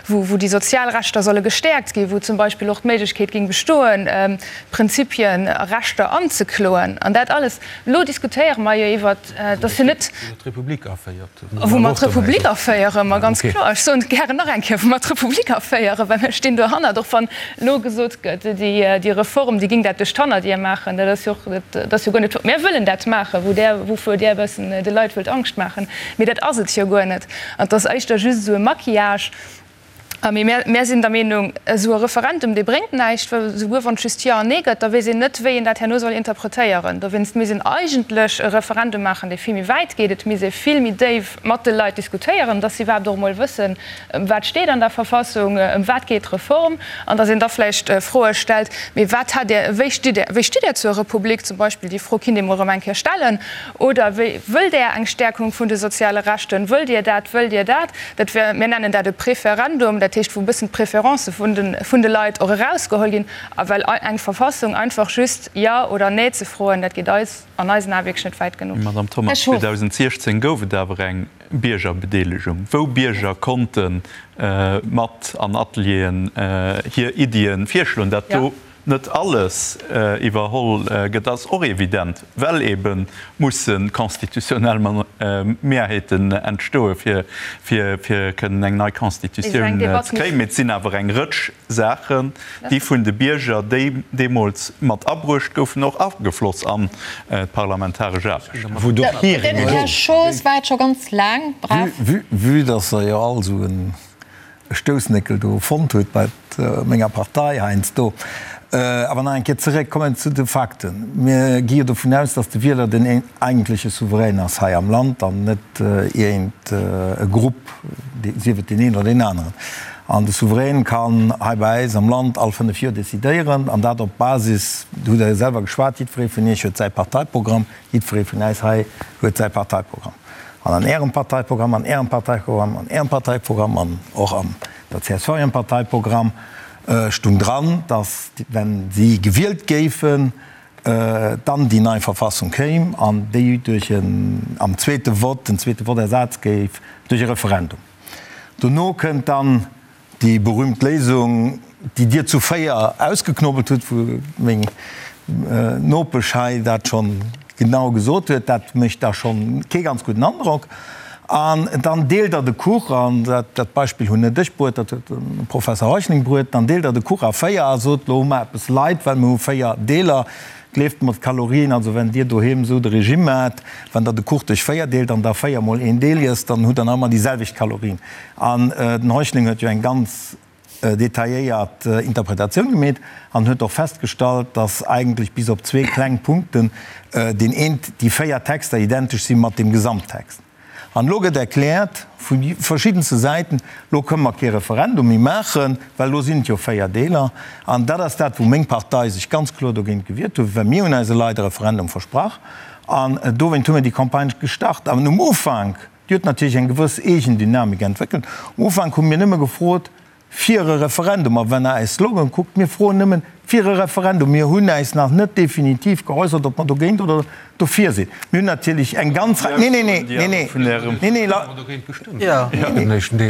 wou wou déi sozial Rechter solle gestäerkt ginn, wou zum Beispill och d'Méiglechkeet géing bestoen, Prinzipien a Rechter anzekloen an dat alles. Elo diskutéiere mer jo iwwert, dass jo net. Wou mer d'Republik aféiert. Wou mer d'Republik aféieren, ma ganz kloer. Ech soen et gären nach eng Kéier, wou mer d'Republik aféieren, well mir stinn dohannert, och wann elo gesot gëtt, déi Reform, déi géing dat duerch d'Hannerdier maachen. Dat ass jo och, dat ass jo guer net. Mir wëllen dat maachen, wou Der, wouvuer Dir e bëssen de Leit wëllt Angscht maachen. Mee dat ass et jo guer net. An et ass éischter just esou e Maquillage. Mee mär sinn der Meenung, esou e Referendum, dee bréngt näischt, well esouguer wann et just Jo an Nee gëtt, da weess een net, wéi een dat herno soll interpretéieren. Dowéinst misst een eigentlech e Referendum maachen, dee vill méi wäit geet. Et misst ee vill méi déif mat de Leit diskutéieren, dass si iwwerhaapt och emol wëssen, ëm wat steet an der Verfassung, ëm wat geet d'Reform, an dass een da vläicht Froe stellt, Mee wat hat Dir, wéi stitt Dir, wéi stitt Dir zur Republik zum Beispill? Déi Fro kinnt ee mol erëm eng Kéier stellen. Oder wéi, wëllt Där eng Stärkung vun de soziale Rechten? Wëllt Dir dat, wëllt Dir dat? Dat wär, mir nennen dat e Préférendum, dat heescht, wou e bëssen d'Préférencë vun de, vun de Leit och erausgeholl ginn. A well eng Verfassung einfach just Jo oder Nee ze froen, dat geet eis, an eisen Ae wierklech net wäit genuch. Madame Thomas, 2016 gouf et awer eng Biergerbedeelegung, wou Bierger konnte mat an Atelieren hir Iddie virschloen. Dat do net alles iwwerholl gëtt, ass och evident, well ebe musse constitutionnel Mehrheeten entstoe fir kënnen eng nei Constitutioun ze kréien. Mee et sinn awer eng Rëtsch Saachen, déi vun de Bierger, déi deemools mat abruecht goufen, och agefloss an d'parlamentaresch Aarbecht. Den Här Schoos waart scho ganz laang brav. Vue dass Der jo all esou en e Stoussnéckel do fonnt huet bei menger Partei heiansdo. Awer nach eng Kéier zeréck kommen zu de Fakten. Mir gi jo dovun aus, datt de Wieler den eigentleche Souverän ass hei am Land an net iergend e Grupp, sief et deen een oder deen aneren. An de Souverän kann hei bei äis am Land all 5 Joer decidéieren, an dat op Basis, do hutt Der jo selwer geschwat, jiddweree vun Iech huet säi Parteiprogramm, Jiddweree vun äis hei huet säi Parteiprogramm. An an Ärem Parteiprogramm, an Ärem Parteiprogramm, an Ärem Parteiprogramm an och an der csv hirem Parteiprogramm stung dran, datt, wenn si gewielt géifen, dann déi nei Verfassung kéim an déi duerch en, am zweete Vott, den zweete Vott ersat géif duerch e Referendum. Dono kënnt dann Déi berühmt Léisung, déi Dir zu 4 ausgeknobelt hutt, wou meng Nopesch hei dat schonn genau gesot huet, dat mécht da schonn kee ganz gudden Androck. An dann deelt Der de Kuch, an dat Beispill hunn net ech bruet, dat huet de Professer Heuschling bruet, dann deelt Der de Kuch a 4 a sot, Lo hu mer eppes Leit, well mir hu 4 Deeler. Gleeft mer, d'Kalorien, also wenn Dir doheem esou de Regime maacht, wann Der de Kuch duerch 4 deelt an da 4 mol een Deel iesst, dann hutt Der nach ëmmer déi selwecht Kalorien. An den Heuschling huet jo eng ganz detailléiert Interpretatioun gemeet an huet och festgestallt, dass eigentlech bis op zwee kleng Punkten deen eent, déi 4 Texter identesch si mat deem Gesamttext. An elo gëtt erkläert vu verschiddenste Säiten, elo kënne mer kee Referendum méi maachen, well elo sinn et jo 4 Deeler. An dat ass dat, wou meng Partei sech ganz kloer dogéint gewiert huet, well mir hunn eise Leit e Referendum versprach an dowéint hu mir déi Campagne gestart. An um Ufank, déi huet natierlech eng gewëss eegen Dynamik entwéckelt, um Ufank hu mir nëmme gefrot, Fir e Referendum. A wann Der äis Slogan kuckt, mir froen nëmmen fir e Referendum. Mir hunn äis nach net definitiv geäussert, ob mer dogéint oder dofir sinn. Mir hunn natierlech eng ganz Rei. Nee, nee, nee, nee, nee, nee, nee, la.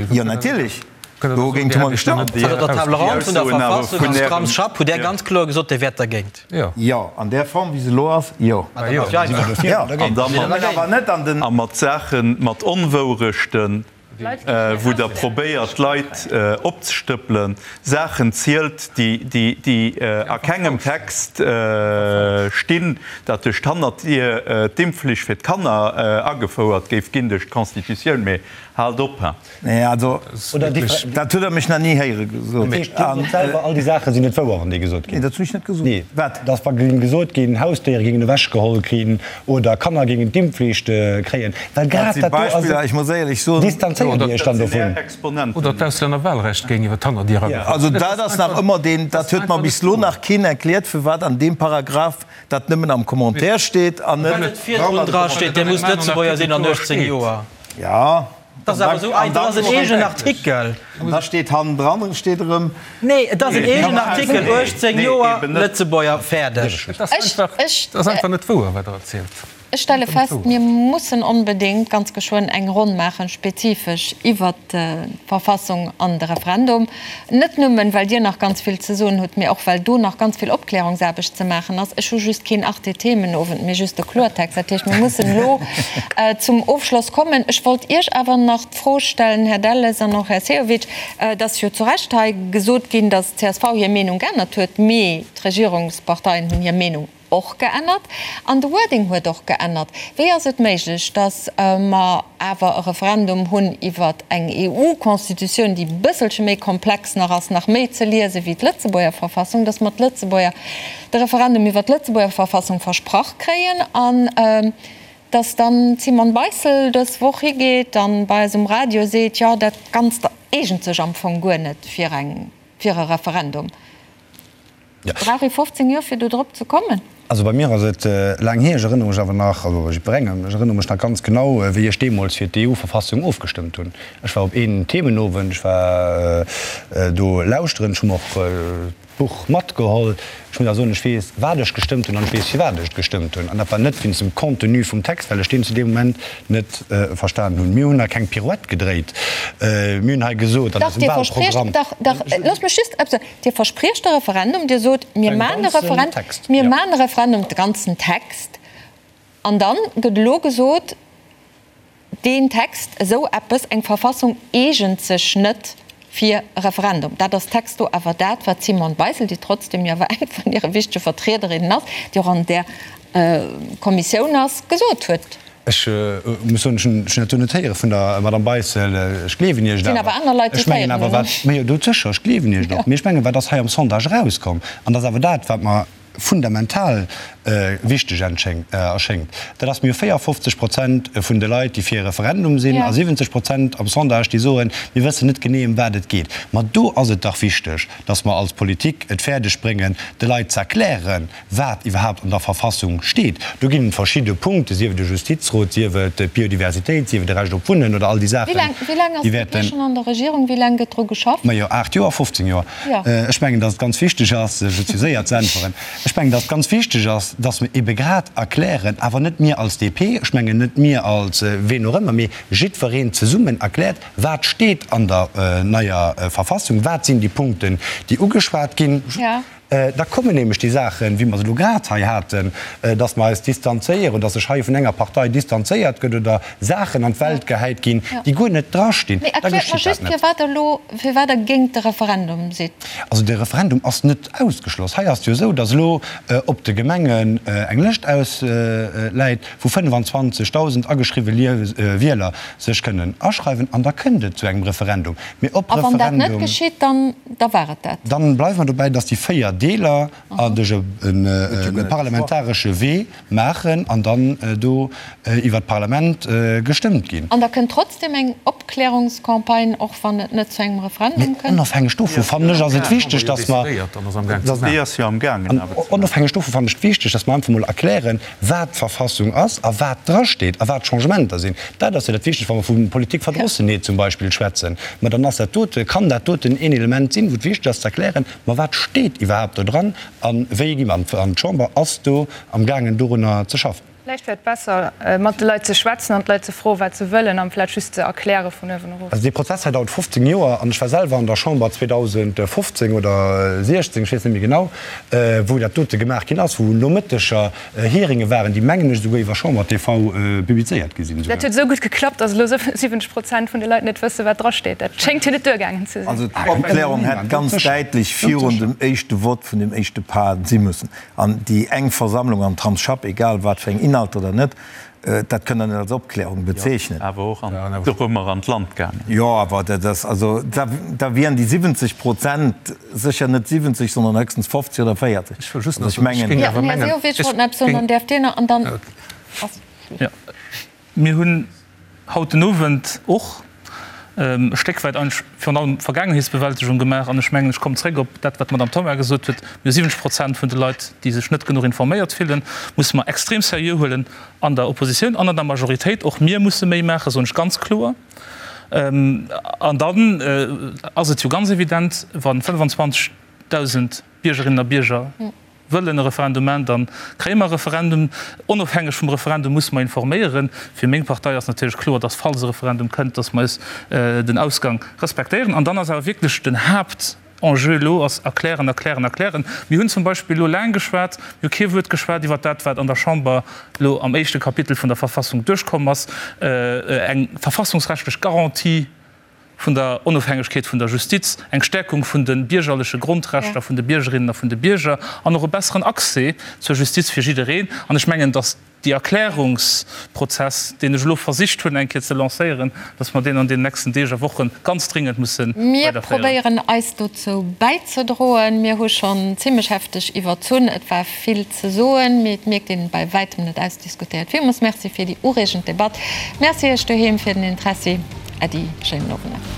Jo, natierlech, dogéint hu mer gestëmmt. Also der Table ronde vun der Verfassung am Scrum-Schapp hutt Där ganz kloer gesot, Dir wäert dergéint. Jo, an där Form, wéi se elo ass, jo. A mat Saachen, mat Onwourechten. wou Der probéiert, d'Leit opzestëppelen, Saachen zielt, déi a kengem Text stinn, datt duerch d'Hannerdier d'Impfflicht fir d'Kanner agefouert géif ginn duerch d'Constitutioun. Mee haalt op! Nee, also dat hutt Der mech nach ni héiere gesot. Dat heescht, Dir sot selwer, all déi Saache sinn net wouer, wann déi gesot ginn? Nee, dat hunn ech net gesot. Nee. Wat? Dass wa géing gesot ginn, Hausdéiere géingen ewechgeholl ginn oder Kanner géingen d'Impfflicht kréien, well grad dat do ass et, distanzéiert Dir Iech dann dovun? Oder d'Auslännerwahlrecht géing iwwer d'Hannerdier agefouert Also dat ass nach ëmmer deen, dat huet mer bis elo nach keen erkläert, firwat an deem Paragraph dat nëmmen am Commentaire steet an net. Well et virdrun dra steet, Dir musst Lëtzebuerger sinn an 18 Joer. Jo. Dat ass awer esou einfach, dat ass en eegenen Artikel. An da steet hannendran steet erëm. Nee, et ass en eegenen Artikel, 18 Joer, Lëtzebuerger, fäerdeg. Et ass einfach net wouer, wat Der erzielt. Ech stelle fest, mir mussen onbedéngt ganz geschwënn eng Ronn maachen, spezifesch iwwert d'Verfassung an de Referendum. Net nëmmen, well Dir nach ganz vill ze soen hutt, mee och well do nach ganz vill Opklärungsaarbecht ze maachen ass. Ech hu just keen Arte-Themenowend, mee just de Kloertext. Dat heescht, mir mussen elo zum Ofschloss kommen. Ech wollt Iech awer nach d'Fro stellen, Här Delles an och Här Sehovic, Et ass jo zu Recht hei gesot ginn, datt d'CSV hir Meenung geännert huet, mee d'Regierungsparteien hunn hir Meenung och geännert an de Wording huet och geännert. Wéi ass et méiglech, datt mer awer e Referendum hunn iwwer eng EU-Constitutioun, déi e bësselche méi komplex nach ass, nach méi ze liese wéi d'Lëtzebuerger Verfassung, datt mer d'Lëtzebuerger de Referendum iwwer d'Lëtzebuerger Verfassung versprach kréien an datt dann d'Simone Beissel dës Woch higeet an bei eis um Radio seet, jo dat Ganzt eegent sech am Fong guer net fir eng fir e Referendum. Brauch ee 15 Joer fir do drop ze kommen? Also bei mir ass et laang hier, ech erënnere mech awer nach, also bei jiddwerengem, ech erënnere mech nach ganz genau, wéi ech deemools fir d'EU-Verfassung ofgestëmmt hunn. Ech war op een Themenowend, ech war do lauschteren, ech hu mer och d'Buch matgeholl. Ech muss awer soen, ech weess, wat ech gestëmmt hunn an ech weess, firwat ech et gestëmmt hunn. An dat war net wéinst dem Contenu vum Text, well ech deen zu deem Moment net verstanen hunn. Mir hunn hei keng Pirouette gedréit. Mir hunn hei gesot an eisem Wahlprogramm. Dach, Dir verspriecht, dach, loosst mech just eppes soen. Dir verspriecht e Referendum, Dir sot, mir maachen e Referendum, mir maachen e Referendum, de ganzen Text, an dann gëtt elo gesot, deen Text, esou eppes, eng Verfassung eegent sech net fir e Referendum. Dat ass texto awer dat, wat d'Simone Beissel, déi trotzdem jo awer eng vun hire wichtege Vertriederinnen ass, déi och an där Kommissioun ass, gesot huet. Ech muss soen, ech hunn dat do net héiere vun der Madame Beissel. Ech gleewen Iech et awer. Ech mengen awer, wat, ma jo, do sécher, ech gleewen Iech et och. Mee ech mengen, wat ass hei am Sondage erauskomm, an dat ass awer dat, wat mer fundamental wichteg erschéngt, dat ass, mir hu 54 Prozent vun de Leit, déi fir e Referendum sinn, a 70 Prozent am Sondage, déi soen, mir wëssen net genee, ëm wat et geet. Ma do ass et dach wichteg, datt mer als Politik et fäerdeg bréngen, de Leit ze erklären, wat iwwerhaapt an der Verfassung steet. Do ginn et verschidde Punkte, sief et de Justizrot, sief et d'Biodiversitéit, sief et de Recht op Wunnen oder all déi Saachen, Wéi laang ass déi wäerten. d'DP schonn an der Regierung? Wéi laang gëtt dru geschafft? Majo, 8 Joer, 15 Joer. Ech mengen, datt et ganz wichteg ass, sech et séier ze äntweren. Ech mengen, datt et ganz wichteg ass, datt mer ebe grad erklären, awer net mir als DP, ech mengen net mir als ween och ëmmer, mee jiddwereen zesummen erkläert, wat steet an der neier Verfassung, wat sinn déi Punkten, déi ugeschwat ginn. Da kommen nämlech déi Saachen, wéi mer se elo grad hei haten, dass mer eis distanzéieren, dass sech hei vun enger Partei distanzéiert gëtt oder Saachen an d'Welt gehäit ginn, déi guer net drastinn. Mee Da erkläert mer geschitt dat just, net. firwat Der elo, firwat Der géint de Referendum sidd. Also de Referendum ass net ausgeschloss. Hei ass et jo esou, dass elo op de Gemengen eng Lëscht ausläit, wou 25.000 ageschriwwe Wieler sech kënnen aschreiwen an da kënnt et zu engem Referendum. Mee ob A wann dat net Referendum. geschitt, dann da war et dat. Dann bleiwe mer dobäi, dass déi 4 Deeler a duerch e parlamentaresche Wee maachen an dann do iwwert d'Parlament gestëmmt ginn. An da kënnt trotzdem eng Opklärungscampagne, och wann et net zu engem Referendum Mee kënnt? onofhängeg dovu fannen ech, ass et wichteg, dass mer, Déi ass jo amgaangen awer ze maachen. Onofhängeg dovu fannen ech et wichteg, dass mer einfach mol erklären, wat d'Verfassung ass a wat drasteet a wat d'Changementer sinn. Dat ass jo dat Wichtegst, wa mer vu Politikverdrossenheet zum Beispill schwätzen. Ma dann ass dat dote, kann dat doten een Element sinn, wou et wichteg ass ze erklären, ma wat steet iwwerhaapt do dran a wéi gi mer. An d'Chamber ass do amgaangen dorunner ze schaffen. Vläicht wär et besser, mat de Leit ze schwätzen an d'Leit ze froen, wat se wëllen, amplaz just ze erkläre vun uewen erof. Also dee Prozess hei dauert 15 Joer an ech war selwer an der Chamber 2015 oder 16, ech weess net méi genau, wou dat dote gemaach ginn ass, wou Nomëtteger Hearinge waren, déi mengen ech esouguer iwwer Chamber TV publizéiert gi sinn. Dat huet esou gutt geklappt, datt elo 70 Prozent vun de Leit net wëssen, wat drasteet. Dat schéngt jo net duergaangen ze sinn. Also d'Opklärung hätt ganz däitlech virun dem éischte Vott vun dem éischte Pas si mussen. An déi eng Versammlung am Tramsschapp, egal wat fir eng Inhalter oder net, Dat kënnt Der net als Opklärung bezeechnen. Jo, awer och an dorëmmer an d'Land gaangen. Jo, awer dat ass, also da, da wieren déi 70 Prozent sécher net 70, sondern höchstens 50 oder 40. Ech wëll just nach soen, ech géing awer mengen, Här Sehovic wollt nach eppes soen, dann däerft Dir nach an dann ass Schluss. Jo, mir hunn haut den Owend och e Stéck wäit eigentlech virun allem Vergaangenheetsbewältegung gemaach. An ech mengen, ech kommen zréck op dat, wat d'Madame Thoma gesot huet, Mir hu 70 Prozent vun de Leit, déi sech net genuch informéiert fillen, musse mer extrem seriö huelen an der Oppositioun an an der Majoritéit. Och mir musse méi maachen, soen ech ganz kloer. An dann ass et jo ganz evident, wa 25.000 Biergerinnen a Bierger wëllen e Referendum maachen, da kréie mer e Referendum. Onofhängeg vum Referendum musse mer informéieren. Fir meng Partei ass natierlech kloer, dass, falls e Referendum kënnt, dass mer eis den Ausgang respektéieren. An dann ass awer wierklech den Haaptenjeu elo ass erklären, erklären, erklären. Mir hunn zum Beispill elo laang geschwat, mir hu kee Wuert geschwat iwwert dat, wat an der Chamber elo am éischte Kapitel vun der Verfassung duerchkomm ass, eng verfassungsrechtlech Garantie, vun der Onofhängegkeet vun der Justiz, eng Stärkung vun de biergerleche Grondrechter vun de Biergerinnen a vun de Bierger an och e besseren Accès zur Justiz fir jiddereen. An ech mengen, dass déi Erklärungsprozess, deen ech elo versicht hunn eng Kéier ze lancéieren, dass mer deen an deenen nächsten Deeg a Woche ganz dringend musse Mir weiderféieren. probéieren eis dozou bäizedroen. Mir hu schonn zimlech hefteg iwwerzunn. Et war vill ze soen, mee et mierkt een, bei wäitem net ausdiskutéiert. Villmools Merci fir déi ureegend Debatt. Merci Iech doheem fir den Interessi. Äddi, schéinen Owend nach.